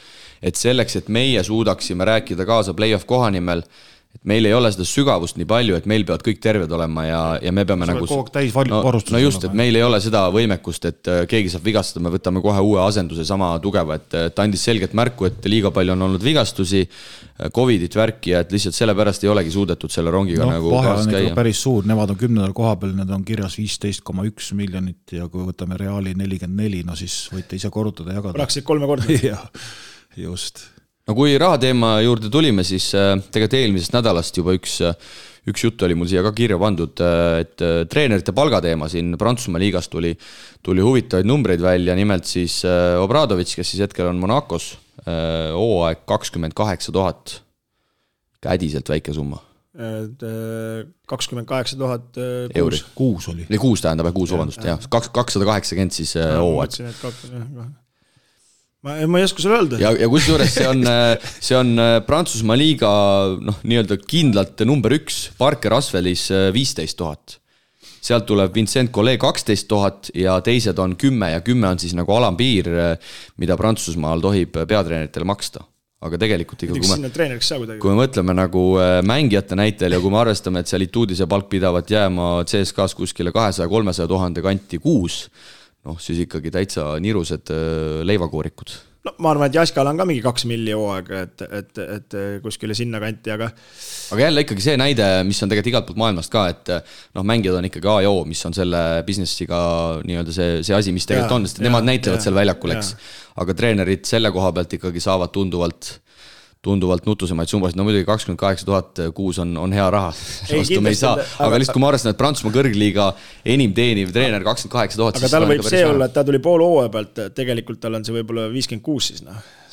selleks, et meie suudaksime rääkida kaasa play-off koha nimel, et meil ei ole seda sügavust nii palju, et meil peavad kõik terved olema ja me peame nagu... No just, et meil ei ole seda võimekust, et keegi saab vigastada, me võtame kohe uue asenduse sama tugeva, et andis selgelt märku, et liiga palju on olnud vigastusi, Covidit värki ja et lihtsalt sellepärast ei olegi suudetud selle rongiga nagu kaas käia. Päris suur, nemad on 10. koha peal, need on kirjas 15,1 miljonit ja kui võtame Reali 44, no siis võite ise korrutada ja jagada. Praktiliselt 3 korda. Ja, just. No kui rahateema juurde tulime, siis tegelikult eelmisest nädalast juba üks jutt oli mul siia ka kirja pandud, et treenerite palgateema siin Prantsusmaa liigas tuli huvitavaid numbreid välja, nimelt siis Obradovic, kes siis hetkel on Monacos, hooaeg 28 000, kädiselt väike summa. 28 000 euri. Kuus oli. Kuus tähendab, kuus vabandust, jah. 280 siis hooaeg. Ma ei oska sulle öelda. Ja kusjuures see on Prantsusmaa liiga nii-öelda kindlalt number 1, Parker Asvelis 15 000. Sealt tuleb Vincent Collet 12 000 ja teised on 10 ja 10 on siis nagu alampiir, mida Prantsusmaal tohib peatreeneritele maksta. Aga tegelikult ikka, kui me mõtleme nagu mängijate näitel ja kui me arvestame, et seal Ituudise palk pidavat jääma CSKAs kuskile 200-300 000 kanti kuus, siis ikkagi täitsa nirused leivakoorikud. No ma arvan, et Jaskal on ka mingi 2 milli hooaega, et kuskile sinna kanti, aga jälle ikkagi see näide, mis on tegelikult igalt poolt maailmast ka, et mängijad on ikkagi A ja O, mis on selle businessiga nii-öelda see asi, mis tegelikult on, sest nemad näitlevad seal väljakul, eks. Aga treenerid selle koha pealt ikkagi saavad tunduvalt nutusemaid summasid, no muidugi 28 000 kuus on hea raha, vastu me ei saa, aga lihtsalt kui ma arvestan, et Prantsusmaa kõrgliiga enim teeniv treener 28 000, aga tal võib see olla, et ta tuli pool hooaja pealt, tegelikult tal on see võib-olla 56 siis,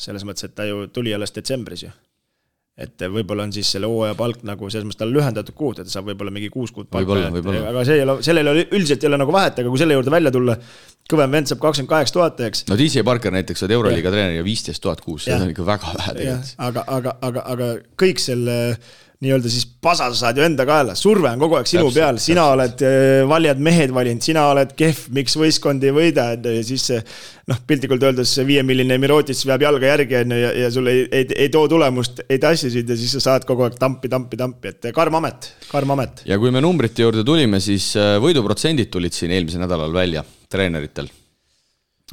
selles mõttes, et ta ju tuli alles detsembris ju. Et võib-olla on siis selle hooaja palk nagu selles mõttes tal lühendatud kuud, et ta saab võib-olla mingi 6 kuud palka, aga sellele üldiselt ei ole nagu vahet, aga kui selle juurde välja tulla, kõvem vend saab 28 000, eks. No DJ Parker näiteks on Euroliiga treener ja 15 000 kuus, see on ikka väga vähe tegelikult. Aga kõik selle nii-öelda siis pasa saad ju enda kaela, surve on kogu aeg sinu peal, sina oled valijad mehed valinud, sina oled kehv, miks võistkond ei võida, ja siis piltlikult öeldes 5 milline Mirotis veab jalga järgi ja sul ei too tulemust, ei tassisid ja siis sa saad kogu aeg tampi, et karm amet. Ja kui me numbrite juurde tulime, siis võiduprotsendid tulid siin eelmisel nädalal välja treeneritel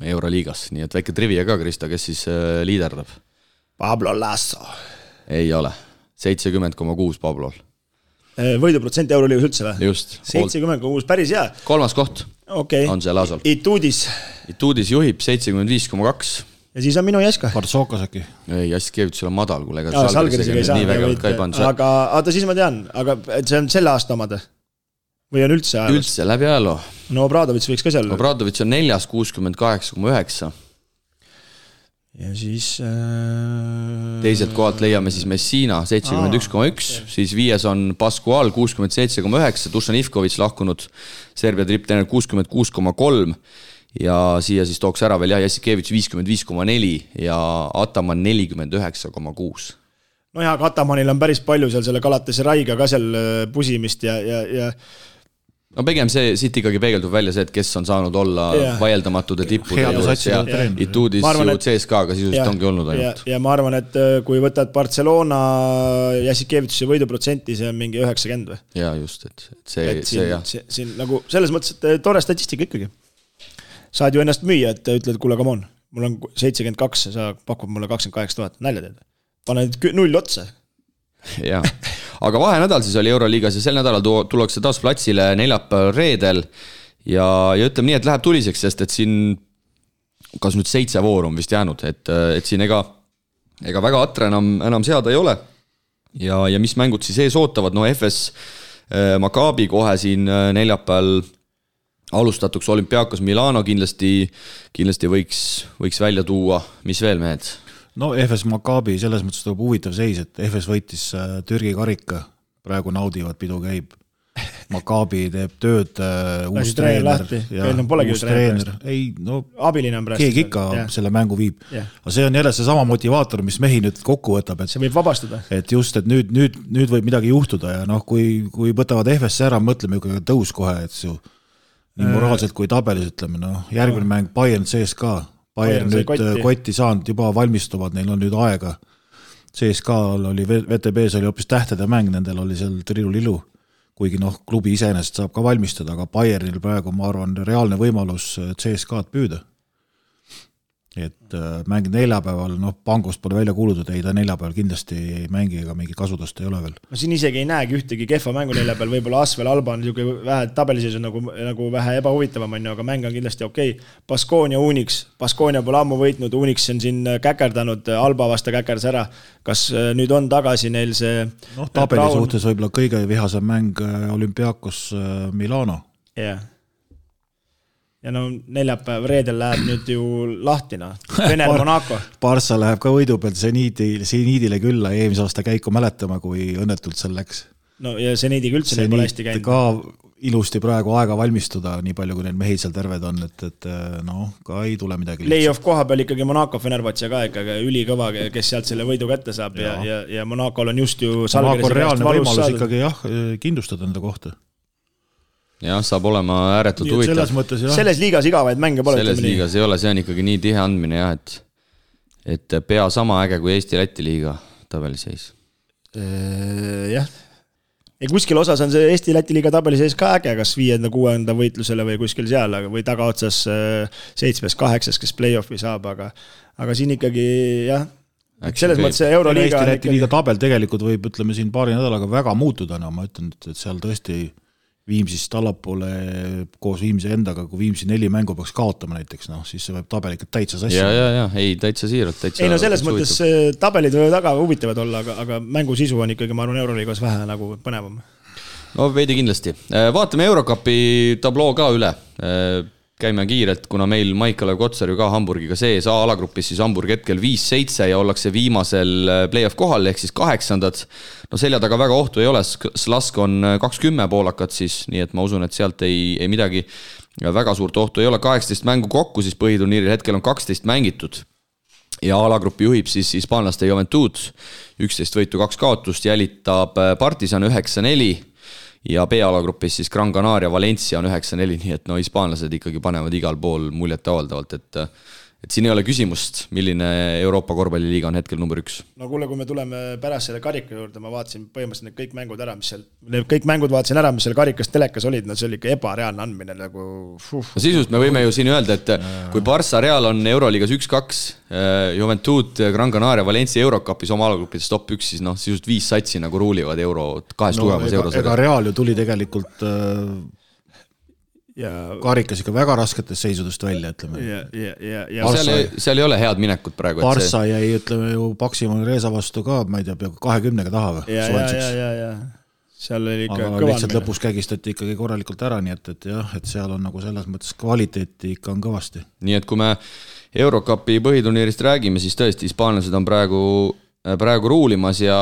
Euroliigas, nii et väike trivia ka, Krista, kes siis liiderdab. Pablo Lasso. Ei ole, 70,6 Pablol. Võiduprotsent Euroliigas üldse või? Just. 70,6, päris hea. 3. koht on see Lasol. Ituudis juhib 75,2. Ja siis on minu Jaska. Partsokas äkki? Ei, Jaskevitsul on madal, kuule. Salgerisega ei saa. Nii vägevalt ka ei pannud. Aga oota, siis ma tean, aga see on selle aasta omad? Või on üldse ajalus? Üldse, läbi ajaloo. No Obradovits võiks ka seal. Obradovits on 4, 68,9. Ja siis... Teiselt kohalt leiame siis Messina 71,1, siis 5 on Pascual 67,9, Dušan Ivković lahkunud Serbia tripptreener 66,3 ja siia siis tooks ära veel Jassikevitš 55,4 ja Ataman 49,6. No ja Atamanil on päris palju seal selle Galatase Raiga ka seal pusimist ja no pigem see siit ikkagi peegeldub välja see, et kes on saanud olla vaieldamatud ja tippude ja Ituudis ju CSKA-ga sisuliselt ongi olnud ainult. Ja ma arvan, et kui võtad Barcelona Jassikevitši võiduprotsenti, see on mingi 90 või? Ja just, et see jah. Siin nagu selles mõttes, et tore statistika ikkagi. Saad ju ennast müüa, et ütled, kuule, come on, mul on 72, sa pakud mulle 28 000, nälja teed. Pane 0 otsa. Jaa, aga vahenädal siis oli Euroliigas ja sel nädalal tullakse taas platsile neljapäeval reedel ja ütleme nii, et läheb tuliseks, sest et siin kas nüüd 7 vooru on vist jäänud, et siin ega väga atre enam seada ei ole ja mis mängud siis ees ootavad, no FS Maccabi kohe siin neljapäeval alustatuks Olympiakos Milano kindlasti võiks välja tuua, mis veel mehed? No FS Maccabi selles mõttes tuleb huvitav seis, et FS võitis Türgi karika, praegu naudivad, pidu käib. Maccabi teeb tööd uus treener ja uus treener. Ei, no keegi ikka selle mängu viib. Aga see on jälle see sama motivaator, mis mehi nüüd kokku võtab. See võib vabastada. Et just, et nüüd võib midagi juhtuda ja kui võtavad FS ära, mõtleme ju tõus kohe, et see nii moraalselt kui tabelis ütleme, järgmine mäng Bayern CSKA. Bayern nüüd kotti saanud, juba valmistuvad, neil on nüüd aega. CSKA-l oli, VTB-s oli hoopis tähtede mäng, nendel oli seal trilu-lilu, kuigi klubi iseenesest saab ka valmistada, aga Bayernil praegu, ma arvan, reaalne võimalus CSKA-d püüda. Et mängid neljapäeval, Pangost pole välja kuulutud, ei ta neljapäeval kindlasti ei mängi ega mingi kasutust ei ole veel. Ma siin isegi ei näegi ühtegi kehva mängu neljapäeval, võib-olla Asvel Alba on vähe tabeliseis nagu vähe ebahuvitavam, aga mäng on kindlasti okei. Baskonia Unix, Baskonia pole ammu võitnud, Unix on siin käkerdanud, Alba vasta käkerdas ära. Kas nüüd on tagasi neil see... tabeli suhtes võib-olla kõige vihasem mäng Olympiakos Milano. Jah. Ja neljapäev reedel läheb nüüd ju lahtina. Vener Monaco. Barça läheb ka võidu pealt Seniidile külla eelmise aasta käiku mäletama, kui õnnetult seal läks. No ja Seniidiga üldse neil pole hästi käinud. Ka ilusti praegu aega valmistuda, nii palju kui neil mehi seal terved on, et ka ei tule midagi. Play-off koha peal ikkagi Monaco Fenerbahce ka ikkagi ülikõva, kes sealt selle võidu kätte saab ja Monacol on just ju Monaco reaalne võimalus ikkagi kindlustada enda kohta. Jah, saab olema ääretult huvitav. Selles liigas igavaid mänge pole. Selles liigas ei ole, see on ikkagi nii tihe andmine jah, et pea sama äge kui Eesti-Läti liiga tabeliseis. Jah. Ja kuskil osas on see Eesti-Läti liiga tabeliseis ka äge, kas 5.-6. võitlusele või kuskil seal, või tagaotsas 7.-8, kes play-offi saab, aga siin ikkagi jah, selles mõttes Euroliiga Eesti-Läti liiga tabel tegelikult võib, ütleme siin paari nädalaga väga muutuda, ma ütlen, et seal tõesti Viimsist allapoole koos Viimsi endaga, kui Viimsi 4 mängu peaks kaotama näiteks, siis see võib tabel ikka täitsa sassi. Ja, ei, täitsa siiralt. Ei, selles mõttes tabelid võivad väga huvitavad olla, aga mängu sisu on ikkagi, ma arvan, Euroliigas vähe nagu põnevam. No veidi kindlasti. Vaatame Eurocupi tabloo ka üle. Käime kiirelt, kuna meil Maik-Kalev Kotsar ju ka Hamburgiga sees A-alagrupis, siis Hamburg hetkel 5-7 ja ollakse viimasel play-off kohal, ehk siis 8. No selja taga väga ohtu ei ole, Slask on 20 poolakat siis, nii et ma usun, et sealt ei midagi väga suurt ohtu ei ole. 18 mängu kokku siis põhiturniiril hetkel on 12 mängitud ja A-alagrupi juhib siis hispaanlaste Juventud, 11 võitu 2 kaotust, jälitab Partisan 9-4 ja B-alagrupis siis Gran Canaria Valencia on 9-4, nii et hispaanlased ikkagi panevad igal pool muljet avaldavalt, et siin ei ole küsimust, milline Euroopa korvpalliliiga on hetkel number 1. No kuule, kui me tuleme pärast selle karika juurde, ma vaatasin põhimõtteliselt need kõik mängud ära, mis seal karikas telekas olid, no see oli ikka ebareaalne andmine nagu No sisust me võime ju siin öelda, et kui Barça Real on Euroliigas 1-2, Juventud, Gran Canaria, Valencia Eurocupis oma alagrupides top 1, siis noh, sisust 5 satsi nagu ruulivad kahest tugemas eurosarjas. Ega Real ju tuli tegelikult karikas ikka väga rasketest seisudest välja, ütleme. Seal ei ole head minekut praegu. Barça jäi, ütleme ju, Paksimal Reesa vastu ka, ma ei tea, peaaegu 20 taha või? Ja. Seal oli ikka aga lihtsalt lõpus kägistati ikkagi korralikult ära, nii et jah, et seal on nagu selles mõttes kvaliteeti ikka on kõvasti. Nii et kui me Eurocupi põhiturniirist räägime, siis tõesti hispaanlased on praegu ruulimas ja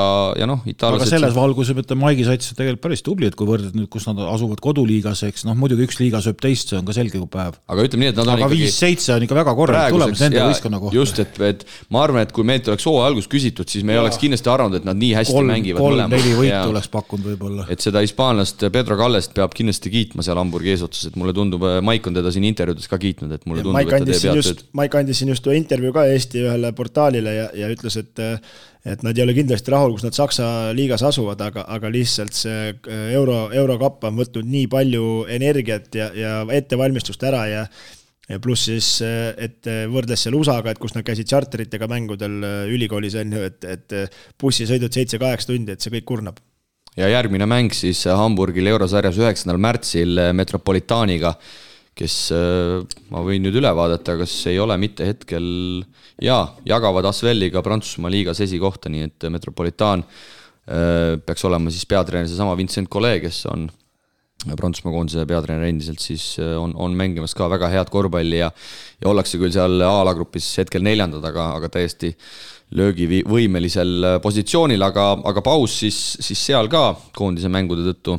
noh, itaallased... Aga selles valguses, et Maigi sats on tegelikult päris tubli, et kui võrded nüüd, kus nad asuvad koduliigas, eks, noh, muidugi üks liiga sööb teist, see on ka selge kui päev. Aga ütleme nii, et nad on aga ikkagi... 5-7 on ikka väga korralik tulemus nende võistkonna kohta. Just, et ma arvan, et kui meilt oleks hooaja algus küsitud, siis me ei oleks kindlasti arvanud, et nad nii hästi mängivad mõlemad. 3-4 võitu oleks pakkunud võib-olla. Et seda hispaanlast Pedro Kallest peab kindlasti kiitma seal Hamburgi eesotsas, et mulle tundub, Maik on teda siin intervjuudes ka kiitnud, et mulle tundub, et ta teeb head tööd. Maik andis siin just intervjuu ka Eesti ühele portaalile ja ütles, et nad ei ole kindlasti rahul, kus nad Saksa liigas asuvad, aga lihtsalt see Eurocup on võtnud nii palju energiat ja ettevalmistust ära ja pluss siis, et võrdles seal USA-ga, et kus nad käisid charteritega mängudel ülikoolis enne, et bussisõidud 7-8 tundi, et see kõik kurnab. Ja järgmine mäng siis Hamburgil eurosarjas 9. märtsil Metropolitaaniga, kes ma võin nüüd üle vaadata, kas ei ole mitte hetkel jagavad Asvelliga Prantsusmaa liigas esikohta, nii et Metropolitaan peaks olema siis peatreener seesama Vincent Collet, kes on Prantsusmaa koondise peatreener endiselt, siis on mängimas ka väga head korvpalli ja ollakse küll seal A-alagrupis hetkel 4, aga täiesti löögivõimelisel positsioonil, aga paus siis seal ka koondise mängude tõttu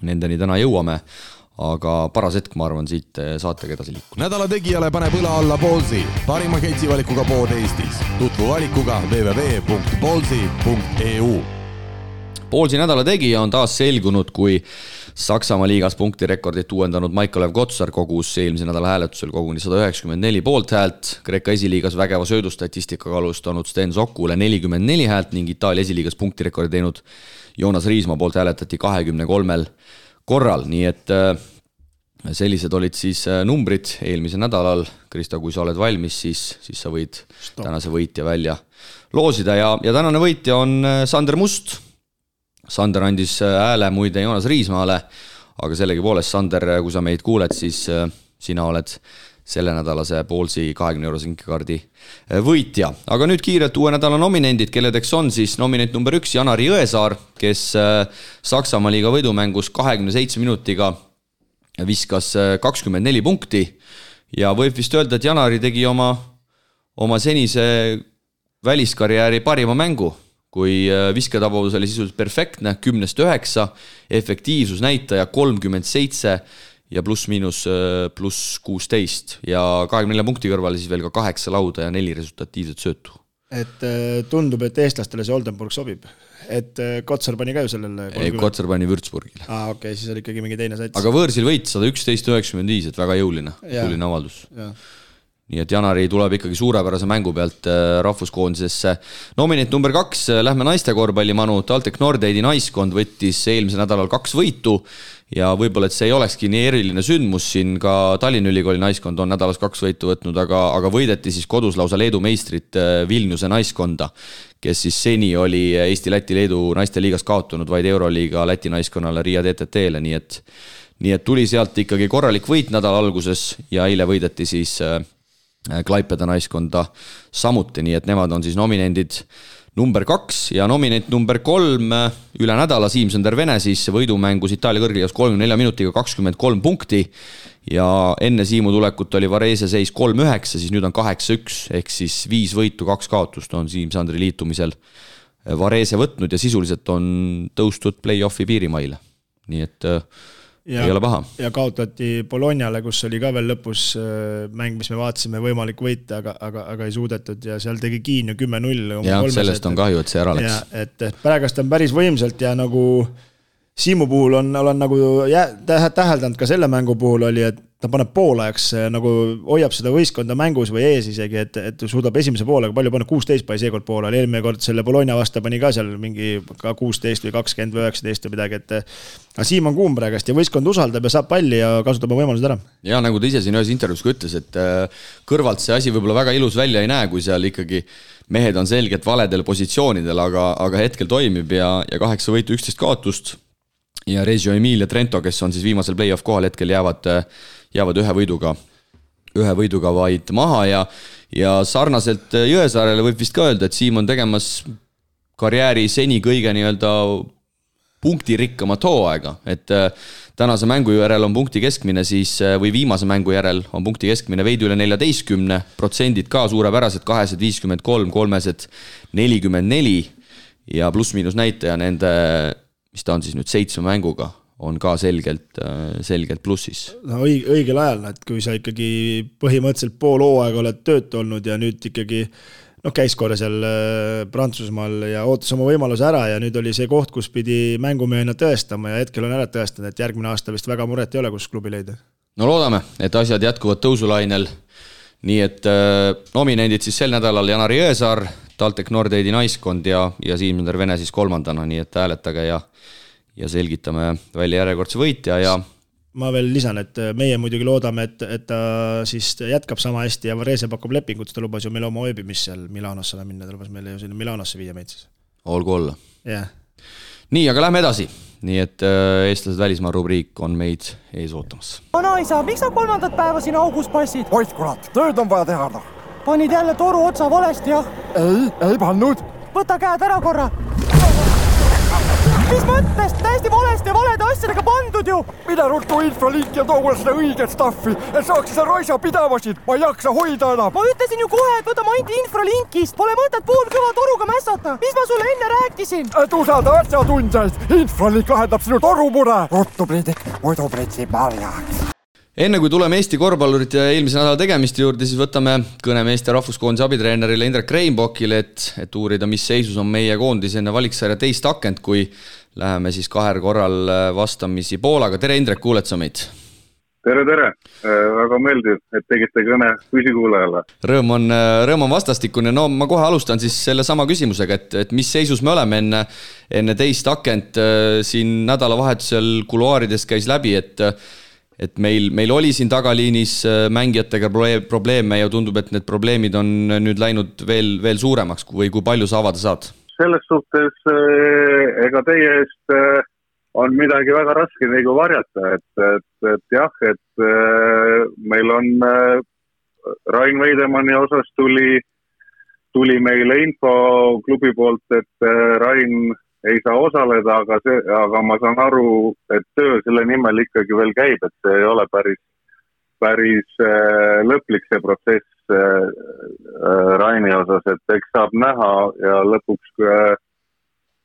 nendeni täna jõuame. Aga paras hetk, ma arvan, siit saatega edasi liikuda. Nädala tegijale paneb õla alla Ballsi, parima ketsivalikuga pood Eestis. Tutvu valikuga www.ballsi.eu. Ballsi nädala tegija on taas selgunud, kui Saksamaa liigas punktirekordit uuendanud Maikolev Kotsar kogus eelmise nädala hääletusel koguni 194 poolthäält, Kreeka esiliigas vägeva söödustatistikaga alustanud Sten Sokule 44 häält ning Itaalia esiliigas punktirekordi teinud Joonas Riismaa poolt hääletati 23 korral, nii et sellised olid siis numbrid eelmisel nädalal. Krista, kui sa oled valmis, siis sa võid tänase võitja välja loosida ja tänane võitja on Sander Must. Sander andis hääle muide Joonas Riismaale, aga sellegi poolest, Sander, kui sa meid kuuled, siis sina oled selle nädalase Ballsi 20 € sinkekaardi võitja. Aga nüüd kiirelt uue nädala nominendid, kelledeks on siis nominent number 1 Janari Jõesaar, kes Saksamaa liiga võidumängus 27 minutiga viskas 24 punkti ja võib vist öelda, et Janari tegi oma senise väliskarjääri parima mängu, kui visketabavus oli sisuliselt perfektne, 10-9, efektiivsusnäitaja 37 ja pluss 16 ja 24 punkti kõrvale siis veel ka 8 lauda ja 4 resultatiivset söötu. Et tundub, et eestlastele see Oldenburg sobib. Et Kotsar pani ka ju sellele 30. Ei, Kotsar pani Würzburgile. Okei, siis oli ikkagi mingi teine sats. Aga võõrsil võit 111-95, et väga jõuline avaldus. Ja. Nii et Janari tuleb ikkagi suurepärase mängu pealt rahvuskoondisesse. Nominent number 2, lähme naiste korvpallimanu. TalTech Nordeidi naiskond võttis eelmisel nädalal 2 võitu ja võib-olla, et see ei olekski nii eriline sündmus, siin ka Tallinna Ülikooli naiskond on nädalas 2 võitu võtnud, aga võideti siis kodus lausa Leedu meistrit Vilniuse naiskonda, kes siis seni oli Eesti, Läti, Leedu naiste liigas kaotunud vaid Euroliiga Läti naiskonnale Riia TTT-le, nii et tuli sealt ikkagi korralik võit nädala alguses ja eile võideti siis Klaipeda naiskonda samuti, nii et nemad on siis nominendid number 2 ja nominent number 3 üle nädala Siim-Sander Vene siis võidumängus Itaalia kõrgliigas 34 minutiga 23 punkti ja enne Siimu tulekut oli Varese seis 3-9, siis nüüd on 8-1 ehk siis 5 võitu, 2 kaotust on Siim-Sandri liitumisel Varese võtnud ja sisuliselt on tõustud play-offi piirimaile, nii et ei ole paha. Ja kaotati Bolognale, kus oli ka veel lõpus mäng, mis me vaatasime võimalik võita, aga ei suudetud ja seal tegi Kiin ju 10-0. Ja sellest on kahju, et see ära läks. Et pärast on päris võimsalt ja nagu Siimu puhul olen nagu täheldanud ka selle mängu puhul oli, et ta paneb poolajaks, nagu hoiab seda võistkonda mängus või ees isegi, et suudab esimese poolega palju panna, 16 pani seekord poolel, eelmine kord selle Bologna vasta pani ka seal mingi ka 16 või 20 või 19 või midagi, et Siim on kuum praegast ja võistkond usaldab ja saab palli ja kasutab võimalused ära. Ja nagu ta ise siin ühes intervjuus ka ütles, et kõrvalt see asi võib-olla väga ilus välja ei näe, kui seal ikkagi mehed on selgelt valedel positsioonidel, aga hetkel toimib ja 8 võitu 11 kaotust ja Reggio Emilia Trento, kes on siis viimasel play-off kohal hetkel jäävad ühe võiduga vaid maha ja sarnaselt Jõesaarele võib vist ka öelda, et Siim on tegemas karjääri seni kõige nii-öelda punktirikkamat hooaega, et tänase mängu järel on punkti keskmine siis, või viimase mängu järel on punkti keskmine veidi üle 14%, ka suurepärased 253, 344 ja pluss-miinus näitaja nende, mis ta on siis nüüd 7 mänguga, on ka selgelt plussis. No õigel ajal, et kui sa ikkagi põhimõtteliselt pool hooaega oled töötu olnud ja nüüd ikkagi käis korra seal Prantsusmaal ja ootas oma võimaluse ära ja nüüd oli see koht, kus pidi mängumehena tõestama ja hetkel on ära tõestanud, et järgmine aasta vist väga muret ei ole, kus klubi leida. No loodame, et asjad jätkuvad tõusulainel. Nii et nominendid siis sel nädalal Janar Jõesaar, TalTech Nordeidi naiskond ja Siim-Sander Vene siis 3. Nii et hääletage ja selgitame välja järjekordse võitja ja ma veel lisan, et meie muidugi loodame, et ta siis jätkab sama hästi ja Varese pakub lepingut, ta lubas ju meil oma ööbimist seal Milanosse minna, ta lubas meile ju sinna Milanosse viia meid siis. Olgu olla. Yeah. Nii, aga lähme edasi. Nii et eestlased välismaa rubriik on meid ees ootamas. Anaisa, miks sa 3. päeva siin augus passid? Oit kurat, tööd on vaja teha. Panid jälle toru otsa valesti, jah? Ei pannud. Võta käed ära korra. Mis mõttes? Täiesti valesti ja valede asjadega pandud ju! Mida ruttu infralink ja too mulle seda õiget staffi, et saaks seda raisa pidavasid, ma ei jaksa hoida enam. Ma ütlesin ju kohe, et võta ainult infralinkist, pole mõtet poolkõva toruga mässata. Mis ma sulle enne rääkisin? Et usalda asjatundjaid, infralink lahendab sinu torumure. Ruttu priidik, muidu pritsib marjaks. Enne kui tuleme Eesti korvpallurite ja eelmise nädala tegemiste juurde, siis võtame kõneme Eesti rahvuskoondise abitreenerile Indrek Reinbokile, et uurida, mis seisus on meie koondis enne valiksarja teist akent, kui läheme siis 2 korral vastamisi Poolaga. Tere Indrek, kuuled sa meid? Tere! Väga meeldiv, et tegite kõne püsikuulajale. Rõõm on vastastikune. No ma kohe alustan siis selle sama küsimusega, et mis seisus me oleme enne teist akent siin nädalavahetusel kuluaarides käis läbi, et meil oli siin tagaliinis mängijatega probleeme ja tundub, et need probleemid on nüüd läinud veel suuremaks või kui palju sa avada saad? Selles suhtes ega teie eest on midagi väga raske nagu varjata, et jah, et meil on Rain Veidemanni osas tuli meile info klubi poolt, et Rain ei saa osaleda, aga ma saan aru, et töö selle nimel ikkagi veel käib, et see ei ole päris lõplik see protsess Raini osas, et eks saab näha ja lõpuks,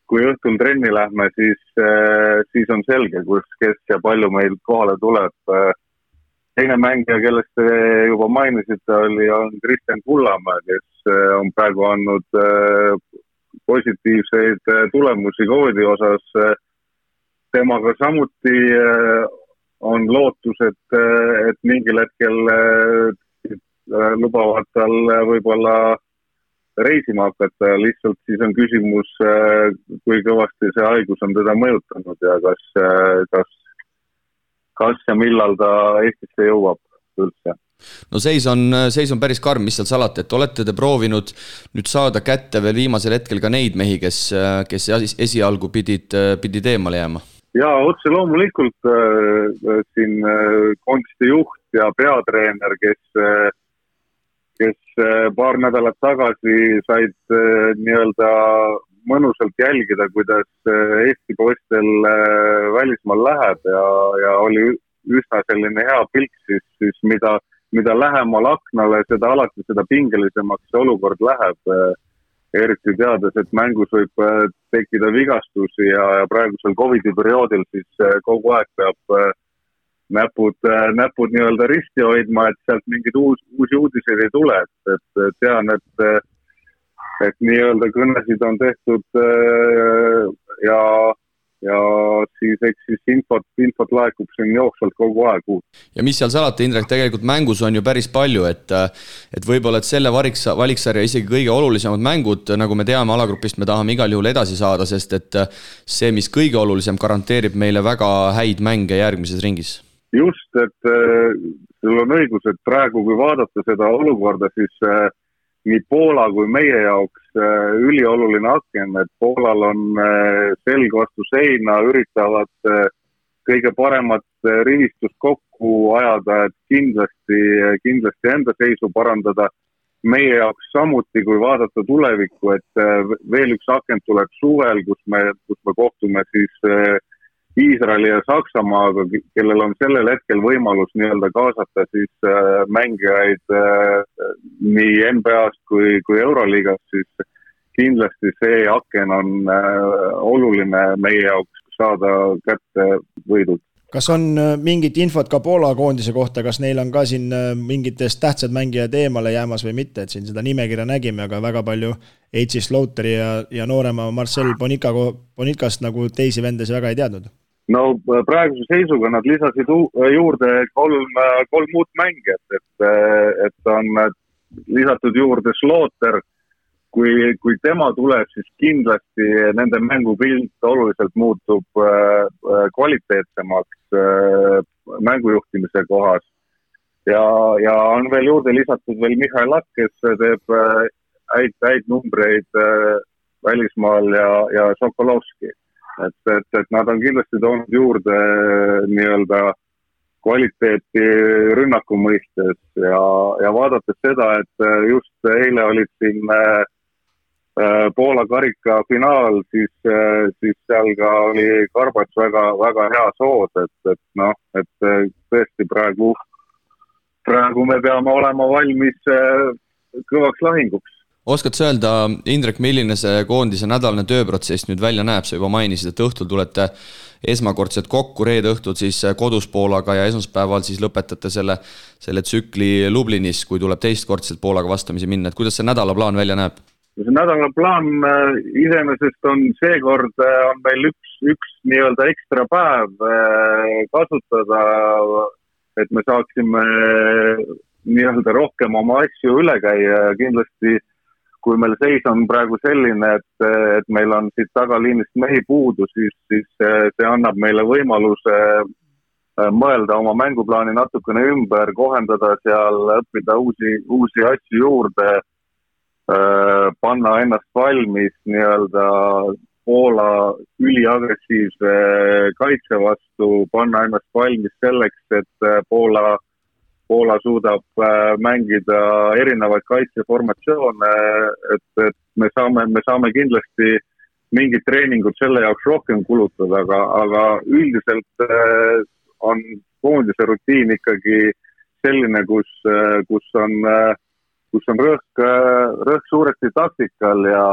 kui õhtul trenni lähme, siis on selge, kes ja palju meil kohale tuleb. Teine mängija, kellest te juba mainisite, on Kristjan Kullamäe, kes on praegu andnud positiivseid tulemusi koodi osas. Temaga samuti on lootus, et mingil hetkel lubavad tal võib-olla reisima hakata. Lihtsalt siis on küsimus, kui kõvasti see haigus on teda mõjutanud ja kas ja millal ta Eestisse jõuab üldse. No seis on päris karm, mis seal salata, et olete te proovinud nüüd saada kätte veel viimasel hetkel ka neid mehi, kes esialgu pidid eemale jääma? Ja otse loomulikult siin koondiste juht ja peatreener, kes paar nädalat tagasi said nii-öelda mõnusalt jälgida, kuidas Eesti poistel välismaal läheb ja oli üsna selline hea pilk, siis mida lähemal aknale, seda pingelisemaks see olukord läheb, eriti teades, et mängus võib tekkida vigastusi ja praegusel COVID-i perioodil siis kogu aeg peab näpud nii-öelda risti hoidma, et sealt mingid uusi uudiseid ei tule, et tean, et nii-öelda kõnesid on tehtud ja siis eks siis infot laekub siin jooksvalt kogu aeg uut. Ja mis seal salata, Indrek, tegelikult mängus on ju päris palju, et võib-olla et selle valiksarja isegi kõige olulisemad mängud, nagu me teame alagrupist, me tahame igal juhul edasi saada, sest et see, mis kõige olulisem, garanteerib meile väga häid mänge järgmises ringis. Just, et sul on õigus, et praegu kui vaadata seda olukorda, siis nii Poola kui meie jaoks ülioluline aken, et Poolal on selg vastu seina, üritavad kõige paremat rivistust kokku ajada, et kindlasti enda seisu parandada. Meie jaoks samuti, kui vaadata tulevikku, et veel üks aken tuleb suvel, kus me kohtume siis Iisraeli ja Saksamaaga, kellel on sellel hetkel võimalus nii-öelda kaasata siis mängijaid nii NBA-st kui Euroliigast, siis kindlasti see aken on oluline meie jaoks saada kätte võidud. Kas on mingit infot ka Poola koondise kohta, kas neil on ka siin mingitest tähtsad mängijad eemale jäämas või mitte, et siin seda nimekirja nägime, aga väga palju H.C. Slaughteri ja noorema Marcel Bonikast nagu teisi vendesi väga ei teadnud. No praeguse seisuga nad lisasid juurde kolm muud mängijat, et on lisatud juurde Slaughter. Kui tema tuleb, siis kindlasti nende mängupilt oluliselt muutub kvaliteetsemaks mängujuhtimise kohas. Ja on veel juurde lisatud veel Mihhail Lakk, kes teeb häid numbreid välismaal ja Sokolovski. Et nad on kindlasti toonud juurde nii-öelda kvaliteeti rünnaku mõistes ja vaadates seda, et just eile olid siin Poola karika finaal, siis seal ka oli Karbats väga hea sood, et tõesti praegu me peame olema valmis kõvaks lahinguks. Oskad sa öelda, Indrek, milline see koondise nädalane tööprotsess nüüd välja näeb? Sa juba mainisid, et õhtul tulete esmakordselt kokku, reede õhtul siis kodus Poolaga ja esmaspäeval siis lõpetate selle tsükli Lublinis, kui tuleb teistkordselt Poolaga vastamisi minna. Et kuidas see nädalaplaan välja näeb? See nädalaplaan iseenesest on seekord on meil üks nii-öelda ekstra päev kasutada, et me saaksime nii-öelda rohkem oma asju üle käia ja kindlasti kui meil seis on praegu selline, et meil on siit tagaliinist mehi puudu, siis see annab meile võimaluse mõelda oma mänguplaani natukene ümber, kohendada seal, õppida uusi asju juurde, panna ennast valmis nii-öelda Poola üliagressiivse kaitse vastu, panna ennast valmis selleks, et Poola suudab mängida erinevaid kaitseformatsioone, et me saame kindlasti mingid treeningud selle jaoks rohkem kulutada, aga üldiselt on koondise rutiin ikkagi selline, kus on rõhk suuresti taktikal ja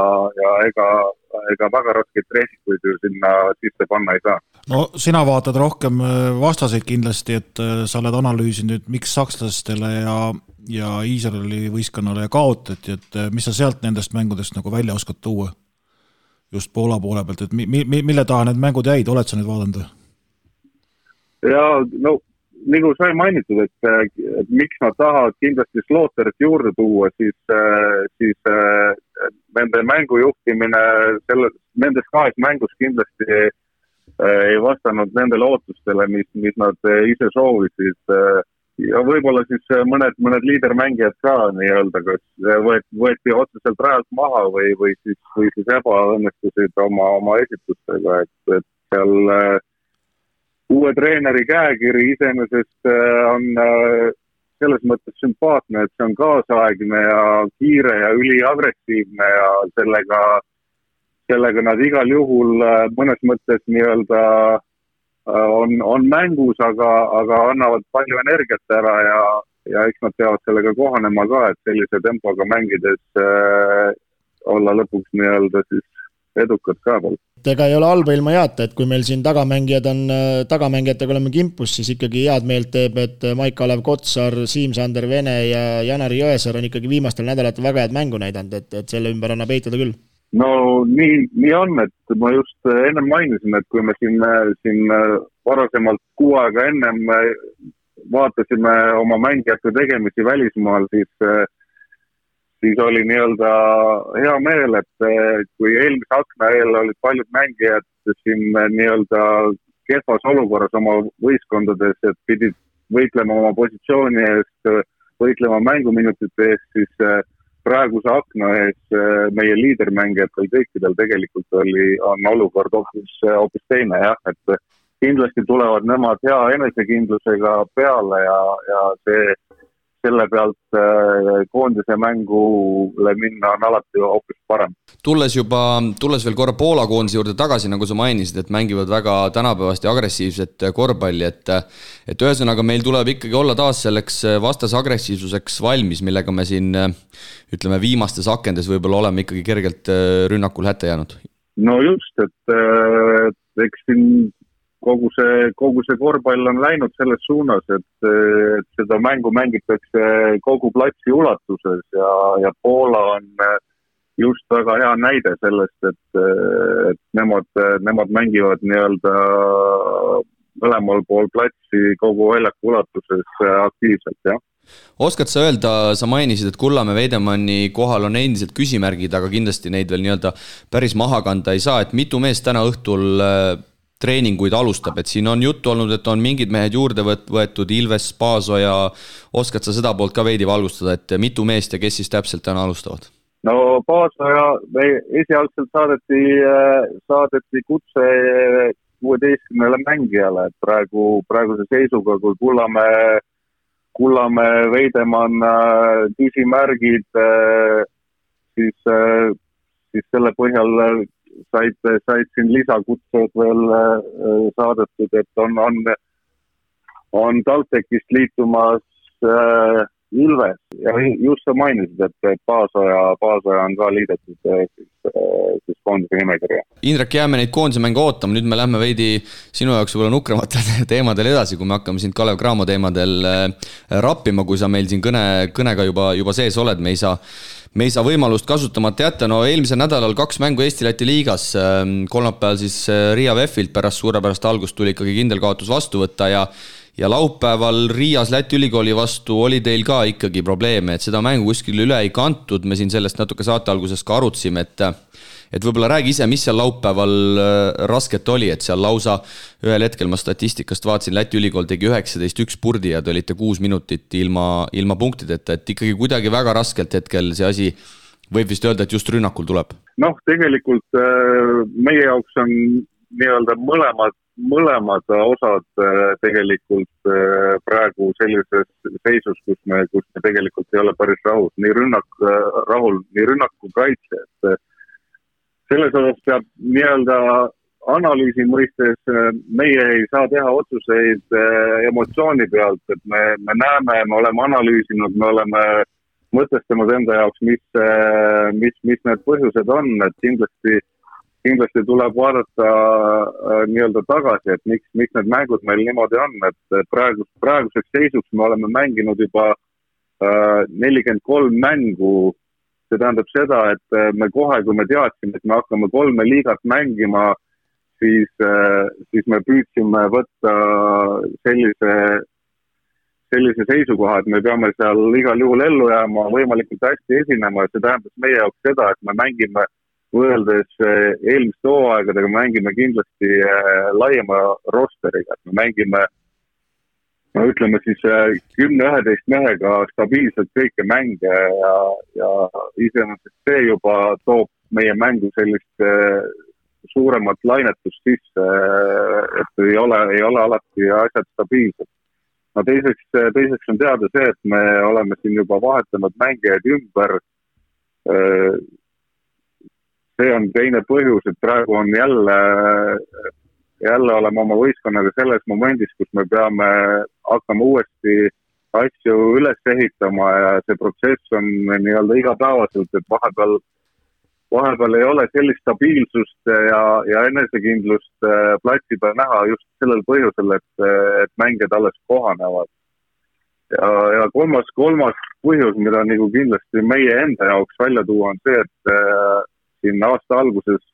ega väga raskeid treenikuid ju sinna sisse panna ei saa. No sina vaatad rohkem vastaseid kindlasti, et sa oled analüüsinud, miks sakslastele ja Iisraeli võistkonnale kaotati, et mis sa sealt nendest mängudest nagu välja oskad tuua just Poola poole pealt, et mille taha need mängud jäid, oled sa nüüd vaadanud? Ja no nagu sai mainitud, et miks nad tahavad kindlasti Slaughter'it juurde tuua, siis nende mängujuhtimine nendes kahes mängus kindlasti ei vastanud nendele ootustele, mis nad ise soovisid. Ja võib-olla siis mõned liidermängijad ka nii-öelda, kas võeti otseselt rajalt maha või siis ebaõnnestusid oma esitustega, et seal uue treeneri käekiri iseenesest on selles mõttes sümpaatne, et see on kaasaegne ja kiire ja üliagressiivne ja sellega nad igal juhul mõnes mõttes nii-öelda on mängus, aga annavad palju energiat ära ja eks nad peavad sellega kohanema ka, et sellise tempoga mängides olla lõpuks nii-öelda siis edukad ka veel. Ega ei ole halba ilma jaata, et kui meil siin tagamängijatega oleme kimpus, siis ikkagi head meelt teeb, et Maik-Kalev Kotsar, Siim-Sander Vene ja Janari Jõesaar on ikkagi viimastel nädalatel väga head mängu näidanud, et selle ümber annab eitada küll. No nii on, et ma just ennem mainisin, et kui me siin varasemalt 6 aega ennem vaatasime oma mängijate tegemisi välismaal, siis oli nii-öelda hea meel, et kui eelmise akna eel olid paljud mängijad siin nii-öelda kehvas olukorras oma võistkondades, et pidid võitlema oma positsiooni eest, võitlema mänguminutite eest, siis praeguse akna ees meie liidermängijatel kõikidel tegelikult on olukord hoopis teine, jah, et kindlasti tulevad nemad hea enesekindlusega peale ja selle pealt koondise mängule minna on alati hoopis parem. Tulles veel korra Poola koondise juurde tagasi, nagu sa mainisid, et mängivad väga tänapäevast ja agressiivset korvpalli, et ühesõnaga meil tuleb ikkagi olla taas selleks vastase agressiivsuseks valmis, millega me siin, ütleme, viimastes akendes võib-olla oleme ikkagi kergelt rünnakul hätte jäänud. No just, et eks siin kogu see korvpall on läinud selles suunas, et seda mängu mängitakse kogu platsi ulatuses ja Poola on just väga hea näide sellest, et nemad mängivad nii-öelda mõlemal pool platsi kogu väljaku ulatuses aktiivselt, jah. Oskad sa öelda, sa mainisid, et Kullamäe Veidemanni kohal on endiselt küsimärgid, aga kindlasti neid veel nii-öelda päris maha kanda ei saa, et mitu meest täna õhtul treeninguid alustab, et siin on juttu olnud, et on mingid mehed juurde võetud, Ilves, Paasoja, oskad sa seda poolt ka veidi valgustada, et mitu meest ja kes siis täpselt täna alustavad? No Paasoja esialgselt saadeti kutse 16 mängijale, et praeguse seisuga, kui Kullamäe Veidemann küsimärgid, siis selle põhjal said siin lisakutsed veel saadetud, et on TalTechist liitumas Ilves ja just sa mainisid, et Paasoja on ka liidetud siis koondise nimekirja. Indrek, jääme neid koondise mänge ootama, nüüd me lähme veidi sinu jaoks võib-olla nukramatel teemadel edasi, kui me hakkame siin Kalev Cramo teemadel rappima, kui sa meil siin kõnega juba sees oled, me ei saa võimalust kasutamata jätta. No eelmisel nädalal 2 mängu Eesti-Läti liigas, kolmapäeval siis Riia VEF-ilt pärast suurepärast algust tuli ikkagi kindel kaotus vastu võtta ja laupäeval Riias Läti ülikooli vastu oli teil ka ikkagi probleeme, et seda mängu kuskil üle ei kantud, me siin sellest natuke saate alguses ka arutsime, et võib-olla räägi ise, mis seal laupäeval rasket oli, et seal lausa ühel hetkel ma statistikast vaatasin, Läti ülikool tegi 19-1 purdi ja te olite 6 minutit ilma punktideta, et ikkagi kuidagi väga raskelt hetkel see asi võib vist öelda, et just rünnakul tuleb. Noh, tegelikult meie jaoks on nii-öelda mõlemad osad tegelikult praegu sellises seisus, kus me tegelikult ei ole päris rahul, nii rünnaku kaitse, et selles osas peab nii-öelda analüüsi mõistes meie ei saa teha otsuseid emotsiooni pealt, et me näeme, me oleme analüüsinud, me oleme mõtestanud enda jaoks, mis need põhjused on, et kindlasti tuleb vaadata nii-öelda tagasi, et miks need mängud meil niimoodi on, et praeguseks seisuks me oleme mänginud juba 43 mängu. See tähendab seda, et me kohe, kui me teadsime, et me hakkame 3 liigat mängima, siis me püüdsime võtta sellise seisukoha, et me peame seal igal juhul ellu jääma, võimalikult hästi esinema ja see tähendab meie jaoks seda, et me mängime võrreldes eelmiste hooaegadega, me mängime kindlasti laiema rosteriga, et me mängime ütleme siis 10-11 mehega stabiilselt kõike mänge ja iseenesest see juba toob meie mängu sellist suuremat lainetust sisse, et ei ole alati asjad stabiilsed. No teiseks on teada see, et me oleme siin juba vahetanud mängijaid ümber. See on teine põhjus, et praegu on jälle oleme oma võistkonnaga selles momendis, kus me peame hakkama uuesti asju üles ehitama ja see protsess on nii-öelda igapäevaselt, et vahepeal ei ole sellist stabiilsust ja enesekindlust platsi peal näha just sellel põhjusel, et mängijad alles kohanevad. Ja kolmas põhjus, mida nagu kindlasti meie enda jaoks välja tuua, on see, et siin aasta alguses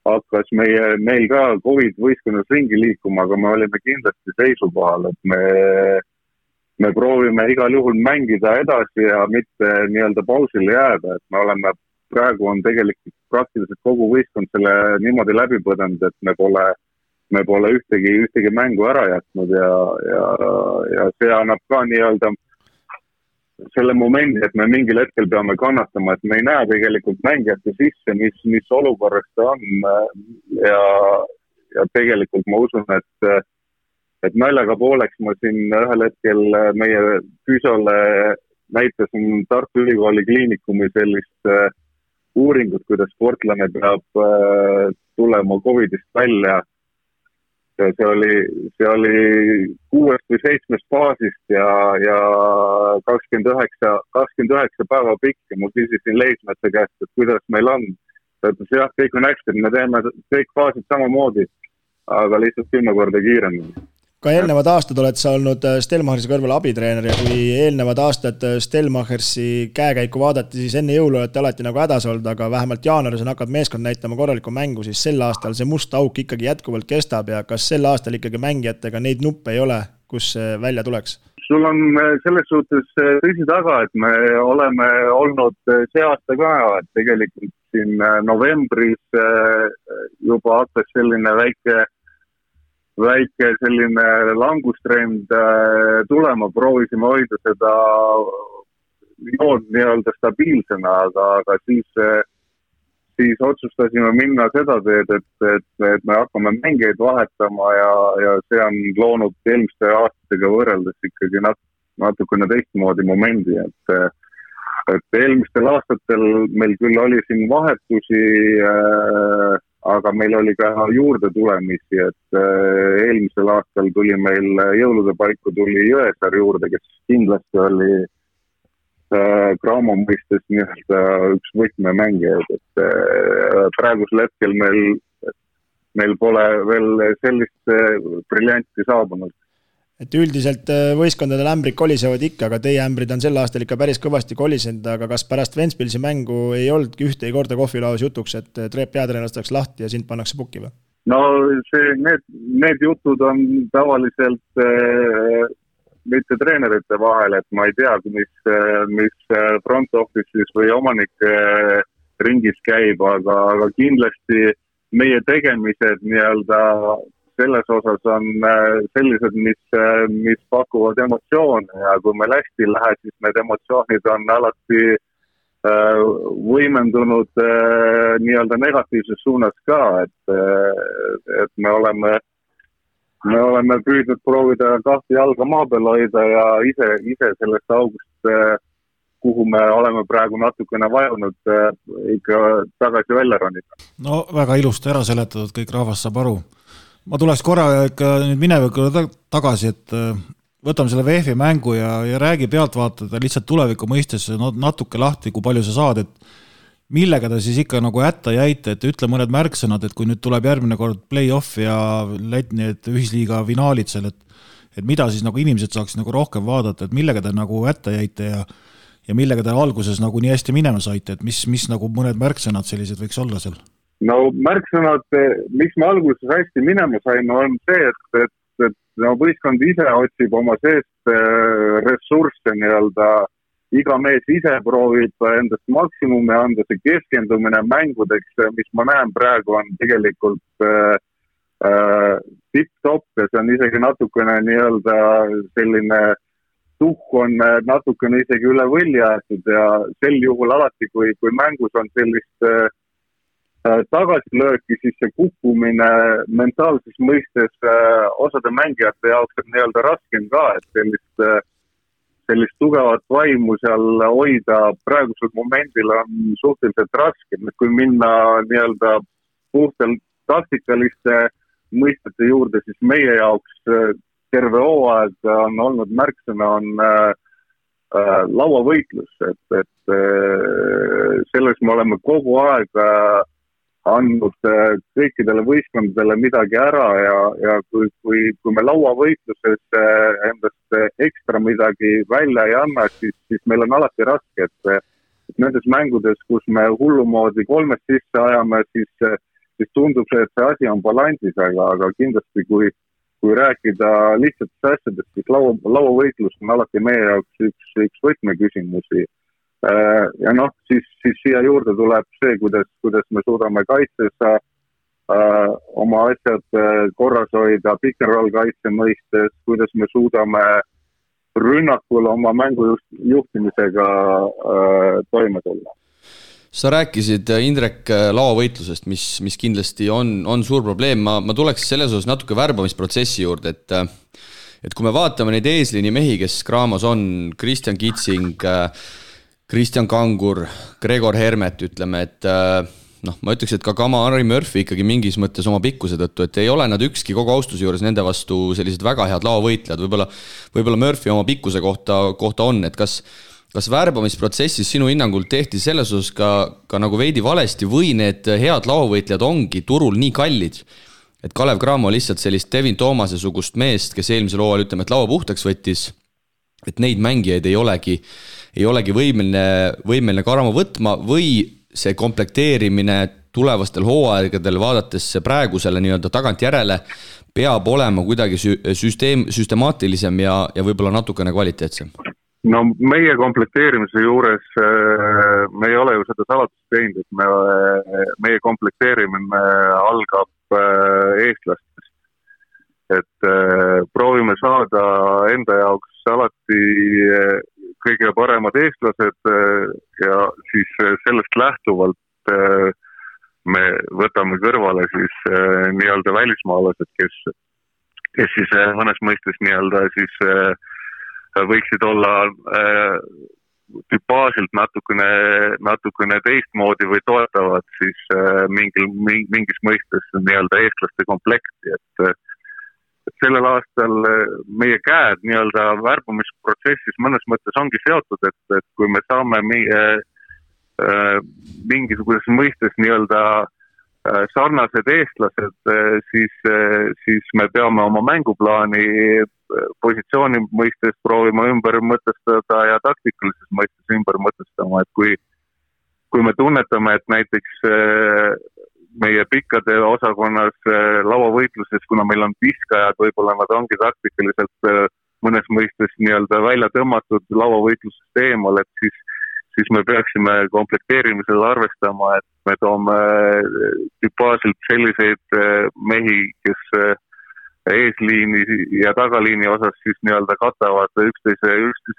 hakkas meil ka COVID võistkonnas ringi liikuma, aga me olime kindlasti seisukohal, et me proovime igal juhul mängida edasi ja mitte nii-öelda pausile jääda, et me oleme, praegu on tegelikult praktiliselt kogu võistkond selle niimoodi läbi põdenud, et me pole ühtegi mängu ära jätnud ja see annab ka nii-öelda selle momendi, et me mingil hetkel peame kannatama, et me ei näe tegelikult mängijate sisse, mis olukorras ta on ja tegelikult ma usun, et naljaga pooleks ma siin ühel hetkel meie füsiole näitasin Tartu Ülikooli kliinikumi sellist uuringut, kuidas sportlane peab tulema COVIDist välja. See oli 6 või 7 faasist ja 29 päeva pikk ja ma küsisin Leismetsa käest, et kuidas meil on. Ta ütles, jah, kõik on hästi, me teeme kõik faasid samamoodi, aga lihtsalt 10 korda kiiremini. Ka eelnevad aastad oled sa olnud Stelmachersi kõrval abitreener ja kui eelnevad aastad Stelmachersi käekäiku vaadati, siis enne jõulu olete alati nagu hädas olnud, aga vähemalt jaanuaris on hakkab meeskond näitama korralikku mängu, siis sel aastal see must auk ikkagi jätkuvalt kestab ja kas sel aastal ikkagi mängijatega neid nuppe ei ole, kus see välja tuleks? Sul on selles suhtes tõsi taga, et me oleme olnud see aasta ka, et tegelikult siin novembris juba hakkas selline väike selline langustrend tulema, proovisime hoida seda joon nii-öelda stabiilsena, aga siis otsustasime minna seda teed, et me hakkame mängeid vahetama ja see on loonud eelmiste aastatega võrreldes ikkagi natukene teistmoodi momendi, et eelmistel aastatel meil küll oli siin vahetusi, aga meil oli ka juurde tulemisi, et eelmisel aastal tuli meil jõulude paiku tuli Jõesaar juurde, kes kindlasti oli Graamo mõistes nii-öelda üks võtmemängijaid, et praegusel hetkel meil pole veel sellist briljanti saabunud. Et üldiselt võistkondade ämbrid kolisevad ikka, aga teie ämbrid on sel aastal ikka päris kõvasti kolisenud, aga kas pärast Ventspilsi mängu ei oldki ühtegi korda kohvilauas jutuks, et peatreener lastakse lahti ja sind pannakse pukki või? No need jutud on tavaliselt mitte treenerite vahel, et ma ei tea, mis front office'is või omanike ringis käib, aga kindlasti meie tegemised nii-öelda selles osas on sellised, mis pakuvad emotsioone ja kui meil hästi läheb, siis need emotsioonid on alati võimendunud nii-öelda negatiivses suunas ka, et me oleme püüdnud proovida kahte jalga maa peal hoida ja ise sellest august, kuhu me oleme praegu natukene vajunud, ikka tagasi välja ronida. No väga ilusti ära seletatud, kõik rahvas saab aru. Ma tuleks korra ikka nüüd minevikule tagasi, et võtame selle VF-i mängu ja räägi pealtvaatada lihtsalt tuleviku mõistes natuke lahti, kui palju sa saad, et millega ta siis ikka nagu hätta jäite, et ütle mõned märksõnad, et kui nüüd tuleb järgmine kord play-off ja need ühisliiga finaalid seal, et mida siis nagu inimesed saaks nagu rohkem vaadata, et millega te nagu hätta jäite ja millega te alguses nagu nii hästi minema saite, et mis nagu mõned märksõnad sellised võiks olla seal? No märksõnad, mis me alguses hästi minema saime, on see, et võistkond ise otsib oma seest ressursse nii-öelda, iga mees ise proovib endast maksimumi anda, see keskendumine mängudeks, mis ma näen praegu on tegelikult tipp-top ja see on isegi natukene nii-öelda selline tuhk on natukene isegi üle võlli aetud ja sel juhul alati, kui mängus on sellist tagasilööki, siis see kukkumine mentaalses mõistes osade mängijate jaoks on nii-öelda raskem ka, et sellist tugevat vaimu seal hoida praegusel momendil on suhteliselt raske, kui minna nii-öelda puhtalt taktikaliste mõistete juurde, siis meie jaoks terve hooaeg on olnud märksõna on lauavõitlus, et selles me oleme kogu aeg andnud kõikidele võistkondadele midagi ära ja kui me lauavõitluses endast ekstra midagi välja ei anna, siis meil on alati raske, et nendes mängudes, kus me hullumoodi 3 sisse ajame, siis tundub see, et see asi on balansis, aga kindlasti kui rääkida lihtsatest asjadest, siis lauavõitlus on alati meie jaoks üks võtmeküsimusi. Ja siis siia juurde tuleb see, kuidas me suudame kaitses oma asjad korras hoida, pick and roll kaitse mõistes, kuidas me suudame rünnakul oma mängu juhtimisega toime tulla. Sa rääkisid, Indrek, lauavõitlusest, mis kindlasti on suur probleem. Ma tuleks selles osas natuke värbamisprotsessi juurde, et kui me vaatame neid eesliini mehi, kes Graamos on, Kristjan Kitsing, Kristjan Kangur, Gregor Hermet, ütleme, et ma ütleks, et ka Kamari Murphy ikkagi mingis mõttes oma pikkuse tõttu, et ei ole nad ükski kogu austuse juures nende vastu sellised väga head lauavõitlejad. Võib-olla Murphy oma pikkuse kohta on, et kas värbamisprotsessis sinu hinnangul tehti selles osas ka nagu veidi valesti või need head lauavõitlejad ongi turul nii kallid, et Kalev Cramo lihtsalt sellist Devin Thoomase sugust meest, kes eelmisel hooajal ütleme, et laua puhtaks võttis, et neid mängijaid ei olegi võimeline Cramo võtma või see komplekteerimine tulevastel hooaegadel vaadates praegusele nii-öelda tagantjärele peab olema kuidagi süstemaatilisem ja võib-olla natukene kvaliteetsem? No meie komplekteerimise juures me ei ole ju seda salatust teinud, et meie komplekteerimine algab eestlastest. Et proovime saada enda jaoks alati kõige paremad eestlased ja siis sellest lähtuvalt me võtame kõrvale siis nii-öelda välismaalased, kes siis mõnes mõistes nii-öelda siis võiksid olla tüpaasilt natukene teistmoodi või toetavad siis mingis mõistes nii-öelda eestlaste komplekti, et sellel aastal meie käed nii-öelda värbamisprotsessis mõnes mõttes ongi seotud, et kui me saame mingisuguses mõistes nii-öelda sarnased eestlased, siis me peame oma mänguplaani positsiooni mõistes proovima ümber mõtestada ja taktikalises mõistes ümber mõtestama, et kui me tunnetame, et näiteks meie pikkade osakonnas lauavõitluses, kuna meil on viskajad, võib-olla nad ongi taktikaliselt mõnes mõistes nii-öelda välja tõmmatud lauavõitlusest eemal, et siis me peaksime komplekteerimisel arvestama, et me toome tüpaasilt selliseid mehi, kes eesliini ja tagaliini osas siis nii-öelda katavad üksteise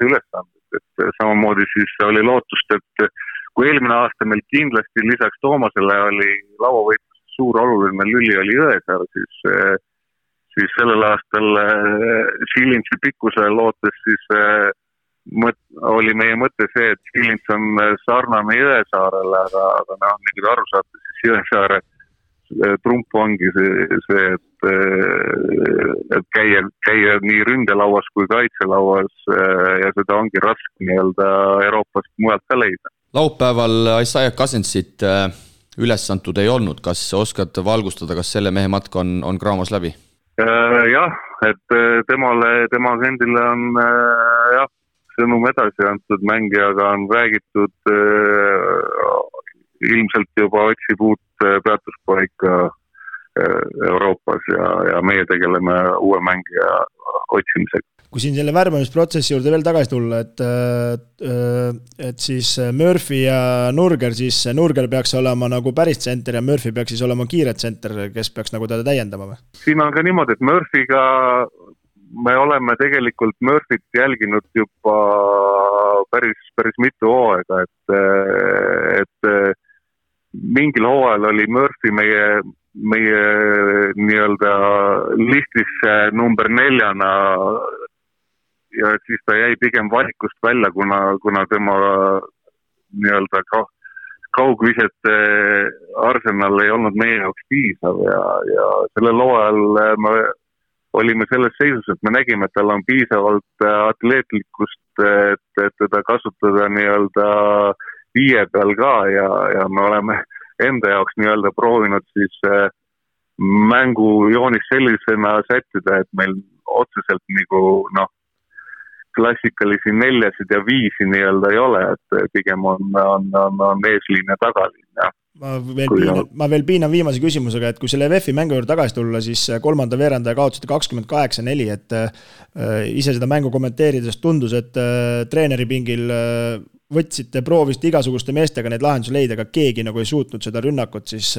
ülesanded. Et samamoodi siis oli lootust, et kui eelmine aasta meil kindlasti lisaks Toomasele oli lauavõitluses suur oluline lüli oli Jõesaar, siis sellel aastal Silintsi pikkuse lootes siis oli meie mõte see, et Silins on sarnane Jõesaarele, aga nagu aru saate, siis Jõesaare trump ongi see, et käia nii ründelauas kui kaitselauas ja seda ongi raske nii-öelda Euroopast mujalt ka leida. Laupäeval Isaiah Cousinsit üles antud ei olnud. Kas oskad valgustada, kas selle mehe matk on Cramos läbi? Jah, et tema agendile on sõnum edasi antud, mängijaga on räägitud, ilmselt juba otsib uut peatuspaika Euroopas ja meie tegeleme uue mängija otsimisega. Kui siin selle värbamisprotsessi juurde veel tagasi tulla, et siis Murphy ja Nurger, siis Nurger peaks olema nagu päris tsenter ja Murphy peaks siis olema kiire tsenter, kes peaks nagu teda täiendama või? Siin on ka niimoodi, et Murphyga me oleme tegelikult Murphyt jälginud juba päris mitu hooaega, et mingil hooajal oli Murphy meie nii-öelda listis number 4 ja siis ta jäi pigem valikust välja, kuna tema nii-öelda kaugvisete arsenal ei olnud meie jaoks piisav ja sellel hooajal me olime selles seisus, et me nägime, et tal on piisavalt atleetlikkust, et teda kasutada nii-öelda 5 peal ka ja me oleme enda jaoks nii-öelda proovinud siis mängu joonis sellisena sättida, et meil otseselt nagu klassikalisi 4 ja 5 nii-öelda ei ole, et pigem on eesliin ja tagaliin. Ja. Ma veel piinan viimase küsimusega, et kui selle VEF-i mängu juurde tagasi tulla, siis kolmanda veerandaja kaotasite 28-4, et ise seda mängu kommenteerides tundus, et treeneri pingil proovisite igasuguste meestega neid lahendusi leida, aga keegi nagu ei suutnud seda rünnakut siis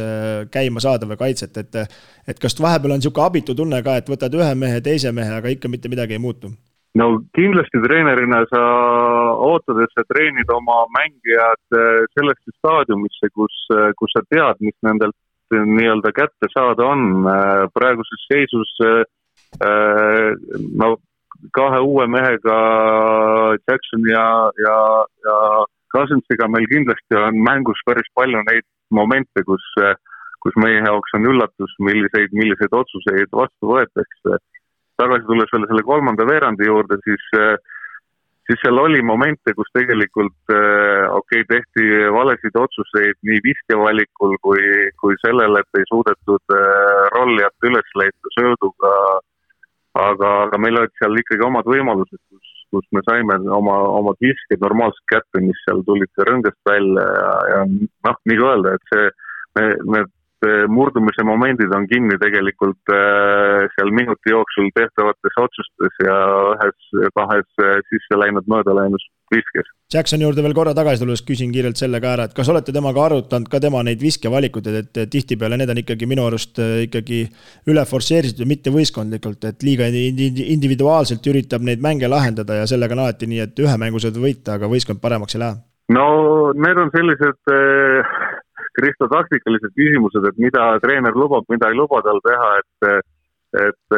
käima saada või kaitset, et kas vahepeal on niisugune abitu tunne ka, et võtad ühe mehe, teise mehe, aga ikka mitte midagi ei muutu? No kindlasti treenerina sa ootad, et sa treenid oma mängijad sellesse staadiumisse, kus sa tead, mis nendelt nii-öelda kätte saada on. Praeguses seisus kahe uue mehega Jackson ja Cousinsiga meil kindlasti on mängus päris palju neid momente, kus meie jaoks on üllatus, milliseid otsuseid vastu võetakse. Tagasi tulles veel selle kolmanda veerandi juurde, siis seal oli momente, kus tegelikult tehti valesid otsuseid nii viskevalikul kui sellele, et ei suudetud rollijat üles leida sööduga, aga meil olid seal ikkagi omad võimalused, kus me saime oma visked normaalselt kätte, mis seal tulid rõngast välja ja nii kui öelda, et need murdumise momendid on kinni tegelikult seal minuti jooksul tehtavates otsustes ja kahes sisse läinud mööda läinud viskes. Jackson juurde veel korra tagasi tulles küsin kiirelt selle ka ära, et kas olete temaga arutanud ka tema neid viskevalikuid, et tihtipeale need on ikkagi minu arust ikkagi üle forsseeritud ja mitte võistkondlikult, et liiga individuaalselt üritab neid mänge lahendada ja sellega on alati nii, et ühe mängu saad võita, aga võistkond paremaks ei lähe? No need on sellised Kristo taktikalised küsimused, et mida treener lubab, mida ei luba tal teha, et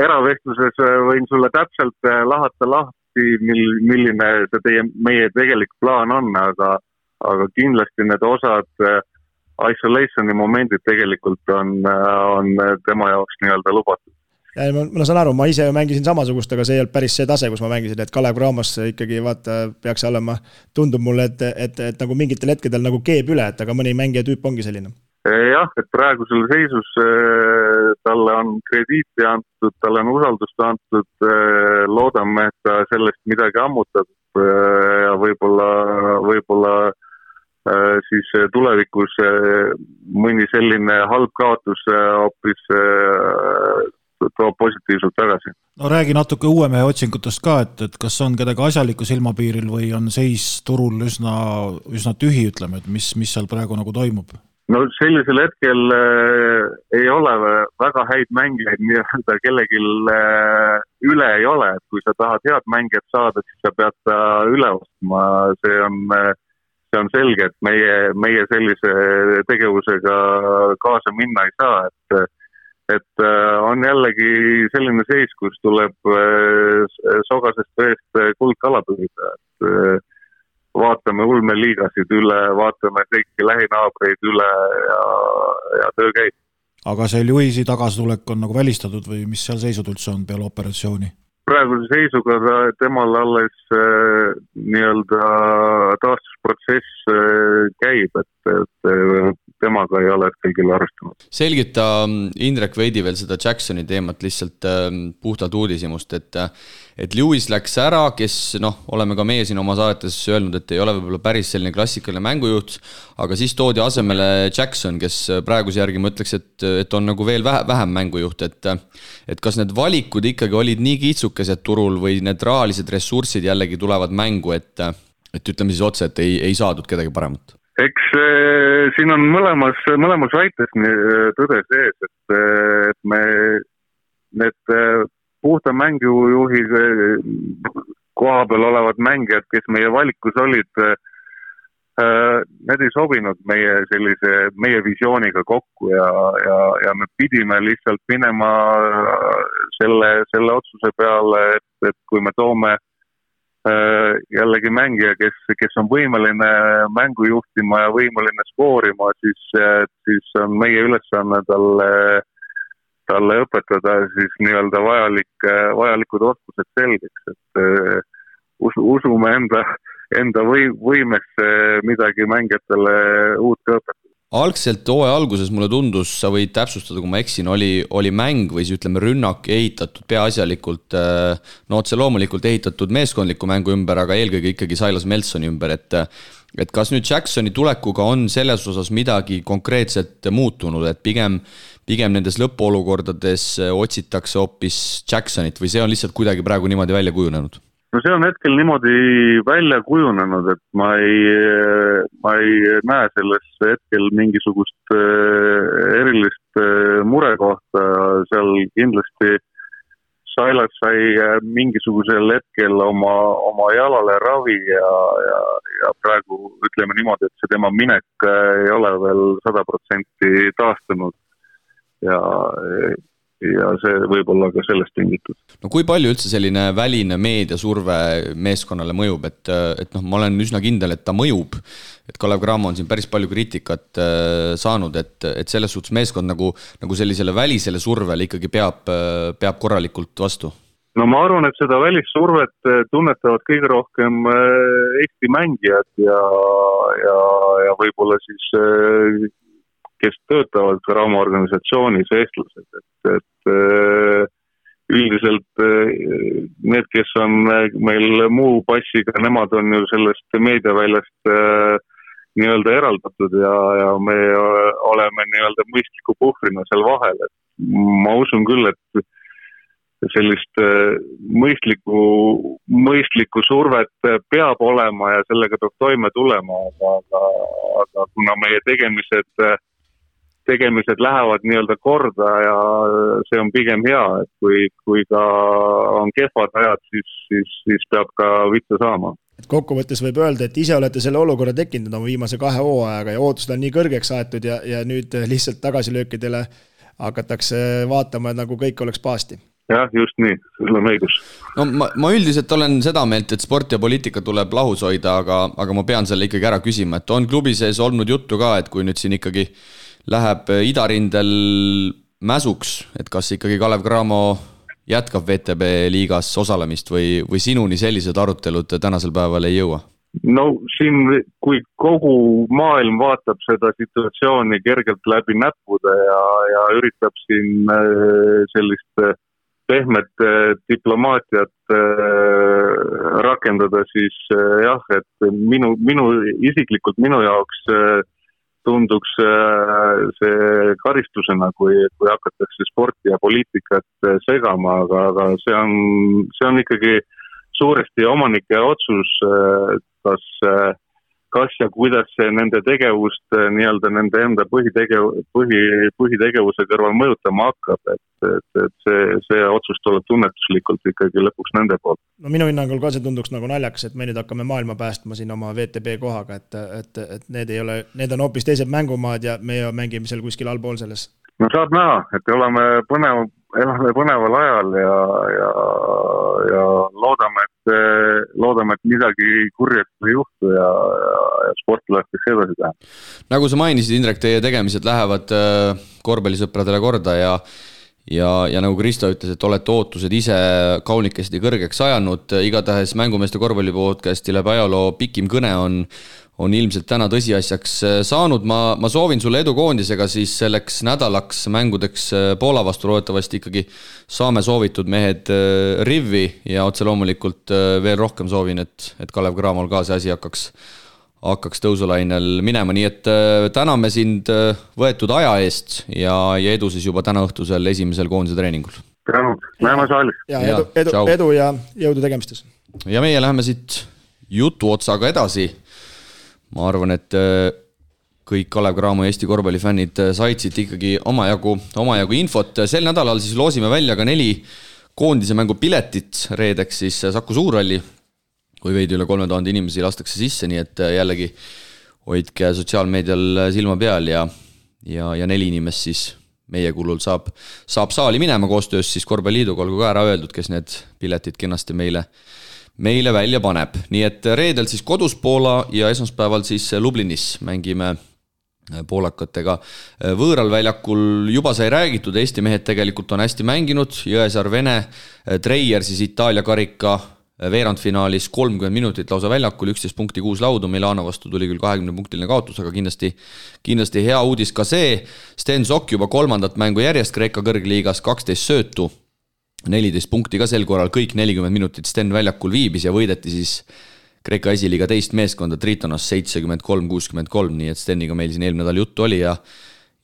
eravestluses võin sulle täpselt lahata lahti, milline meie tegelik plaan on, aga kindlasti need osad isolationi momendid tegelikult on tema jaoks nii-öelda lubatud. Ja ma saan aru, ma ise mängisin samasugust, aga see ei olnud päris see tase, kus ma mängisin, et Kalev Cramos ikkagi peaks olema, tundub mulle, et nagu mingitel hetkedel nagu keeb üle, et aga mõni mängija tüüp ongi selline. Jah, et praegusel seisus talle on krediiti antud, talle on usaldust antud, loodame, et ta sellest midagi ammutab ja võib-olla siis tulevikus mõni selline halb kaotus hoopis toob positiivselt tagasi. No räägi natuke uue mehe otsingutest ka, et kas on kedagi asjaliku silmapiiril või on seis turul üsna tühi, ütleme, et mis seal praegu nagu toimub? No sellisel hetkel ei ole väga häid mängijaid, nii-öelda kellelgi üle ei ole, et kui sa tahad head mängijat saada, siis sa pead ta üle ostma, see on selge, et meie sellise tegevusega kaasa minna ei saa, et on jällegi selline seis, kus tuleb sogasest veest kuldkala püüda, et vaatame ulmeliigasid üle, vaatame kõiki lähinaabreid üle ja töö käib. Aga see Lewisi tagasitulek on nagu välistatud või mis seal seisud üldse on peale operatsiooni? Praeguse seisuga temal alles nii-öelda taastusprotsess käib, et temaga ei ole kõigil arvestanud. Selgita Indrek veidi veel seda Jacksoni teemat lihtsalt puhtalt uudishimust, et Lewis läks ära, kes oleme ka meie siin oma saadetes öelnud, et ei ole võib-olla päris selline klassikaline mängujuht, aga siis toodi asemele Jackson, kes praeguse järgi ma ütleks, et on nagu veel vähem mängujuht, et kas need valikud ikkagi olid nii kiitsukesed turul või need rahalised ressursid jällegi tulevad mängu, et ütleme siis otse, et ei saadud kedagi paremat? Eks siin on mõlemas väites tõde sees, et me need puhta mängujuhi koha peal olevad mängijad, kes meie valikus olid, need ei sobinud meie visiooniga kokku ja me pidime lihtsalt minema selle otsuse peale, et kui me toome jällegi mängija, kes on võimeline mängu juhtima ja võimeline skoorima, siis on meie ülesanne talle õpetada siis nii-öelda vajalikud oskused selgeks, et usume enda võimesse midagi mängijatele uut õpetada. algselt hooaja alguses mulle tundus, sa võid täpsustada, kui ma eksin, oli mäng või siis ütleme rünnak ehitatud peaasjalikult, no otse loomulikult ehitatud meeskondliku mängu ümber, aga eelkõige ikkagi Silas Melsoni ümber, et kas nüüd Jacksoni tulekuga on selles osas midagi konkreetselt muutunud, et pigem nendes lõpuolukordades otsitakse hoopis Jacksonit või see on lihtsalt kuidagi praegu niimoodi välja kujunenud? No see on hetkel niimoodi välja kujunenud, et ma ei näe selles hetkel mingisugust erilist murekohta, seal kindlasti Silas sai mingisugusel hetkel oma jalale ravi ja praegu ütleme niimoodi, et see tema minek ei ole veel 100% taastunud ja see võib olla ka sellest tingitud. No kui palju üldse selline väline meediasurve meeskonnale mõjub, et ma olen üsna kindel, et ta mõjub, et Kalev Cramo on siin päris palju kriitikat saanud, et selles suhtes meeskond nagu sellisele välisele survele ikkagi peab korralikult vastu? No ma arvan, et seda välissurvet tunnetavad kõige rohkem Eesti mängijad ja võib-olla siis kes töötavad Cramo organisatsioonis eestlased, et üldiselt need, kes on meil muu passiga, nemad on ju sellest meediaväljast nii-öelda eraldatud ja me oleme nii-öelda mõistliku puhvrina seal vahel, et ma usun küll, et sellist mõistlikku survet peab olema ja sellega peab toime tulema, aga kuna meie tegemised lähevad nii-öelda korda ja see on pigem hea, et kui ka on kehvad ajad, siis peab ka vittu saama. Kokkuvõttes võib öelda, et ise olete selle olukorra tekkinud oma viimase 2 hooajaga ja ootused on nii kõrgeks aetud ja nüüd lihtsalt tagasilöökidele hakatakse vaatama, nagu kõik oleks paasti. Jah, just nii, sul on õigus. No ma üldiselt olen seda meelt, et sport ja poliitika tuleb lahus hoida, aga ma pean selle ikkagi ära küsima, et on klubi sees olnud juttu ka, et kui nüüd siin ikkagi läheb idarindel mäsuks, et kas ikkagi Kalev Cramo jätkab VTB liigas osalemist või sinuni sellised arutelud tänasel päeval ei jõua? No siin, kui kogu maailm vaatab seda situatsiooni kergelt läbi näppude ja üritab siin sellist pehmet diplomaatiat rakendada, siis jah, et isiklikult minu jaoks tunduks see karistusena, kui hakatakse sporti ja poliitikat segama, aga see on ikkagi suuresti omanike otsus, kas ja kuidas nende tegevust nii-öelda nende enda põhitegevuse kõrval mõjutama hakkab, et see otsus tuleb tunnetuslikult ikkagi lõpuks nende poolt. No minu hinnangul ka see tunduks nagu naljakas, et me nüüd hakkame maailma päästma siin oma VTB kohaga, et need on hoopis teised mängumaad ja me mängime seal kuskil allpool selles. No saab näha, et oleme põneval ajal ja loodame, et midagi kurjast ei juhtu ja sport lastakse edasi teha. Nagu sa mainisid, Indrek, teie tegemised lähevad korvpallisõpradele korda ja nagu Kristo ütles, et olete ootused ise kaunikesti kõrgeks ajanud, igatahes Mängumeeste korvpallipodcasti läbi ajaloo pikim kõne on ilmselt täna tõsiasjaks saanud. Ma soovin sulle edu koondisega siis selleks nädalaks mängudeks Poola vastu, loodetavasti ikkagi saame soovitud mehed rivvi ja otse loomulikult veel rohkem soovin, et Kalev Cramol ka see asi hakkaks tõusulainel minema, nii et täname sind võetud aja eest ja edu siis juba täna õhtusel esimesel koondise treeningul. Näeme saalis. Edu ja jõudu tegemistes. Ja meie läheme siit jutu otsaga edasi. Ma arvan, et kõik Kalev Cramo Eesti korvpallifännid said siit ikkagi omajagu infot. Sel nädalal siis loosime välja ka 4 koondise mängu piletit reedeks siis Saku Suurhalli, kui veidi üle 3000 inimesi lastakse sisse, nii et jällegi hoidke sotsiaalmeedial silma peal ja 4 inimest siis meie kulul saab saali minema koostöös siis Korvpalliliiduga, olgu ka ära öeldud, kes need piletid kenasti meile välja paneb. Nii et reedel siis kodus Poola ja esmaspäeval siis Lublinis mängime poolakatega võõral väljakul. Juba sai räägitud, Eesti mehed tegelikult on hästi mänginud, Jõesaar Vene, Treier siis Itaalia karika veerandfinaalis 30 minutit lausa väljakul, 11 punkti 6 laudu, Milano vastu tuli küll 20-punktiline kaotus, aga kindlasti hea uudis ka see. Sten Sokk juba 3. mängu järjest Kreeka kõrgliigas, 12 söötu, 14 punkti ka sel korral, kõik 40 minutit Sten väljakul viibis ja võideti siis Kreeka esiliiga teist meeskonda Tritonas 73-63, nii et Steniga meil siin eelmine nädal juttu oli ja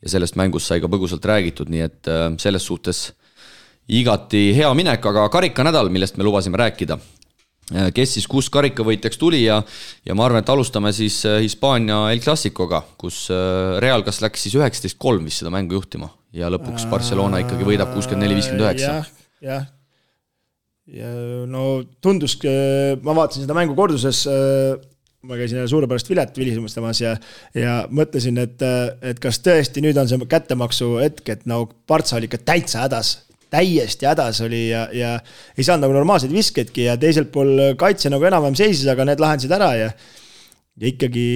sellest mängust sai ka põgusalt räägitud, nii et selles suhtes igati hea minek, aga karikanädal, millest me lubasime rääkida. Kes siis 6 karikavõitjaks tuli ja ma arvan, et alustame siis Hispaania El Clasicoga, kus Real kas läks siis 19-3 vist seda mängu juhtima ja lõpuks Barcelona ikkagi võidab 64-59. Jah. Ja no tundus, ma vaatasin seda mängu korduses, ma käisin suurepärast Vilet vilisemastamas ja mõtlesin, et kas tõesti nüüd on see kättemaksu hetk, et no Barca oli ikka täiesti hädas oli ja ei saanud nagu normaalseid viskedki ja teiselt pool kaitse nagu enam-vähem seisis, aga need lahendasid ära ja ikkagi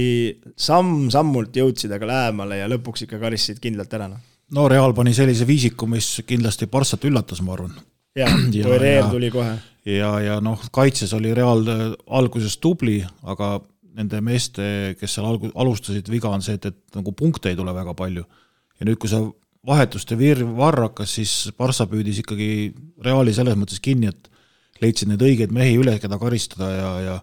sammult jõudsid aga lähemale ja lõpuks ikka karistasid kindlalt ära. No Real pani sellise viisiku, mis kindlasti Barcat üllatas, ma arvan. Ja Real tuli kohe. Ja noh, kaitses oli Real alguses tubli, aga nende meeste, kes seal alustasid, viga on see, et nagu punkte ei tule väga palju. Ja nüüd, kui sa vahetuste varrakas, siis Barca püüdis ikkagi Reali selles mõttes kinni, et leidsid need õigeid mehi üle, keda karistada ja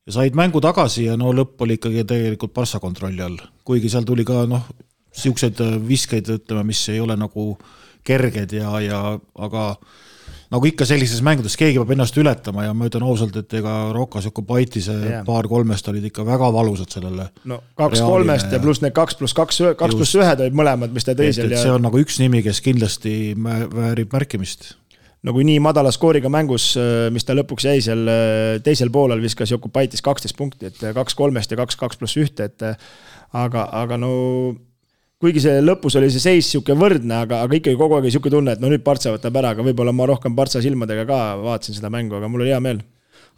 said mängu tagasi ja no lõpp oli ikkagi tegelikult Barca kontrolli all. Kuigi seal tuli ka siukseid viskeid, ütleme, mis ei ole nagu kerged aga nagu ikka sellises mängudes keegi peab ennast ületama ja ma ütlen ausalt, et ega Rokas ja Kubaitise paar kolmest olid ikka väga valusad sellele. No 2-3 ja pluss need 2+1 olid mõlemad, mis ta teisel. See on nagu üks nimi, kes kindlasti väärib märkimist. No kui nii madala skooriga mängus, mis ta lõpuks jäi seal teisel poolel viskas Jokubaitis 12 punkti, et 2-3 ja 2+1, aga no kuigi see lõpus oli see seis siuke võrdne, aga ikkagi kogu aeg siuke tunne, et no nüüd Barca võtab ära, aga võib-olla ma rohkem Barca silmadega ka vaatasin seda mängu, aga mul oli hea meel.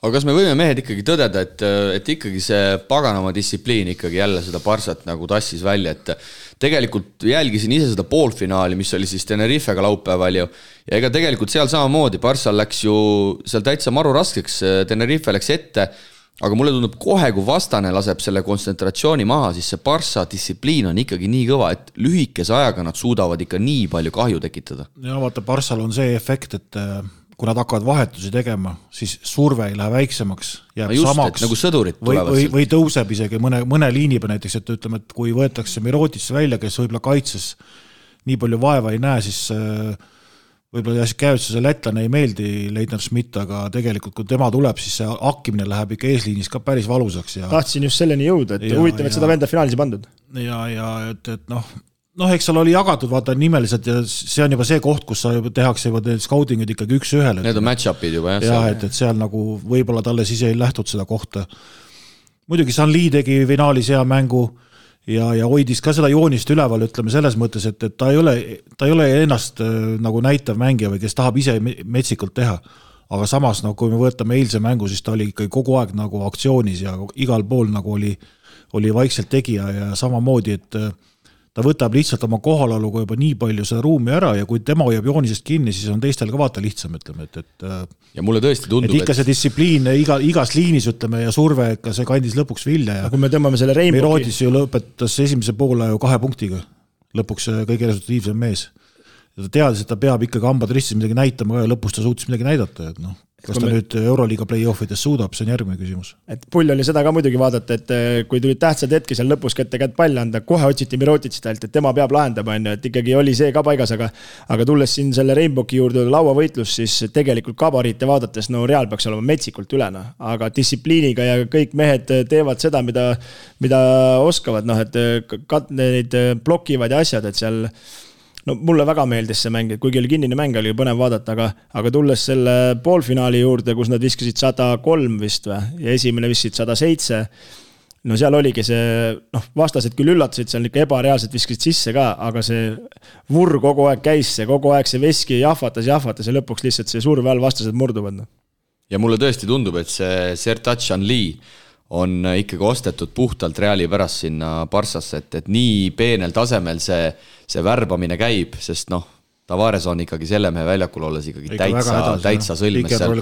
Aga kas me võime mehed ikkagi tõdeda, et ikkagi see paganama distsipliin ikkagi jälle seda Barcat nagu tassis välja, et tegelikult jälgisin ise seda poolfinaali, mis oli siis Tenerifega laupäeval ja ega tegelikult seal samamoodi Barcal läks ju seal täitsa maru raskeks, Tenerife läks ette, aga mulle tundub kohe, kui vastane laseb selle kontsentratsiooni maha, siis see Barca distsipliin on ikkagi nii kõva, et lühikese ajaga nad suudavad ikka nii palju kahju tekitada. Ja vaata, Barcal on see efekt, et kui nad hakkavad vahetusi tegema, siis surve ei lähe väiksemaks, jääb just, samaks nagu sõdurid või tõuseb isegi mõne liini peal näiteks, et ütleme, et kui võetakse Mirotisse välja, kes võib-olla kaitses nii palju vaeva ei näe, siis võib-olla käivutsuse lätlane ei meeldi Leitner Schmidt, aga tegelikult kui tema tuleb, siis see hakkimine läheb ikka eesliinis ka päris valusaks. Tahtsin just selleni jõuda, et huvitav, et seda venda finaalis pandud. Ja et eks seal oli jagatud vaata nimeliselt ja see on juba see koht, kus sa tehakse juba scoutingud ikkagi üks ühele. Need on match-upid juba. Et seal nagu võib-olla talle siis ei lähtud seda kohta. Muidugi Sanli tegi finaalis hea mängu ja hoidis ka seda joonist üleval, ütleme selles mõttes, et ta ei ole ennast nagu näitav mängija või kes tahab ise metsikult teha. Aga samas, kui me võtame eilse mängu, siis ta oli ikkagi kogu aeg nagu aktsioonis ja igal pool nagu oli vaikselt tegija ja samamoodi, et ta võtab lihtsalt oma kohalaluga juba nii palju seda ruumi ära ja kui tema hoiab joonisest kinni, siis on teistel ka vaata lihtsam, ütleme, ja mulle tõesti tundub, et ikka see distsipliin igas liinis, ütleme, ja surve, ka see kandis lõpuks vilja ja kui me tõmbame selle Rainboki Mirotis ju lõpetas esimese poole 2 punktiga lõpuks kõige resultatiivsem mees ja ta teadis, et ta peab ikkagi hambad ristis midagi näitama ja lõpus ta suutis midagi näidata, et kas ta nüüd Euroliiga play-offides suudab, see on järgmine küsimus. Et pull oli seda ka muidugi vaadata, et kui tulid tähtsad hetki seal lõpus kätte palli anda, kohe otsiti Mirotitsit ainult, et tema peab lahendama, et ikkagi oli see ka paigas, aga tulles siin selle Rainboki juurde lauavõitlus, siis tegelikult kabariite vaadates, Real peaks olema metsikult ülena, aga distsipliiniga ja kõik mehed teevad seda, mida oskavad, et neid blokivad ja asjad, et seal mulle väga meeldis see mäng, et kuigi oli kinnine mäng, oli põnev vaadata, aga tulles selle poolfinaali juurde, kus nad viskasid 103 vist ja esimene viskasid 107, seal oligi see, vastased küll üllatasid, seal ikka ebareaalselt viskasid sisse ka, aga see vurr kogu aeg käis, kogu aeg see veski jahvatas ja lõpuks lihtsalt see surve all vastased murduvad. Ja mulle tõesti tundub, et see Sertac Anli on ikkagi ostetud puhtalt Reali pärast sinna Barcasse, et nii peenel tasemel see värbamine käib, sest Tavares on ikkagi selle mehe väljakul olles ikkagi täitsa sõlmes seal.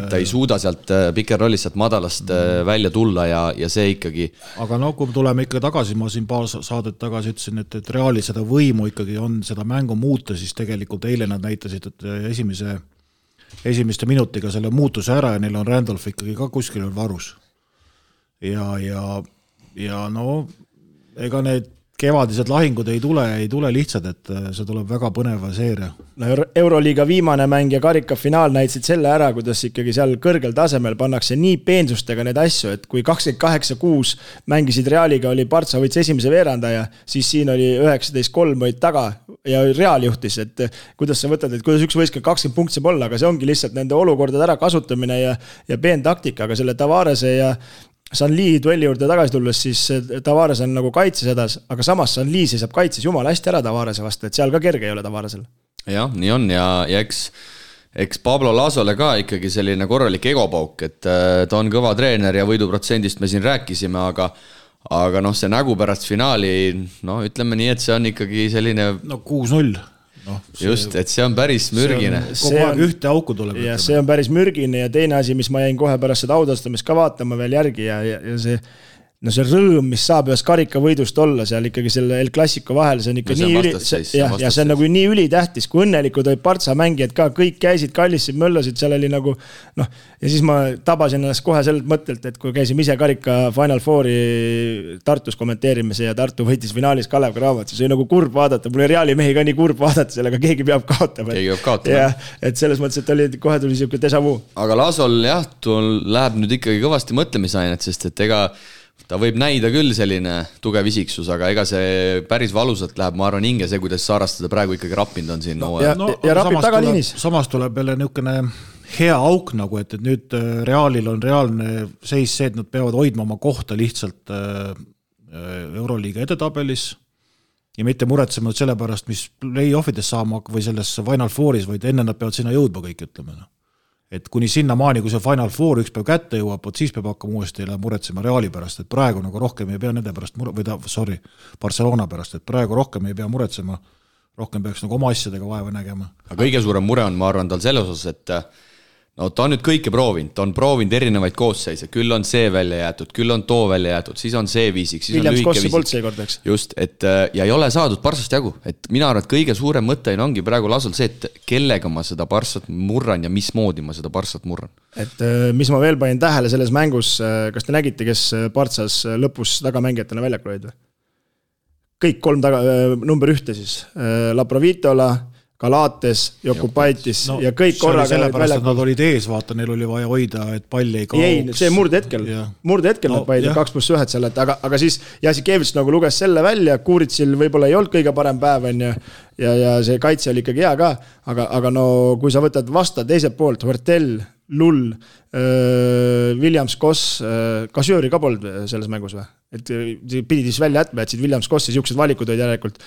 Ta ei suuda sealt pikerrollis sealt madalast välja tulla ja see ikkagi. Aga kui tuleme ikka tagasi, ma siin paar saadet tagasi ütlesin, et Reali seda võimu ikkagi on seda mängu muuta, siis tegelikult eile nad näitasid, et esimeste minutiga selle muutuse ära ja neil on Randolph ikkagi ka kuskil varus. Ja ega need kevadised lahingud ei tule lihtsalt, et see tuleb väga põneva seeria. Euroliiga viimane mäng ja karikafinaal näitasid selle ära, kuidas ikkagi seal kõrgel tasemel pannakse nii peensustega need asju, et kui 28-6 mängisid Realiga, oli Partsa võits esimese veerandaja, siis siin oli 19-3 võid taga ja Real juhtis, et kuidas sa võtad, et kuidas üks võiska 20 punkti saab olla, aga see ongi lihtsalt nende olukordade ära kasutamine ja peen taktika, aga selle Tavarese ja Sanli duelli juurde tagasi tulles, siis Tavares on nagu kaitses hädas, aga samas Sanli seisab kaitses jumala hästi ära Tavarese vastu, et seal ka kerge ei ole Tavaresel. Jah, nii on ja eks Pablo Lasole ka ikkagi selline korralik egopauk, et ta on kõva treener ja võiduprotsendist me siin rääkisime, aga see nägu pärast finaali, ütleme nii, et see on ikkagi selline 6-0. Just, et see on päris mürgine. Kogu aeg ühte auku tuleb. Ja see on päris mürgine ja teine asi, mis ma jäin kohe pärast seda audastamist ka vaatama veel järgi ja see rõõm, mis saab ühes karikavõidust olla seal ikkagi selle El Clasico vahel, see on ikka ja see on nagu nii ülitähtis, kui õnnelikud olid Partsa mängijad ka, kõik käisid, kallisid, möllasid, seal oli nagu ja siis ma tabasin ennast kohe sellelt mõttelt, et kui käisime ise karika Final Fouri Tartus kommenteerimise ja Tartu võitis finaalis Kalev Cramo, siis oli nagu kurb vaadata, mul oli Reali mehi ka nii kurb vaadata, sellega keegi peab kaotama. Et selles mõttes, et kohe tuli siuke déjà vu. Aga Lasol läheb nüüd ikkagi kõvasti mõtlemisainet, sest et ta võib näida küll selline tugev isiksus, aga ega see päris valusalt läheb, ma arvan, hinge see, kuidas Saarast seda praegu ikkagi rappinud on siin. Ja rapib tagaliinis. Samas tuleb jälle niisugune hea auk, nagu, et nüüd Realil on reaalne seis see, et nad peavad hoidma oma kohta lihtsalt Euroliiga edetabelis ja mitte muretsema selle pärast, mis play-offides saama või selles Final Fouris, vaid enne nad peavad sinna jõudma kõik, ütleme. Et kuni sinna maani, kui see Final Four üks päev kätte jõuab, siis peab hakkama uuesti muretsema Reali pärast, et praegu nagu rohkem ei pea nende pärast Barcelona pärast, et praegu rohkem ei pea muretsema, rohkem peaks nagu oma asjadega vaeva nägema. Aga kõige suurem mure on, ma arvan, tal selle osas, et ta on nüüd kõike proovinud, ta on proovinud erinevaid koosseise, küll on see välja jäetud, küll on too välja jätud, siis on see viisik, siis Williams on lühike viisik. Poltsi kordeks. Just, ja ei ole saadud Barsast jagu, et mina arvan, et kõige suurem mõte ongi praegu Lasol see, et kellega ma seda Barsat murran ja mismoodi ma seda Barsat murran. Et mis ma veel panin tähele selles mängus, kas te nägite, kes Barsas lõpus tagamängijatena väljakul olid või? Kõik 3 number 1 siis, Laprovitola, Galates, Jokubaitis ja kõik korraga. Sellepärast, et nad olid ees, vaata, neil oli vaja hoida, et palli ei kaoks. Ei, see murdehetkel nad paidi 2+1 seal, aga siis Jasikevits nagu luges selle välja, Kuuritsil võib-olla ei olnud kõige parem päev ja see kaitse oli ikkagi hea ka, aga kui sa võtad vasta teiselt poolt, Huertel, Lull, Williams Koss, Kasjööri ka polnud selles mängus või? Et pidid siis välja jätma, et siid Williams Kossi siuksed valikud olid järelikult.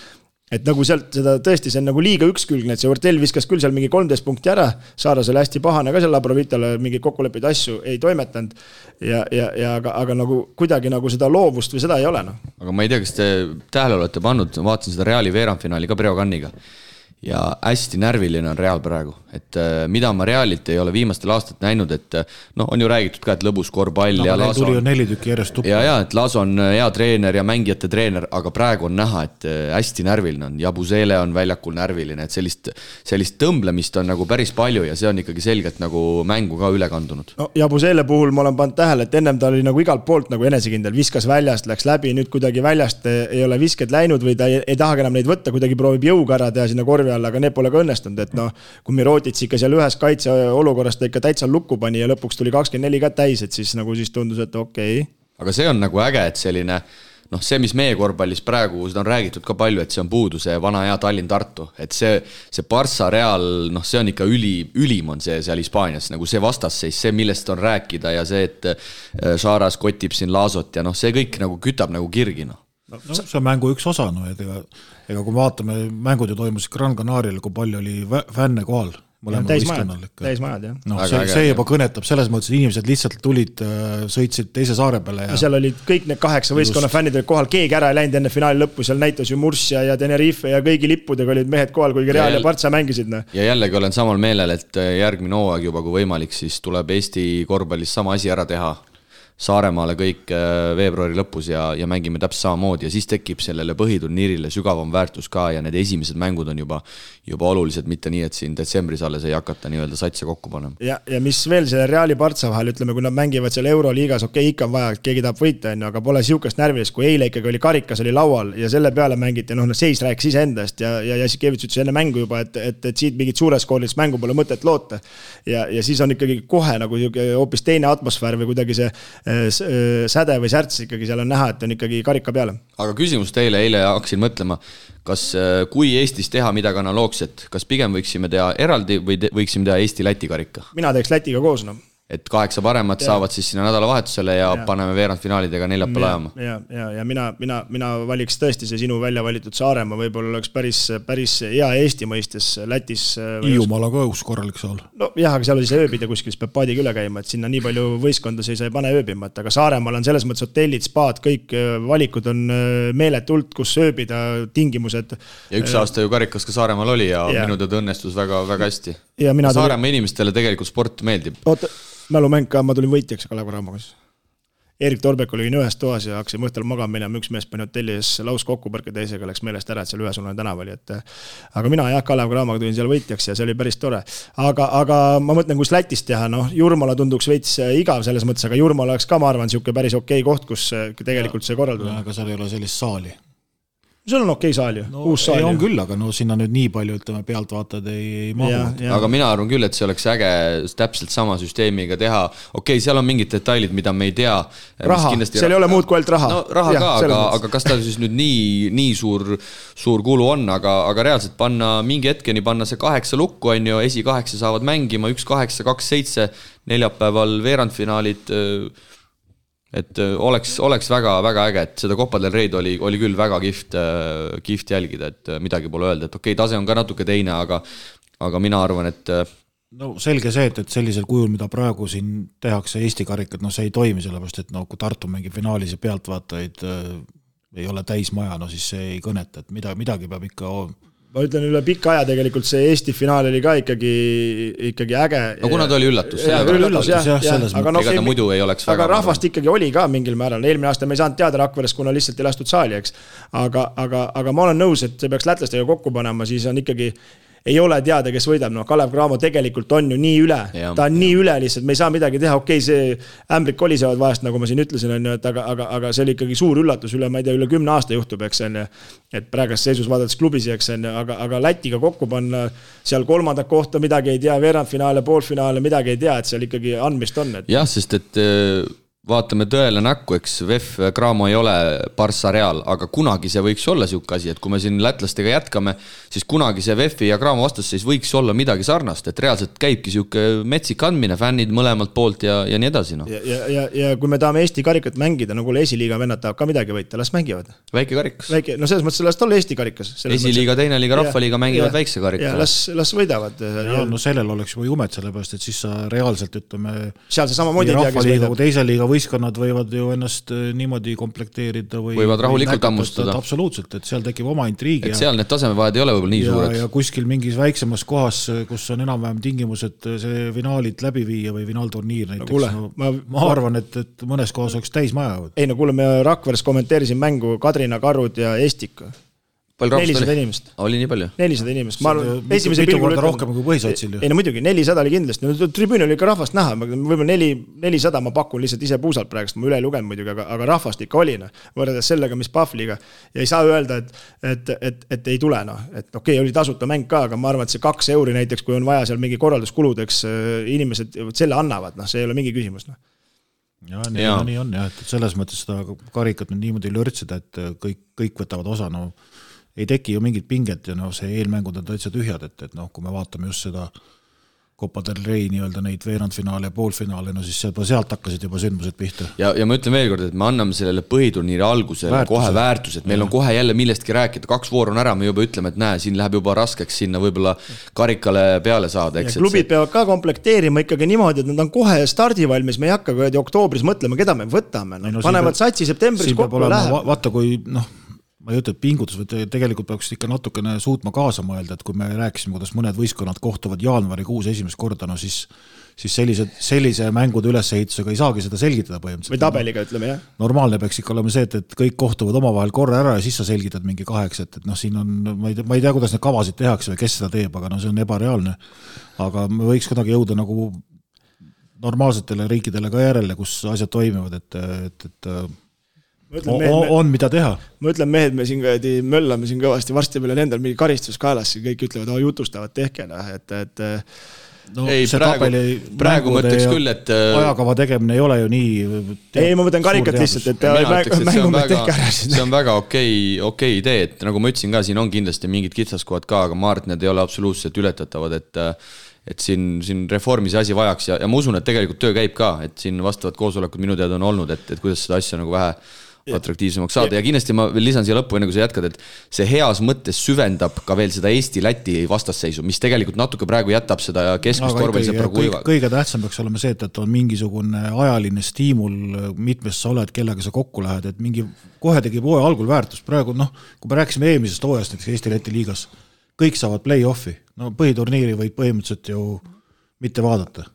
Et nagu sealt seda tõesti, see on nagu liiga ükskülgne, et see Huertel viskas küll seal mingi 13 punkti ära, Saaras oli hästi pahane ka seal Labrovitale, mingi kokkuleppeid asju ei toimetanud, aga nagu kuidagi nagu seda loovust või seda ei ole. Aga ma ei tea, kas te tähele olete pannud, vaatasin seda Reali veerandfinaali ka Breoganiga ja hästi närviline on Real praegu, et mida ma Realilt ei ole viimastel aastat näinud, et on ju räägitud ka, et lõbus korvpall ja Laso tuli ju 4 tükki järjest tuppa. Ja, et Laso on hea treener ja mängijate treener, aga praegu on näha, et hästi närviline on. Jabusele on väljakul närviline, et sellist tõmblemist on nagu päris palju ja see on ikkagi selgelt nagu mängu ka üle kandunud. Jabusele puhul ma olen pannud tähele, et ennem ta oli nagu igalt poolt nagu enesekindel, viskas väljast, läks läbi, nüüd kuidagi väljast ei ole visked läinud või ta ei tahagi enam neid võtta, kuidagi proovib jõuga ära teha sinna korvi alla, aga need pole ka õnnestunud, et kui Mirotic ikka seal ühes kaitseolukorras ta ikka täitsa lukku pani ja lõpuks tuli 24 ka täis, et siis tundus, et okei. Aga see on nagu äge, et selline, see, mis meie korvpallis praegu, seda on räägitud ka palju, et see on puudu, see vana hea Tallinn-Tartu, et see Barça Real, see on ikka ülim on see seal Hispaanias, nagu see vastasseis, see, millest on rääkida ja see, et Saaras kotib siin Lasot ja see kõik nagu kütab nagu kirgina. See on mängu üks osa, ega kui vaatame, mängud ju toimusid Gran Canarial, kui palju oli fänne kohal, täismajad, jah. No, see juba kõnetab selles mõttes, et inimesed lihtsalt tulid, sõitsid teise saare peale. Ja seal olid kõik need 8 võistkonna fännid olid kohal, keegi ära ei läinud enne finaali lõppu, seal näitas ju Murcia ja Tenerife ja kõigi lippudega olid mehed kohal, kuigi Real ja Partsa mängisid. Ja jällegi olen samal meelel, et järgmine hooaeg juba kui võimalik, siis tuleb Eesti korvpallis sama asi ära teha. Saaremaale kõik veebruari lõpus ja mängime täpselt samamoodi ja siis tekib sellele põhiturniirile sügavam väärtus ka ja need esimesed mängud on juba olulised, mitte nii, et siin detsembris alles ei hakata nii-öelda satse kokku panema. Ja mis veel selle Reali Partsa vahel, ütleme, kui nad mängivad seal Euroliigas, ikka on vaja, et keegi tahab võita, aga pole siukest närvilist, kui eile ikkagi oli karikas oli laual ja selle peale mängiti, seis rääkis iseendast ja Jassikevits ütles enne mängu juba, et siit mingit suures koolist mängu pole mõtet loota ja siis on ikkagi kohe nagu hoopis teine atmosfäär või kuidagi see säde või särts ikkagi seal on näha, et on ikkagi karika peale. Aga küsimus teile, eile hakkasin mõtlema, kas kui Eestis teha midagi analoogset, kas pigem võiksime teha eraldi või võiksime teha Eesti-Läti karika? Mina teeks Lätiga koos, Et 8 paremat saavad siis sinna nädalavahetusele ja paneme veerandfinaalidega neljapäeval ajama. Ja mina valiks tõesti see sinu välja valitud Saaremaa, võib-olla oleks päris hea Eesti mõistes Lätis. Hiiumaal on ka üks korralik saal. No jah, aga seal oli see ööbida kuskil, peab paadiga üle käima, et sinna nii palju võistkonda see ei pane ööbima, aga Saaremaal on selles mõttes hotellid, spaad, kõik valikud on meeletult, kus ööbida, tingimused. Ja üks aasta ju karikas ka Saaremaal oli ja minu tõd õnnestus väga, väga hästi. Ja Saaremaa inimestele tegelikult sport meeldib. Mälumäng ka, ma tulin võitjaks Kalev Cramos. Erik Torbek oli ühes toas ja hakkasime õhtul magama minema, üks mees pani hotelli ees laus kokkupõrke, teisega läks meelest ära, et seal ühesuunaline tänav oli. Aga mina Kalev Cramaga tulin seal võitjaks ja see oli päris tore. Aga ma mõtlen, kus Lätis teha, Jurmala tunduks veits igav selles mõttes, aga Jurmala oleks ka, ma arvan, siuke päris okei koht, kus tegelikult see korraldada. Aga seal ei ole sellist saali. Sul on okei saal ju, uus saal ju. On küll, aga sinna nüüd nii palju, ütleme, pealtvaatajad ei mahu. Aga mina arvan küll, et see oleks äge täpselt sama süsteemiga teha. Okei, seal on mingid detailid, mida me ei tea. Raha, seal ei ole muud kui ainult raha. No raha ka, aga kas ta siis nüüd nii suur kulu on, aga reaalselt mingi hetkeni panna see 8 lukku, on ju, esi 8 saavad mängima, 1-8, 2-7, neljapäeval veerandfinaalid. Et oleks väga, väga äge, et seda Copa del Rey'd oli küll väga kihvt jälgida, et midagi pole öelda, et okei, tase on ka natuke teine, aga mina arvan, et no selge see, et sellisel kujul, mida praegu siin tehakse Eesti karikat, see ei toimi, sellepärast, et kui Tartu mängib finaalis ja pealtvaatajaid ei ole täismaja, siis see ei kõneta, et midagi peab ikka ma ütlen üle pikka aja tegelikult see Eesti finaal oli ka ikkagi äge. No kuna ta oli üllatus. Aga ta muidu ei oleks väga. Aga rahvast ikkagi oli ka mingil määral. Eelmine aasta me ei saanud teada Rakveres, kuna lihtsalt ei lastud saali, eks. Aga ma olen nõus, et see peaks lätlastega kokku panema, siis on ikkagi ei ole teada, kes võidab. Kalev Cramo tegelikult on ju nii üle. Ta on nii üle lihtsalt, me ei saa midagi teha. Okei, see ämbrid kolisevad vahest, nagu ma siin ütlesin, aga see oli ikkagi suur üllatus üle, ma ei tea, üle 10 aasta juhtub, eks on. Et praegast seisus vaadates klubisi, eks on. Aga Lätiga kokku panna seal 3. kohta midagi ei tea, veerandfinaale, poolfinaale, midagi ei tea, et seal ikkagi andmist on. Jah, sest et vaatame tõele näkku, eks VEF Cramo ei ole Barça Real, aga kunagi see võiks olla siuke asi, et kui me siin lätlastega jätkame, siis kunagi see VEF ja Cramo vastasseis võiks olla midagi sarnast, et reaalselt käibki siuke metsik andmine, fännid mõlemalt poolt ja nii edasi. Ja kui me tahame Eesti karikat mängida, nagu esiliiga vennad tahab ka midagi võita, las mängivad. Väike karikas. No selles mõttes, las olla Eesti karikas. Esiliiga, teine liiga, rahvaliiga mängivad väikse karika. Ja las võidavad. No sellel oleks juba jumet, sellepärast, et siis sa reaalselt ütleme seal see samamoodi ei tea, kes võidab. Teise liiga võistkonnad võivad ju ennast niimoodi komplekteerida võivad rahulikult ammustada. Absoluutselt, et seal tekib oma intriigi. Et seal need tasemevahed ei ole võib-olla nii suured. Ja kuskil mingis väiksemas kohas, kus on enam-vähem tingimused see finaalid läbi viia või finaalturniir näiteks. Ma arvan, et mõnes kohas oleks täismaja. Ei no kuule, me Rakveres kommenteerisin mängu Kadrina, Karud ja Estik. 400 inimest. Oli nii palju? 400 inimest. Mitu korda rohkem kui põhisotsil ju. Ei no muidugi, 400 oli kindlasti. Tribüün oli ikka rahvast näha. Võib-olla 400 ma pakun lihtsalt ise puusalt praegust. Ma üle ei lugenud muidugi, aga rahvast ikka oli. Võrreldes sellega, mis Pahvliga. Ja ei saa öelda, et ei tule. Et okei, oli tasuta mäng ka, aga ma arvan, et see 2 euri näiteks, kui on vaja seal mingi korralduskuludeks, inimesed selle annavad. See ei ole mingi küsimus. Ja nii on. Et selles mõttes seda karikat niimoodi lörtsida, et kõik võtavad osa. Ei teki ju mingit pinget ja see eelmängud on täitsa tühjad, et kui me vaatame just seda Copa del Rey nii-öelda neid veerandfinaale ja poolfinaale, no siis sealt hakkasid juba sündmused pihta. Ja ma ütlen veel kord, et me anname sellele põhiturniiri algusele kohe väärtused, meil on kohe jälle millestki rääkida, 2 vooru on ära, me juba ütleme, et näe, siin läheb juba raskeks sinna võib-olla karikale peale saada. Eks, klubid peavad ka komplekteerima ikkagi niimoodi, et nad on kohe stardivalmis, me ei hakka oktoobris mõtlema, keda me võtame. Panevad satsi septembris kokku ja läheb. Vaata, kui ma ei ütle, et pingutus, või tegelikult peaks ikka natukene suutma kaasa mõelda, et kui me rääkisime, kuidas mõned võistkonnad kohtuvad jaanuarikuus esimest korda, no siis sellise mängude ülesehitusega ei saagi seda selgitada põhimõtteliselt. Või tabeliga, ütleme, jah. Normaalne peaks ikka olema see, et kõik kohtuvad omavahel korra ära ja siis sa selgitad mingi 8, et siin on, ma ei tea, kuidas need kavasid tehakse või kes seda teeb, aga see on ebareaalne. Aga me võiks kuidagi jõuda nagu normaalsetele riikidele ka järele, kus asjad toimivad, et on mida teha. Ma ütlen mehed, me siin möllame siin kõvasti, varsti meil on endal mingi karistus kaelas, kõik ütlevad, jutustavad, tehke, et no, ei, praegu mõtleks küll, et ajakava tegemine ei ole ju nii ei, ma mõtlen karikat lihtsalt, et mängumehed tehke ära. See on väga okei idee, et nagu ma ütlesin ka, siin on kindlasti mingid kitsaskohad ka, aga ma arvan, et need ei ole absoluutselt ületatavad, et siin reformi see asi vajaks ja ma usun, et tegelikult töö käib ka, et siin vastavad koosolekud minu teada on olnud, et kuidas seda asja nagu vähe atraktiivsemaks saada ja kindlasti ma veel lisan siia lõppu, enne kui sa jätkad, et see heas mõttes süvendab ka veel seda Eesti-Läti vastasseisu, mis tegelikult natuke praegu jätab seda keskmist korvpallisõpra kuiva. Kõige tähtsam peaks olema see, et on mingisugune ajaline stiimul, mitmes sa oled, kellega sa kokku lähed, et mingi kohe tegib hooaja algul väärtus. Praegu, kui me rääkisime eelmisest hooajast näiteks Eesti-Läti liigas, kõik saavad play-offi. No põhiturniiri võid põhimõtteliselt ju mitte vaadata.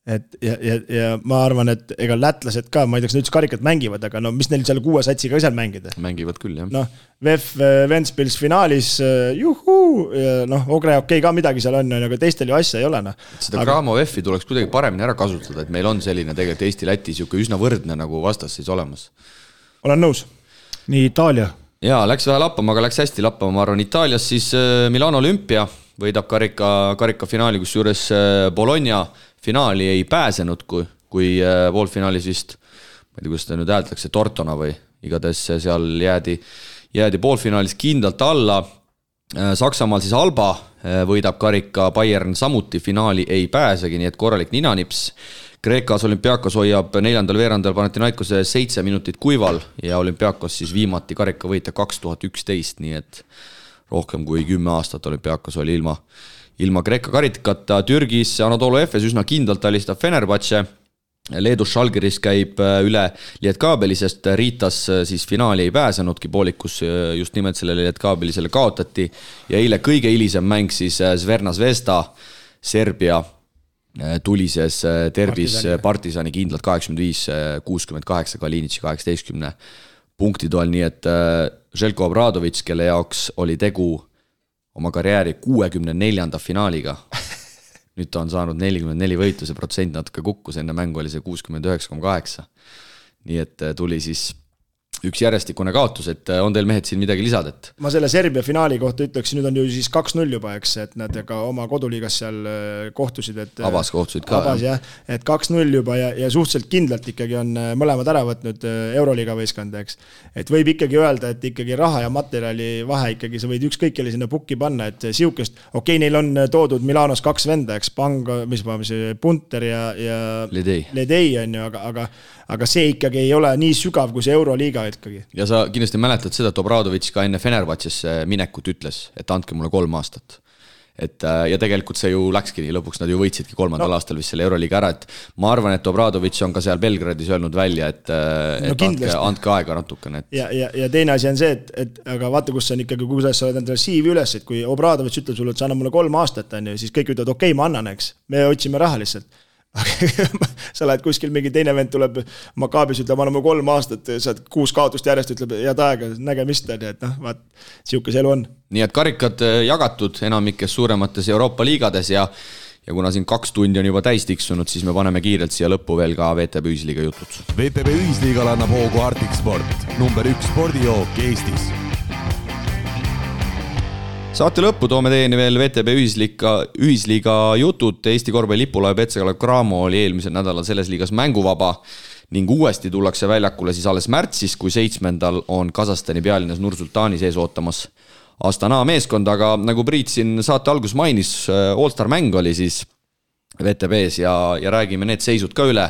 Ja ma arvan, et ega lätlased ka, ma ei tea, kas nad üldse karikat mängivad, aga mis neil seal 6 satsiga seal mängida? Mängivad küll, jah. VEF Ventspils finaalis, Ogre okei ka midagi seal on, aga teistel ju asja ei ole. Seda Graamo VEF-i tuleks kuidagi paremini ära kasutada, et meil on selline tegelikult Eesti-Läti üsna võrdne nagu vastasseis olemas. Olen nõus. Nii Itaalia. Jaa, läks vähe lappama, aga läks hästi lappama, ma arvan. Itaalias siis Milano Olümpia võidab karika finaali, kus juures Bologna finaali ei pääsenud, kui poolfinaalis vist, ma ei tea, kuidas ta nüüd häältakse, Tortona või igatahes seal jäädi poolfinaalis kindlalt alla. Saksamaal siis Alba võidab karika, Bayern samuti finaali ei pääsegi, nii et korralik ninanips. Kreekas Olympiakos hoiab 4. veerandal Panathinaikose 7 minutit kuival ja Olympiakos siis viimati karika võita 2011, nii et rohkem kui 10 aastat Olympiakos oli ilma Kreeka karikata. Türgis Anadolu Efes üsna kindlalt alistab Fenerbahce. Leedus Žalgiris käib üle Lietkaabeli, sest Riitas siis finaali ei pääsenudki, poolikus just nimelt sellele Lietkaabelisele kaotati. Ja eile kõige hilisem mäng siis Zvezda Zvezda, Serbia tulises derbis Partisani kindlalt 85-68, Kalinitši 18 punkti toel, nii et Željko Obradović, kelle jaoks oli tegu oma karjääri 64. finaaliga. Nüüd ta on saanud 44 võitu, see protsent natuke kukkus, enne mängu oli see 69,8. Nii et tuli siis üks järjestikune kaotus, et on teil mehed siin midagi lisada? Ma selle Serbia finaali kohta ütleks, nüüd on ju siis 2-0 juba, eks, et nad ka oma koduliigas seal kohtusid. Abas kohtusid ka. Abas, jah, et 2-0 juba ja suhteliselt kindlalt ikkagi on mõlemad ära võtnud Euroliiga võistkond, eks. Et võib ikkagi öelda, et ikkagi raha ja materjali vahe ikkagi, sa võid ükskõik kelle sinna pukki panna, et siukest, okei, neil on toodud Milanos 2 venda, eks, Punter ja Ledei on ju, aga see ikkagi ei ole nii sügav kui see Euroliiga ikkagi. Ja sa kindlasti mäletad seda, et Obradović ka enne Fenerbahcesse minekut ütles, et andke mulle 3 aastat. Ja tegelikult see ju läkski nii, lõpuks nad ju võitsidki 3. aastal vist selle Euroliiga ära, et ma arvan, et Obradović on ka seal Belgradis öelnud välja, et andke aega natukene. Ja teine asi on see, et aga vaata, kus on ikkagi, kuidas sa oled endale siivi üles, et kui Obradović ütleb sulle, et sa anna mulle 3 aastat, siis kõik ütlevad, okei, ma annan, eks, me otsime raha lihtsalt. Sa lähed kuskil mingi teine vend tuleb Makaabis, ütleb, anname 3 aastat, saad 6 kaotust järjest, ütleb, head aega, nägemist, et vaat, siukes elu on. Nii et karikad jagatud enamikes suuremates Euroopa liigades ja kuna siin 2 tundi on juba täis tiksunud, siis me paneme kiirelt siia lõppu veel ka VTB Ühisliiga jutud. VTB Ühisliigal annab hoogu Arctic Sport, number 1 spordijook Eestis. Saate lõppu toome teieni veel VTB Ühisliiga jutud. Eesti korvpalli lipulaev Petse Kalev Cramo oli eelmisel nädalal selles liigas mänguvaba ning uuesti tullakse väljakule siis alles märtsis, kui 7. on Kasahstani pealinnas Nur-Sultani sees ootamas Astana meeskond, aga nagu Priit siin saate algus mainis, All-Star mäng oli siis VTB-s ja räägime need seisud ka üle.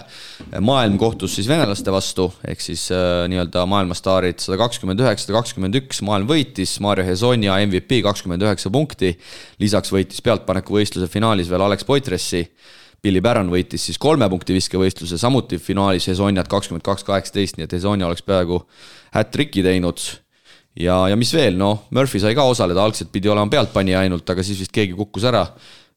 Maailm kohtus siis venelaste vastu, ehk siis nii-öelda maailmastaarid 129-121, maailm võitis, Mario Hezonja MVP 29 punkti, lisaks võitis pealtpaneku võistluse finaalis veel Alex Poitressi, Billy Barron võitis siis 3 punkti viskevõistluse, samuti finaalis Hezonjat 22-18, nii et Hezonja oleks peaaegu hat-tricki teinud. Ja mis veel, Murphy sai ka osaleda, algselt pidi olema pealtpanija ainult, aga siis vist keegi kukkus ära.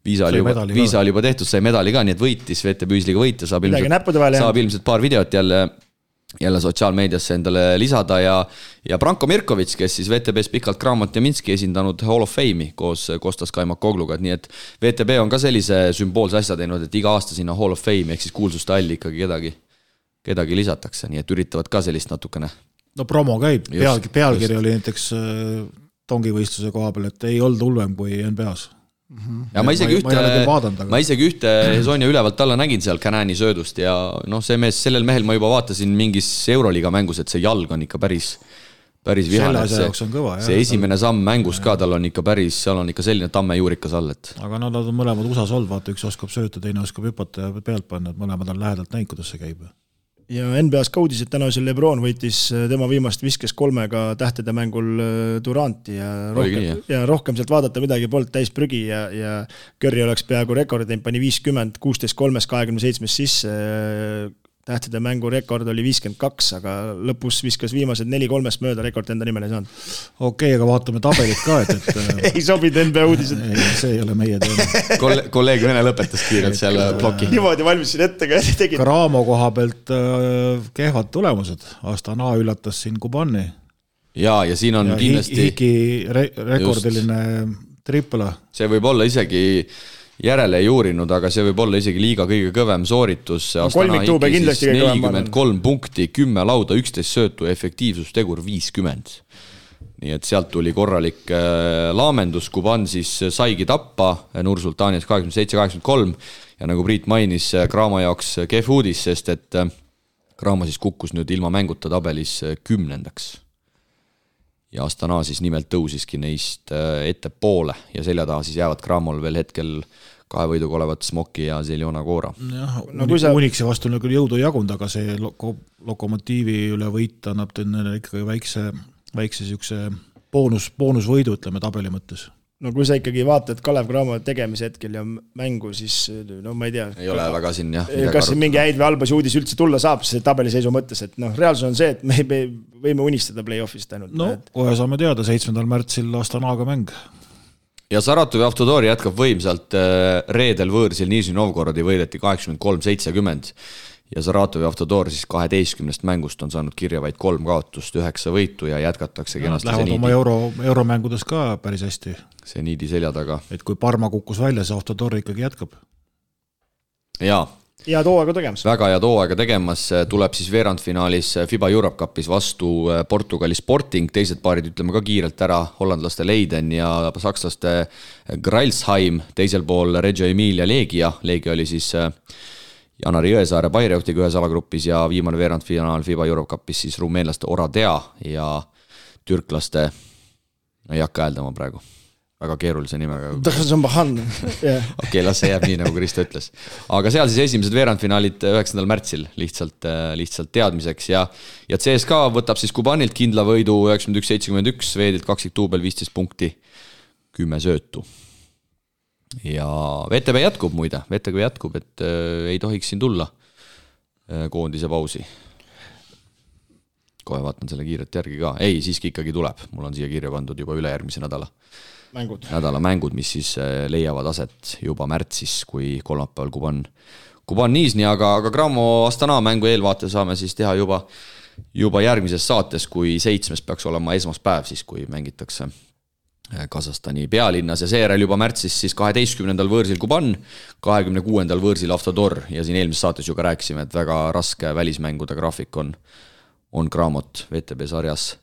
Viisa oli juba tehtud, sai medali ka, nii et võitis, VTB Ühisliiga võita, saab ilmselt paar videot jälle sotsiaalmeediasse endale lisada ja Branko Mirkovic, kes siis VTB's pikalt Kramot ja Minski esindanud Hall of Fame'i koos Kostas Kaimakogluga, nii et VTB on ka sellise sümboolse asja teinud, et iga aasta sinna Hall of Fame ehk siis kuulsuste alli ikkagi kedagi lisatakse, nii et üritavad ka sellist natukene. No promo käib, pealkiri oli näiteks tongivõistluse koha peal, et ei olnud hullem kui NBA-s. Ja ma isegi ühte Hezonja ülevalt alla nägin seal Canani söödust ja see mees, sellel mehel ma juba vaatasin mingis Euroliiga mängus, et see jalg on ikka päris vihane. See esimene samm mängus ka, tal on ikka seal on ikka selline tammejuurikas all. Aga nad on mõlemad USA's olnud, vaata üks oskab sööta, teine oskab hüpata ja pealt panna, et mõlemad on lähedalt näinud, kuidas see käib. Ja NBA's ka uudis, et täna see LeBron võitis tema viimast viskes 3 tähtede mängul Duranti ja rohkem sealt vaadata midagi polnud täis prügi ja Curry oleks peaaegu rekordi, pani 50, 16-3, 27 sisse, tähtede mängu rekord oli 52, aga lõpus viskas viimased 4-3 mööda, rekord enda nimel ei saanud. Okei, aga vaatame tabelit ka, et ei sobinud NBA uudised. See ei ole meie teema. Kolleeg Vene lõpetas kiirelt seal ploki. Niimoodi valmisin ette ka tegin. Karamo koha pealt kehvad tulemused. Astana üllatas siin Kubani. Ja siin on kindlasti Hiki rekordiline tripla. See võib olla isegi järele ei uurinud, aga see võib olla isegi liiga kõige kõvem sooritus. Kolmiktuube kindlasti 43 punkti, 10 lauda, 11 söötu, efektiivsustegur 50. Nii et sealt tuli korralik laamendus, Kuban siis saigi tappa Nur-Sultanias 27-83 ja nagu Priit mainis, Kramo jaoks kehv uudis, sest et Kramo siis kukkus nüüd ilma mänguta tabelis 10. Ja Astana siis nimelt tõusiski neist ette poole ja selja taha siis jäävad Kramol veel hetkel 2 võiduga olevat Smoki ja Zeljona Koora. Uniksi vastu on küll jõudu jagunud, aga see Lokomotiivi üle võit annab ikkagi väikse siukse boonusvõidu, ütleme tabeli mõttes. No kui sa ikkagi vaatad Kalev Cramo tegemise hetkel ja mängu, siis ma ei tea. Ei ole väga siin, jah. Kas mingi häid või halbasi uudis üldse tulla saab, see tabeliseisu mõttes, et reaalsus on see, et me võime unistada play-offist ainult. Kohe saame teada, 7. märtsil Astanaga mäng. Ja Saratovi Avtodori jätkab võimsalt, reedel võõrsil Nižni Novgorodi võideti 83-70 ja Saratovi Avtodor siis 12 mängust on saanud kirja vaid 3 kaotust, 9 võitu ja jätkatakse kenasti lähevad oma euromängudes ka päris hästi. See niidi selja taga. Et kui Parma kukkus välja, see Avtodor ikkagi jätkab. Jaa. Ja tooaega tegemas. Väga ja tooaega tegemas, tuleb siis veerandfinaalis FIBA Europe Cupis vastu Portugali Sporting, teised paarid ütleme ka kiirelt ära, hollandlaste Leiden ja sakslaste Gralsheim, teisel pool Reggio Emilia Legia oli siis Janari Jõesaare Bayreuthtiga ühes alagrupis ja viimane veerandfinaal FIBA Europe Cupis siis rumeenlaste Oradea ja türklaste, ei hakka hääldama praegu. Väga keerulise nimega. Okei, las see jääb nii, nagu Kristo ütles. Aga seal siis esimesed veerandfinaalid 9. märtsil lihtsalt teadmiseks ja CSKA võtab siis Kubanilt kindla võidu 91-71, Veedilt 2 tuubel 15 punkti, 10 söötu. Ja VTB jätkub muide, et ei tohiks siin tulla koondise pausi. Kohe vaatan selle kiiret järgi ka. Ei, siiski ikkagi tuleb. Mul on siia kirja pandud juba üle järgmise nädala mängud, mis siis leiavad aset juba märtsis, kui kolmapäeval Kuban Niisni, aga Cramo Astana mängu eelvaate saame siis teha juba järgmises saates, kui 7. peaks olema esmaspäev, siis kui mängitakse Kasahstani pealinnas ja seejärel juba märtsis siis 12. võõrsil Kuban, 26. võõrsil Avtodor ja siin eelmises saates ju ka rääkisime, et väga raske välismängude graafik on Cramot VTB sarjas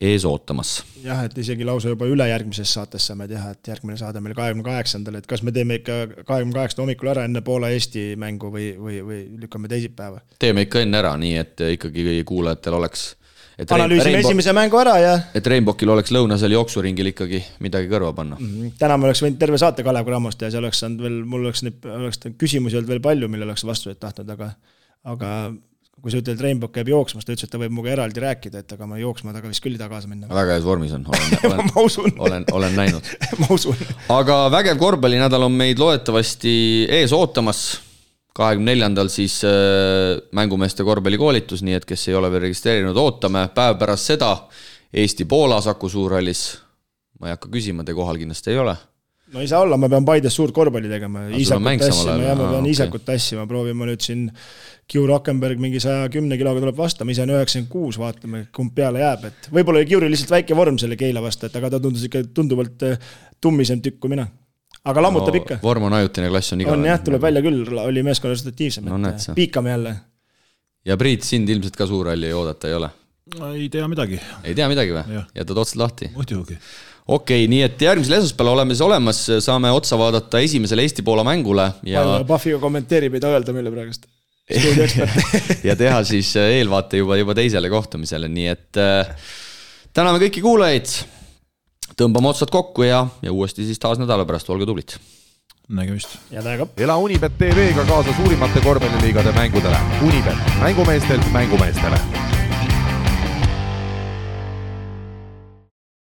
ees ootamas. Jah, et isegi lausa juba ülejärgmises saates saame teha, et järgmine saade meil 28. et kas me teeme ikka 28. hommikul ära enne Poola Eesti mängu või lükkame teisipäeva? Teeme ikka enne ära, nii et ikkagi kuulajatel oleks analüüsime esimese mängu ära ja et Rainbowkil oleks lõunasel jooksuringil ikkagi midagi kõrva panna. Täna me oleks võinud terve saate Kalev Cramost ja see oleks saanud veel, mul oleks küsimusi olnud veel palju, mille oleks vastuseid tahtnud, aga kui sa ütled, et Rainbow käib jooksmas, ta ütles, et ta võib muga eraldi rääkida, et aga ma jooksma taga vist küll ei taha kaasa minna. Väga heas vormis on, olen näinud. Ma usun. Aga vägev korvpallinädal on meid loodetavasti ees ootamas. 24. siis mängumeeste korvpallikoolitus, nii et kes ei ole veel registreerinud, ootame. Päev pärast seda Eesti-Poola Saku Suurhallis. Ma ei hakka küsima, te kohal kindlasti ei ole. No ei saa olla, ma pean Paides suurt korvpalli tegema. Isakut tassima, proovime nüüd siin Kiu Rockenberg mingi 110 kiloga tuleb vastu, ma ise on 96, vaatame, kumb peale jääb. Et võib-olla Kiuri lihtsalt väike vorm selle Keila vastu, et aga ta tundus ikka tunduvalt tummisem tükk kui mina. Aga lammutab ikka. Vorm on ajutine, klass on igavene. On jah, tuleb välja küll, oli meeskonna resultatiivsem. Piikame jälle. Ja Priit, sind ilmselt ka Suurhalli oodata ei ole? Ei tea midagi. Ei tea midagi või? Jätad otsad lahti? Muidugi. Okei, nii et järgmisel esmaspäeval oleme siis olemas, saame otsa vaadata esimesele Eesti-Poola mängule ja Pahviga kommenteerib, ei ta öelda meile praegust. ja teha siis eelvaate juba teisele kohtumisele, nii et täname kõiki kuulajaid, tõmbame otsad kokku ja uuesti siis taas nädala pärast, olge tublid. Nägemist. Ja täiega. Ela Unibet TV-ga kaasa suurimate korvpalliliigade mängudele. Unibet, mängumeestelt mängumeestele.